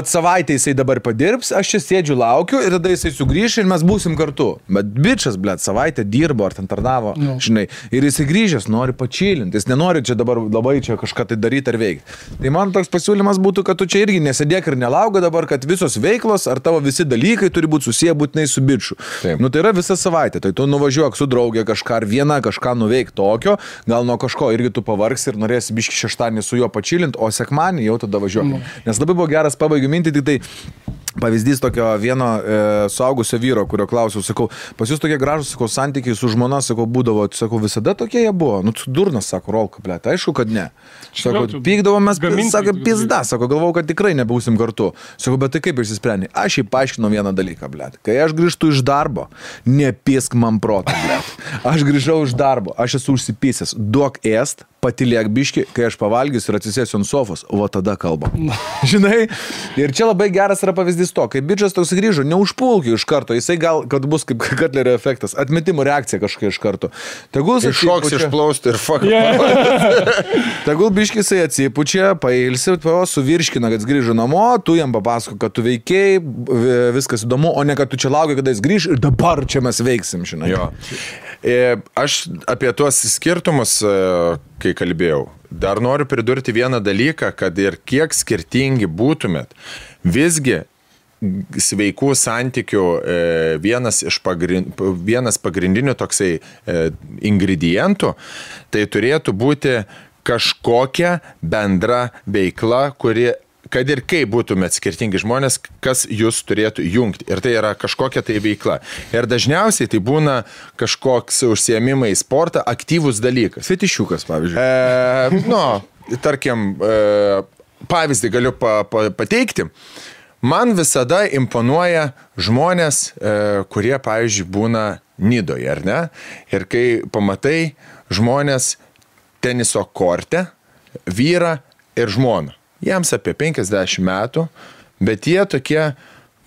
Savaitę jisai dabar padirbs, aš čia sėdžiu, laukiu ir tada jisai sugrįš ir mes būsim kartu. Bet bičas, savaitę dirbo ar ten tarnavo, žinai, ir jisai grįžęs, nori pačilinti, jis nenori čia dabar labai čia kažką tai daryti ar veikti. Tai man toks pasiūlymas būtų, kad tu čia irgi nesėdėk ir nelauga dabar, kad visos veiklos ar tavo visi dalykai turi būti susiję būtinai su biču. Tai yra visa savaitė, tai tu nuvažiuok su draugė kažką ar vieną kažką nuveik tokio, gal nuo kažko irgi tu pavargsi ir norėsi biški šeštadienį su juo pačilinti, o sekmadienį jau tada važiuok. Nes labai buvo geras, pabaigiu mintį, tik tai pavyzdys tokio vieno suaugusio vyro, kurio klausiau, sakau, pas jūs tokie gražus, sakau, santykiai su žmona, sakau, būdavo, sakau, visada tokie jie buvo. Nu, durnas, sako, rolka, blėt, aišku, kad ne. Sako, pykdavomės, sako, pizda, sako, galvau, kad tikrai nebūsim kartu. Sako, bet tai kaip išsisprendė? Aš jį paaiškinau vieną dalyką, blėt. Kai aš grįžtu iš darbo, nepisk man protą, blėt. Aš grįžau iš darbo, aš esu užsipysęs, duok ėst, patiliek biški, kai aš pavalgysiu ir atsisėsiu ant sofos, o tada kalbam. Žinai? Ir čia labai geras yra pavyzdys to, kai bičas toks grįžo, neužpulkiu iš karto, jisai gal, kad bus kaip Katlerio efektas, atmetimo reakcija kažkokia iš karto. Tegul iššoks, išplaustų ir fuck. Tegul biški jisai atsipučia, pailsi, suvirškina, kad jis grįžo namo, tu jam papasako, kad tu veikiai, viskas įdomu, o ne kad tu čia lauki, kada jis grįž ir dabar čia mes veiksim, žinai. Jo. Aš apie tuos skirtumus, kai kalbėjau, dar noriu pridurti vieną dalyką, kad ir kiek skirtingi būtumėt, visgi sveikų santykių vienas pagrindinių toksai ingredientų, tai turėtų būti kažkokia bendra veikla, kuri kad ir kaip būtumėt skirtingi žmonės, kas jūs turėtų jungti. Ir tai yra kažkokia tai veikla. Ir dažniausiai tai būna kažkoks užsiėmimai į sportą, aktyvus dalykas. Fetišiukas, pavyzdžiui. Tarkim, pavyzdį galiu pateikti. Man visada imponuoja žmonės, kurie, pavyzdžiui, būna Nidoje, ar ne? Ir kai pamatai žmonės teniso korte, vyrą ir žmoną. Jiems apie 50 metų, bet jie tokie,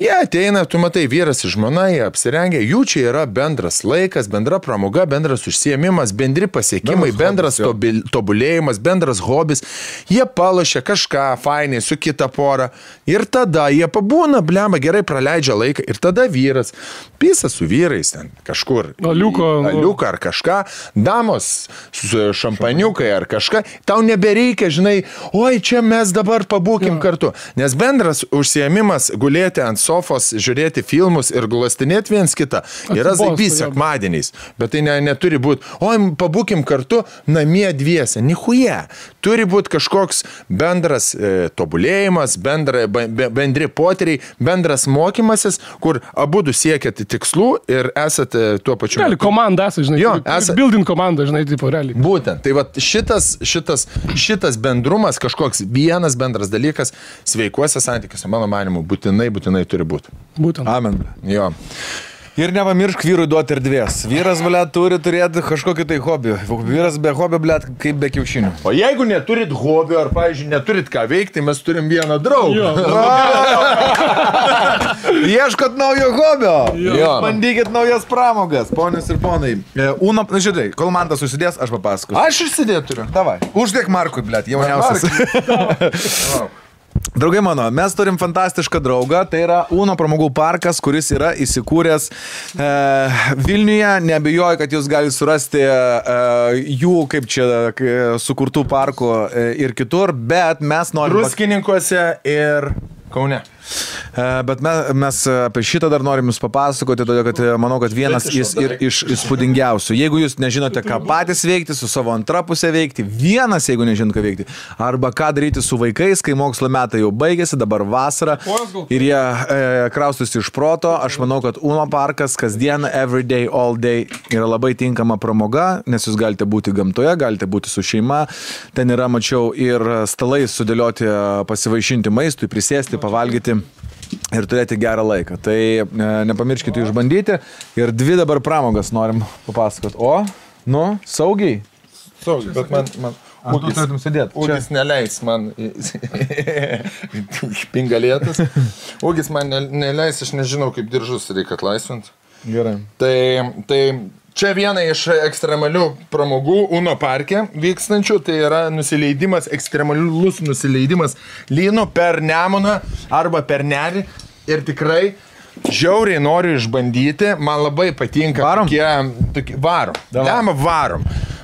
jie ateina, tu matai, vyras ir žmona, jie apsirengia, jų čia yra bendras laikas, bendra pramoga, bendras užsiėmimas, bendri pasiekimai, bendras tobulėjimas, bendras hobis. Jie palošia kažką fainiai su kita pora ir tada jie pabūna, blemba, gerai praleidžia laiką ir tada vyras pisa su vyrais ten kažkur. Aliuką ar kažką, damos su šampaniukai ar kažką. Tau nebereikia, žinai, oi, čia mes dabar pabūkim kartu. Nes bendras užsiėmimas gulėti ant sofos, žiūrėti filmus ir glastinėti viens kitą yra zaibys sekmadieniais. Bet tai neturi būti, oi, pabūkim kartu namie dviese. Nichuje. Turi būti kažkoks bendras tobulėjimas, bendri potyriai, bendras mokymasis, kur abudu siekėte tikslų ir esate tuo pačiu. Realiai, komanda esate, žinai. Jo, building komanda, žinai, tipo, realiai. Būtent. Tai va šitas bendrumas, kažkoks vienas bendras dalykas sveikuose santykiuose, mano manimu, būtinai turi būti. Būtent. Amen. Jo. Ir nepamiršk vyrui duoti erdvės. Vyras, blėt, turi turėti kažkokį tai hobį. Vyras be hobio, blėt, kaip be kiaušinių. O jeigu neturit hobio, ar, pavyzdžiui, neturit ką veikti, mes turim vieną draugą. Ieškot naujo hobio. Jo. Bandykit naujas pramogas, ponios ir ponai. Uno, žiūrėk, kol man tas susidės, aš papasakosiu. Aš išsidėt turiu. Davai. Uždėk Markui, blėt, jauniausias. Draugai mano, mes turim fantastišką draugą, tai yra Uno pramogų parkas, kuris yra įsikūręs Vilniuje. Neabejoju, kad jūs galite surasti jų, kaip čia, sukurtų parkų ir kitur, bet mes norime... Druskininkuose ir Kaune. Bet mes apie šitą dar norim jums papasakoti, todėl kad manau, kad vienas iš įspūdingiausių. Jeigu jūs nežinote, ką patys veikti, su savo antra pusė veikti, vienas, jeigu nežinot, ką veikti, arba ką daryti su vaikais, kai mokslo metai jau baigėsi, dabar vasara ir jie kraustusi iš proto, aš manau, kad Uno parkas kasdien, every day, all day yra labai tinkama pramoga, nes jūs galite būti gamtoje, galite būti su šeima. Ten yra, mačiau, ir stalai sudėlioti, pasivaišinti maistui, prisėsti, pavalgyti ir turėti gerą laiką. Tai nepamirškite išbandyti. Ir 2 dabar pramogas norim papasakoti. Saugiai. Saugiai, bet man Ūgis neleis man špingalėtas. Ūgis man neleis, aš nežinau, kaip diržus reikia atlaisvinti. Gerai. Tai čia viena iš ekstremalių pramogų Uno parke vykstančių, tai yra nusileidimas, ekstremalus nusileidimas lynu per Nemuną arba per Nerį. Ir tikrai žiauriai noriu išbandyti, man labai patinka. Varom.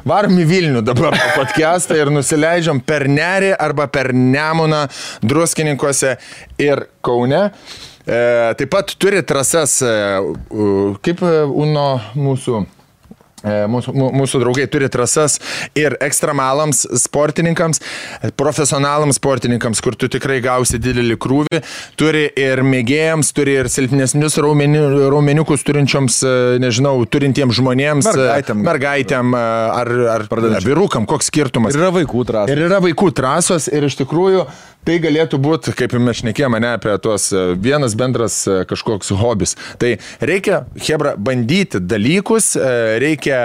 Varom į Vilnių dabar podcastą ir nusileidžiam per Nerį arba per Nemuną Druskininkuose ir Kaune. Taip pat turi trasas, kaip Uno mūsų draugai turi trasas ir ekstremalams sportininkams, profesionalams sportininkams, kur tu tikrai gausi didelį krūvį, turi ir mėgėjams, turi ir silpnesnius raumeniukus turinčioms, nežinau, turintiems žmonėms, mergaitėm ar vyrukam, koks skirtumas. Ir yra vaikų trasos. Ir iš tikrųjų tai galėtų būti, kaip mes šnekėjome, apie tuos vienas bendras kažkoks hobis. Tai reikia, hebra, bandyti dalykus, reikia,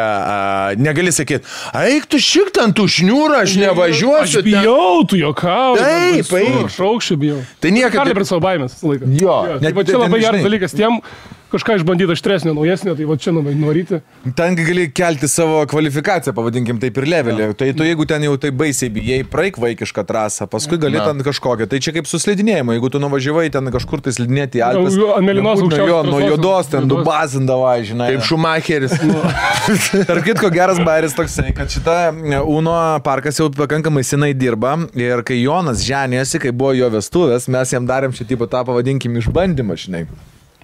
negali sakyti, eik tu šik ten tų šniūrą, aš nevažiuosiu. Aš bijau, tu jokauji. Taip. Aš aukščiau bijau. Tai niekada. Kartai prie savo baimės laiką. Jo. Tai čia labai geras dalykas tiem, kažką išbandyti aštresnio, naujesnio, tai va čia noryti. Ten gali kelti savo kvalifikaciją, pavadinkim taip ir levelį. Tai tu jeigu ten jau tai baisiai bijai, praeik vaikišką trasą, paskui gali ten kažkokią. Tai čia kaip su slidinėjimu, jeigu tu nuvažiavai ten kažkur tai slidinėti į Alpes. Ant mėlynos aukščiausios. Nuo juodos ten dubazindavai, žinai. Kaip Šumacheris. Tarp kitko geras bairis toksai, kad šita Uno parkas jau pakankamai senai dirba ir kai Jonas ženėjosi, kai buvo jo vestuvės, mes jam darėm šį tipą tą, pavadinkim, išbandymą, žinai.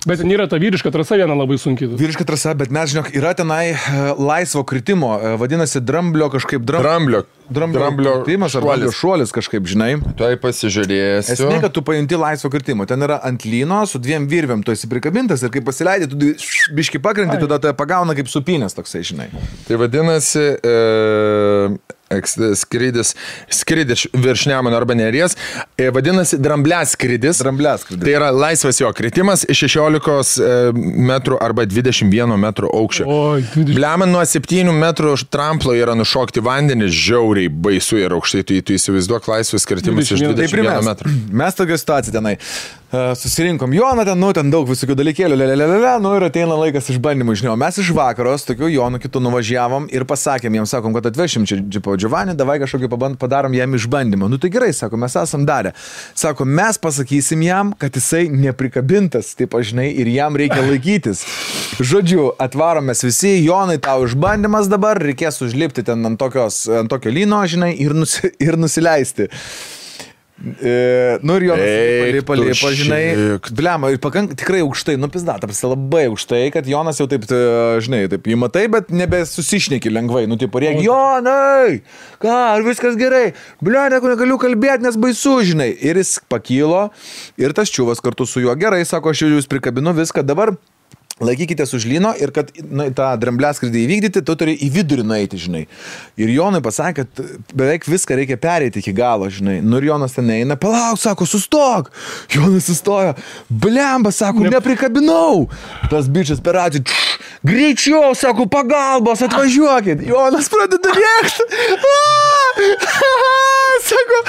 Bet ten yra ta vyriška trasa viena labai sunkiai. Vyriška trasa, bet mes, žinok, yra tenai laisvo kritimo, vadinasi dramblio kažkaip Dramblio kritimas ar dramblio šuolis kažkaip, žinai. Tuoj pasižiūrėsiu. Esmė, kad tu pajunti laisvo kritimo. Ten yra ant lyno su 2 virvėm, tu esi prikabintas ir kai pasileidai, tu biški pakrenti, tada tai pagauna kaip supinės toksai, žinai. Tai vadinasi skrydis virš Nemuno arba Neries, vadinasi drambliaskrydis. Tai yra laisvas jo kritimas iš 16 metrų arba 21 metrų aukščio. Bliaman nuo 7 metrų tramplo yra nušokti vandenį, žiauriai baisu ir aukštai, tu įsivaizduok laisvas kritimas iš 21 metrų. Mes tokia situacija tenai. Susirinkom Joną ten daug visokių dalykėlių, ir ateina laikas išbandymų, žinau. Mes iš vakaros, tokių Jonų kitų nuvažiavom ir pasakėm, jiems sakom, kad atvešim čia džipo Giovanni, davai kažkokį padarom jam išbandymą. Nu tai gerai, sako, mes esam darę. Sako, mes pasakysim jam, kad jisai neprikabintas, taip žinai, ir jam reikia laikytis. Žodžiu, atvaromės visi, Jonai, tau išbandymas dabar, reikės užlipti ten ant tokio lyno, žinai, ir nusileisti. Ir Jonas lipa, žinai, blema, ir tikrai aukštai, pizdat, labai aukštai, kad Jonas jau taip, žinai, taip įmatai, bet nebesusišneki lengvai, rėk, Jonai, ką, ar viskas gerai, blema, negaliu kalbėti, nes baisu, žinai, ir jis pakilo, ir tas čiuvas kartu su juo, gerai, sako, aš jūs prikabinu viską, dabar laikykitės už lyno ir kad tą drambliaskrydį įvykdyti, tu turi į vidurį nueiti, žinai. Ir Jonui pasakė, kad beveik viską reikia pereiti iki galo, žinai. Nu ir Jonas ten eina, palauk, sako, sustok. Jonas sustojo, blemba, sako, neprikabinau. Tas bičias per atį, greičiau, sako, pagalbos, atvažiuokit. Jonas pradeda rėkti. Sako,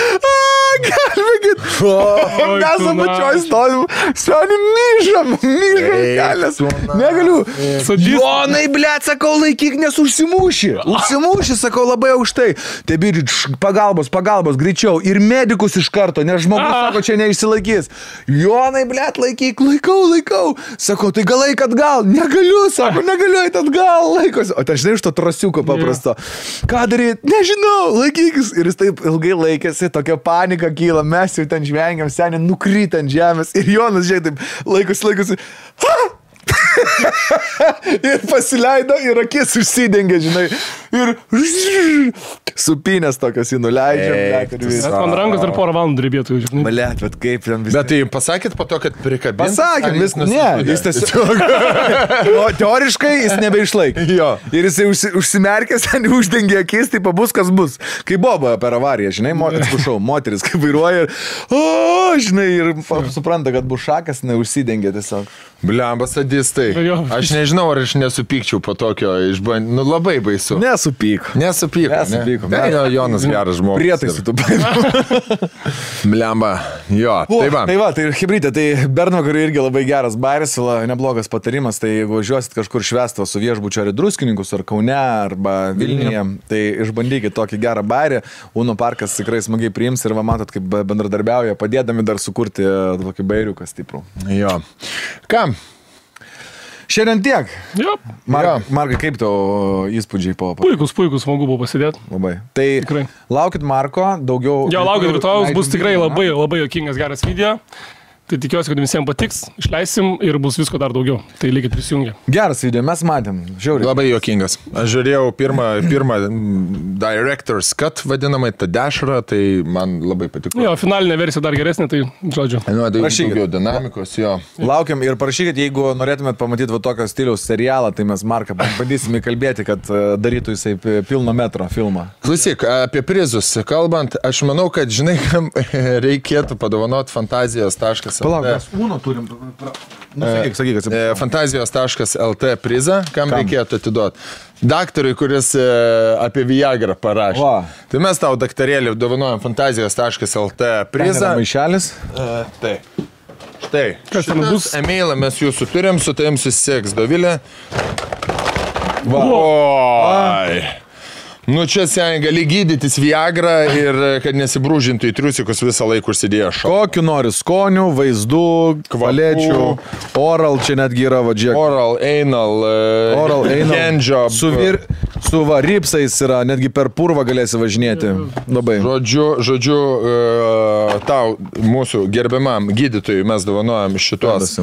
gelbėkit. Mes apačioj stovim, stovim, myžam kelias. Negaliu. Jonai, blėt, sakau, laikyk, nes užsimūši, sakau, labai aukštai. Tai bičiai, pagalbos, greičiau. Ir medikus iš karto, nes žmogus, sako, čia neišsilaikys. Jonai, blėt, laikyk, laikau. Sako, tai gal laik atgal. Negaliu, sako, negaliu eit atgal, laikosi. O ten žinai iš to trasiuko paprasto. Ką daryti? Nežinau, laikykis. Ir jis taip ilgai laikėsi, tokia panika kyla, mes jau ten žvengiam, seniai nukryta ant žemės ir Jonas, žiūrėk, taip laikosi. Ha! Ir pasileido ir akis užsidengė, žinai, ir supinės tokios jį nuleidžia. Man rankos dar porą valandų drybėtų, žinai. Malėt, bet kaip ten viskas. Bet tai pasakėt po to, kad prikabinti? Pasakėm, jis tiesiog. Teoriškai jis nebeišlaikė. Jo. Ir jisai užsimerkęs, ten uždengė akis, tai pabus, kas bus. Kai Boba per avariją, žinai, atsiprašau, moteris kaip vairuoja ir, žinai, ir supranta, kad bus šakas, neužsidengė tiesiog. Bliamba sadistai. Aš nežinau, ar aš nesupykčiau po tokio išbandymų. Nu, labai baisu. Nesupyk. Nesupyko. Tai Jonas geras žmogus. Prietaisų tu paėmė. Bliamba. Jo. Tai hibridė, tai Bernvakarui irgi labai geras bairis, neblogas patarimas. Tai jeigu važiuosit kažkur švęsto su viešbučio ar Druskininkus, ar Kaune, arba Vilniuje, tai išbandykit tokį gerą bairį. Uno parkas tikrai smagiai priims ir va matot, kaip bendradarbiauja, padėdami dar sukurti tokį bairiuką stiprų. Jo. Ką? Šiandien tiek. Markai, kaip tau įspūdžiai po... Puikus, smagu buvo pasidėti. Labai. Tai tikrai. Laukit Marko, daugiau... Jo, laukit rytojus, bus tikrai labai juokingas geras video. Tai tikiuosi, kad visiems patiks, išleisim ir bus visko dar daugiau. Tai likit prisijungę. Geras video, mes matėm. Žiauriai. Labai juokingas. Aš žiūrėjau pirmą Director's Cut vadinamai, tą dešrą, tai man labai patiko. Jo, finalinė versija dar geresnė, tai žodžiu. Daugiau dinamikos, jo. Laukiam ir parašykit, jeigu norėtumėt pamatyti va tokio stiliaus serialą, tai mes Marką bandysime kalbėti, kad darytų jisai pilno metro filmą. Klausyk, apie prizus kalbant, aš manau, kad žinai, kam reikėtų padovanoti fantazijos.lt. Palauk, mes Uno turim. Sakyk. Fantazijos.lt prizą, kam reikėtų atiduoti. Daktarui, kuris apie Viagrą parašė. Tai mes tau, daktarėlį, dovanojam Fantazijos.lt prizą. Maišelis? Taip. Štai. Šitas emailą mes jūsų turim, su tavim susisieks Dovilė. Oi. Nu čia seniai gali gydytis Viagrą ir kad nesibrūžintų į triusikus visą laiką užsidėjo šalą. Kokiu nori skonių, vaizdų, kvalečių, oral, čia netgi yra vadžiek. Oral, anal, handjob. Su ripsais yra, netgi per purvą galėsi važinėti. Labai. Žodžiu, tau, mūsų gerbiamam gydytojui mes dovanojam šitos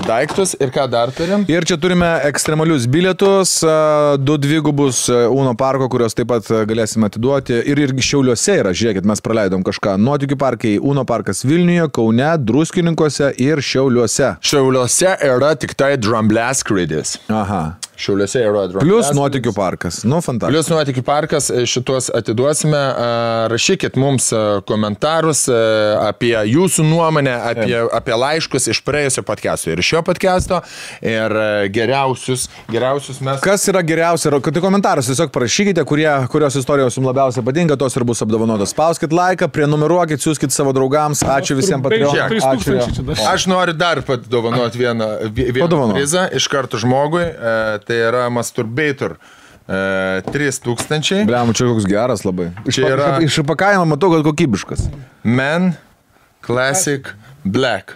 daiktus. Ir ką dar turim? Ir čia turime ekstremalius bilietus, 2 dvigubus Uno parko, kurios taip pat galėsime atiduoti. Ir Šiauliuose yra, žiūrėkit, mes praleidom kažką. Nuotykių parkai, Uno parkas Vilniuje, Kaune, Druskininkuose ir Šiauliuose. Šiauliuose yra tik tai Drambleskrydis. Aha. Šiauliuose yra Drambleskrydis. Plus Nuotykių parkas. Nu, fantastika. Plus Nuotykių parkas, šitos atiduosime. Rašykit mums komentarus apie jūsų nuomonę, apie laiškus iš praėjusio podcast'o ir šio podcast'o. Ir geriausius mes... Kas yra geriausia? Tai komentarus tiesiog parašykite, kurios istorijos jums labiausiai patinka, tos ir bus apdovanotos. Spauskit laiką, prenumeruokit, siūskit savo draugams. Ačiū visiems Patreonams. Aš noriu dar padovanoti vieną prizą iš karto žmogui. Tai yra Masturbator 3000. Bliam, čia koks geras labai. Čia yra... Iš įpakavimo matau, kad kokybiškas. Men Classic Black.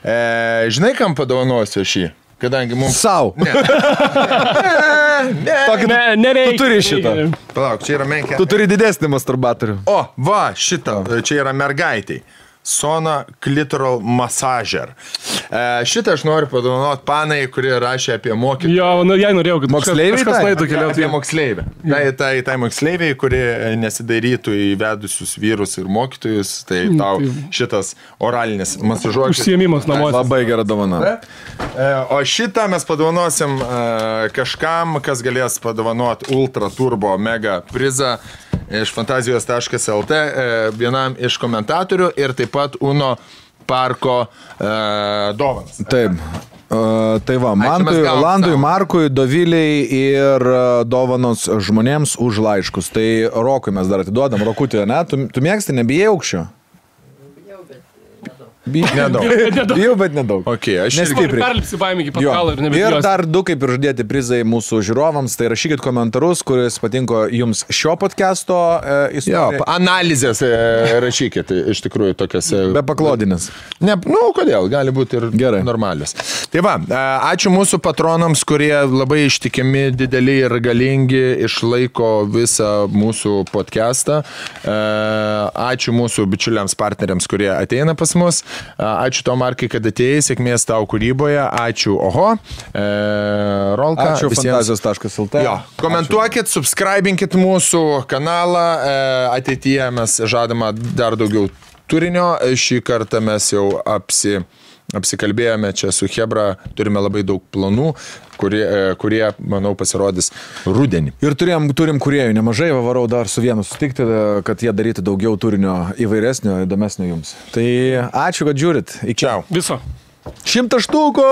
Žinai, kam padovanosiu šį? Kadangi mums... Sau. Nereikia. Tu turi šitą. Palauk, čia yra menkė. Tu turi didesnį masturbatorių. O, va, šitą. Čia yra mergaitai. Sona Clitoral Massager. Šitą aš noriu padovanoti panai, kurie rašė apie mokytojų. Jo, jai norėjau, kad moksleiviai apie moksleivę. Tai moksleiviai, kurie nesidairytų įvedusius vyrus ir mokytojus, tai tau šitas oralinis masažuotis. Užsiėmimas namuose. Labai gera dovana. O šitą mes padovanosim kažkam, kas galės padovanoti Ultra Turbo Mega prizą iš fantazijos.lt vienam iš komentatorių ir taip pat Uno parko dovanas. Taip. Tai va, Landui, Markui, Doviliai ir dovanos žmonėms už laiškus. Tai Rokui mes dar atiduodam. Rokutį, ne? Tu mėgsti, nebijai aukščio? Nedaug. Bijau, bet nedaug. Okay, aš Nestipriai. Perlipsi baimį iki pat Jo. galo ir Ir nebebijos. dar 2 kaip ir žadėti prizai mūsų žiūrovams, tai rašykit komentarus, kuris patinko jums šio podcast'o Jo, istoriją. analizės rašykit, iš tikrųjų tokias. Be paklodinės. Ne, nu, kodėl, gali būti ir Gerai. normalios. Tai va, ačiū mūsų patronams, kurie labai ištikimi, dideli ir galingi, išlaiko visą mūsų podcastą. Ačiū mūsų bičiuliams partneriams, kurie ateina pas mus. Ačiū tau, Markai, kad atėjai, sėkmės tau kūryboje. Ačiū, oho. Rolka. Ačiū fantazijos.lt. Jo, komentuokit, subscribinkit mūsų kanalą. Ateityje mes žadama dar daugiau turinio. Šį kartą mes jau apsikalbėjome čia su Hebra. Turime labai daug planų, kurie manau, pasirodys rudenį. Ir turim kūrėjų nemažai, varau dar su vienu sutikti, kad jie darytų daugiau turinio įvairesnio, įdomesnio jums. Tai ačiū, kad žiūrit. Iki. Čiau. Viso. 100 štukų!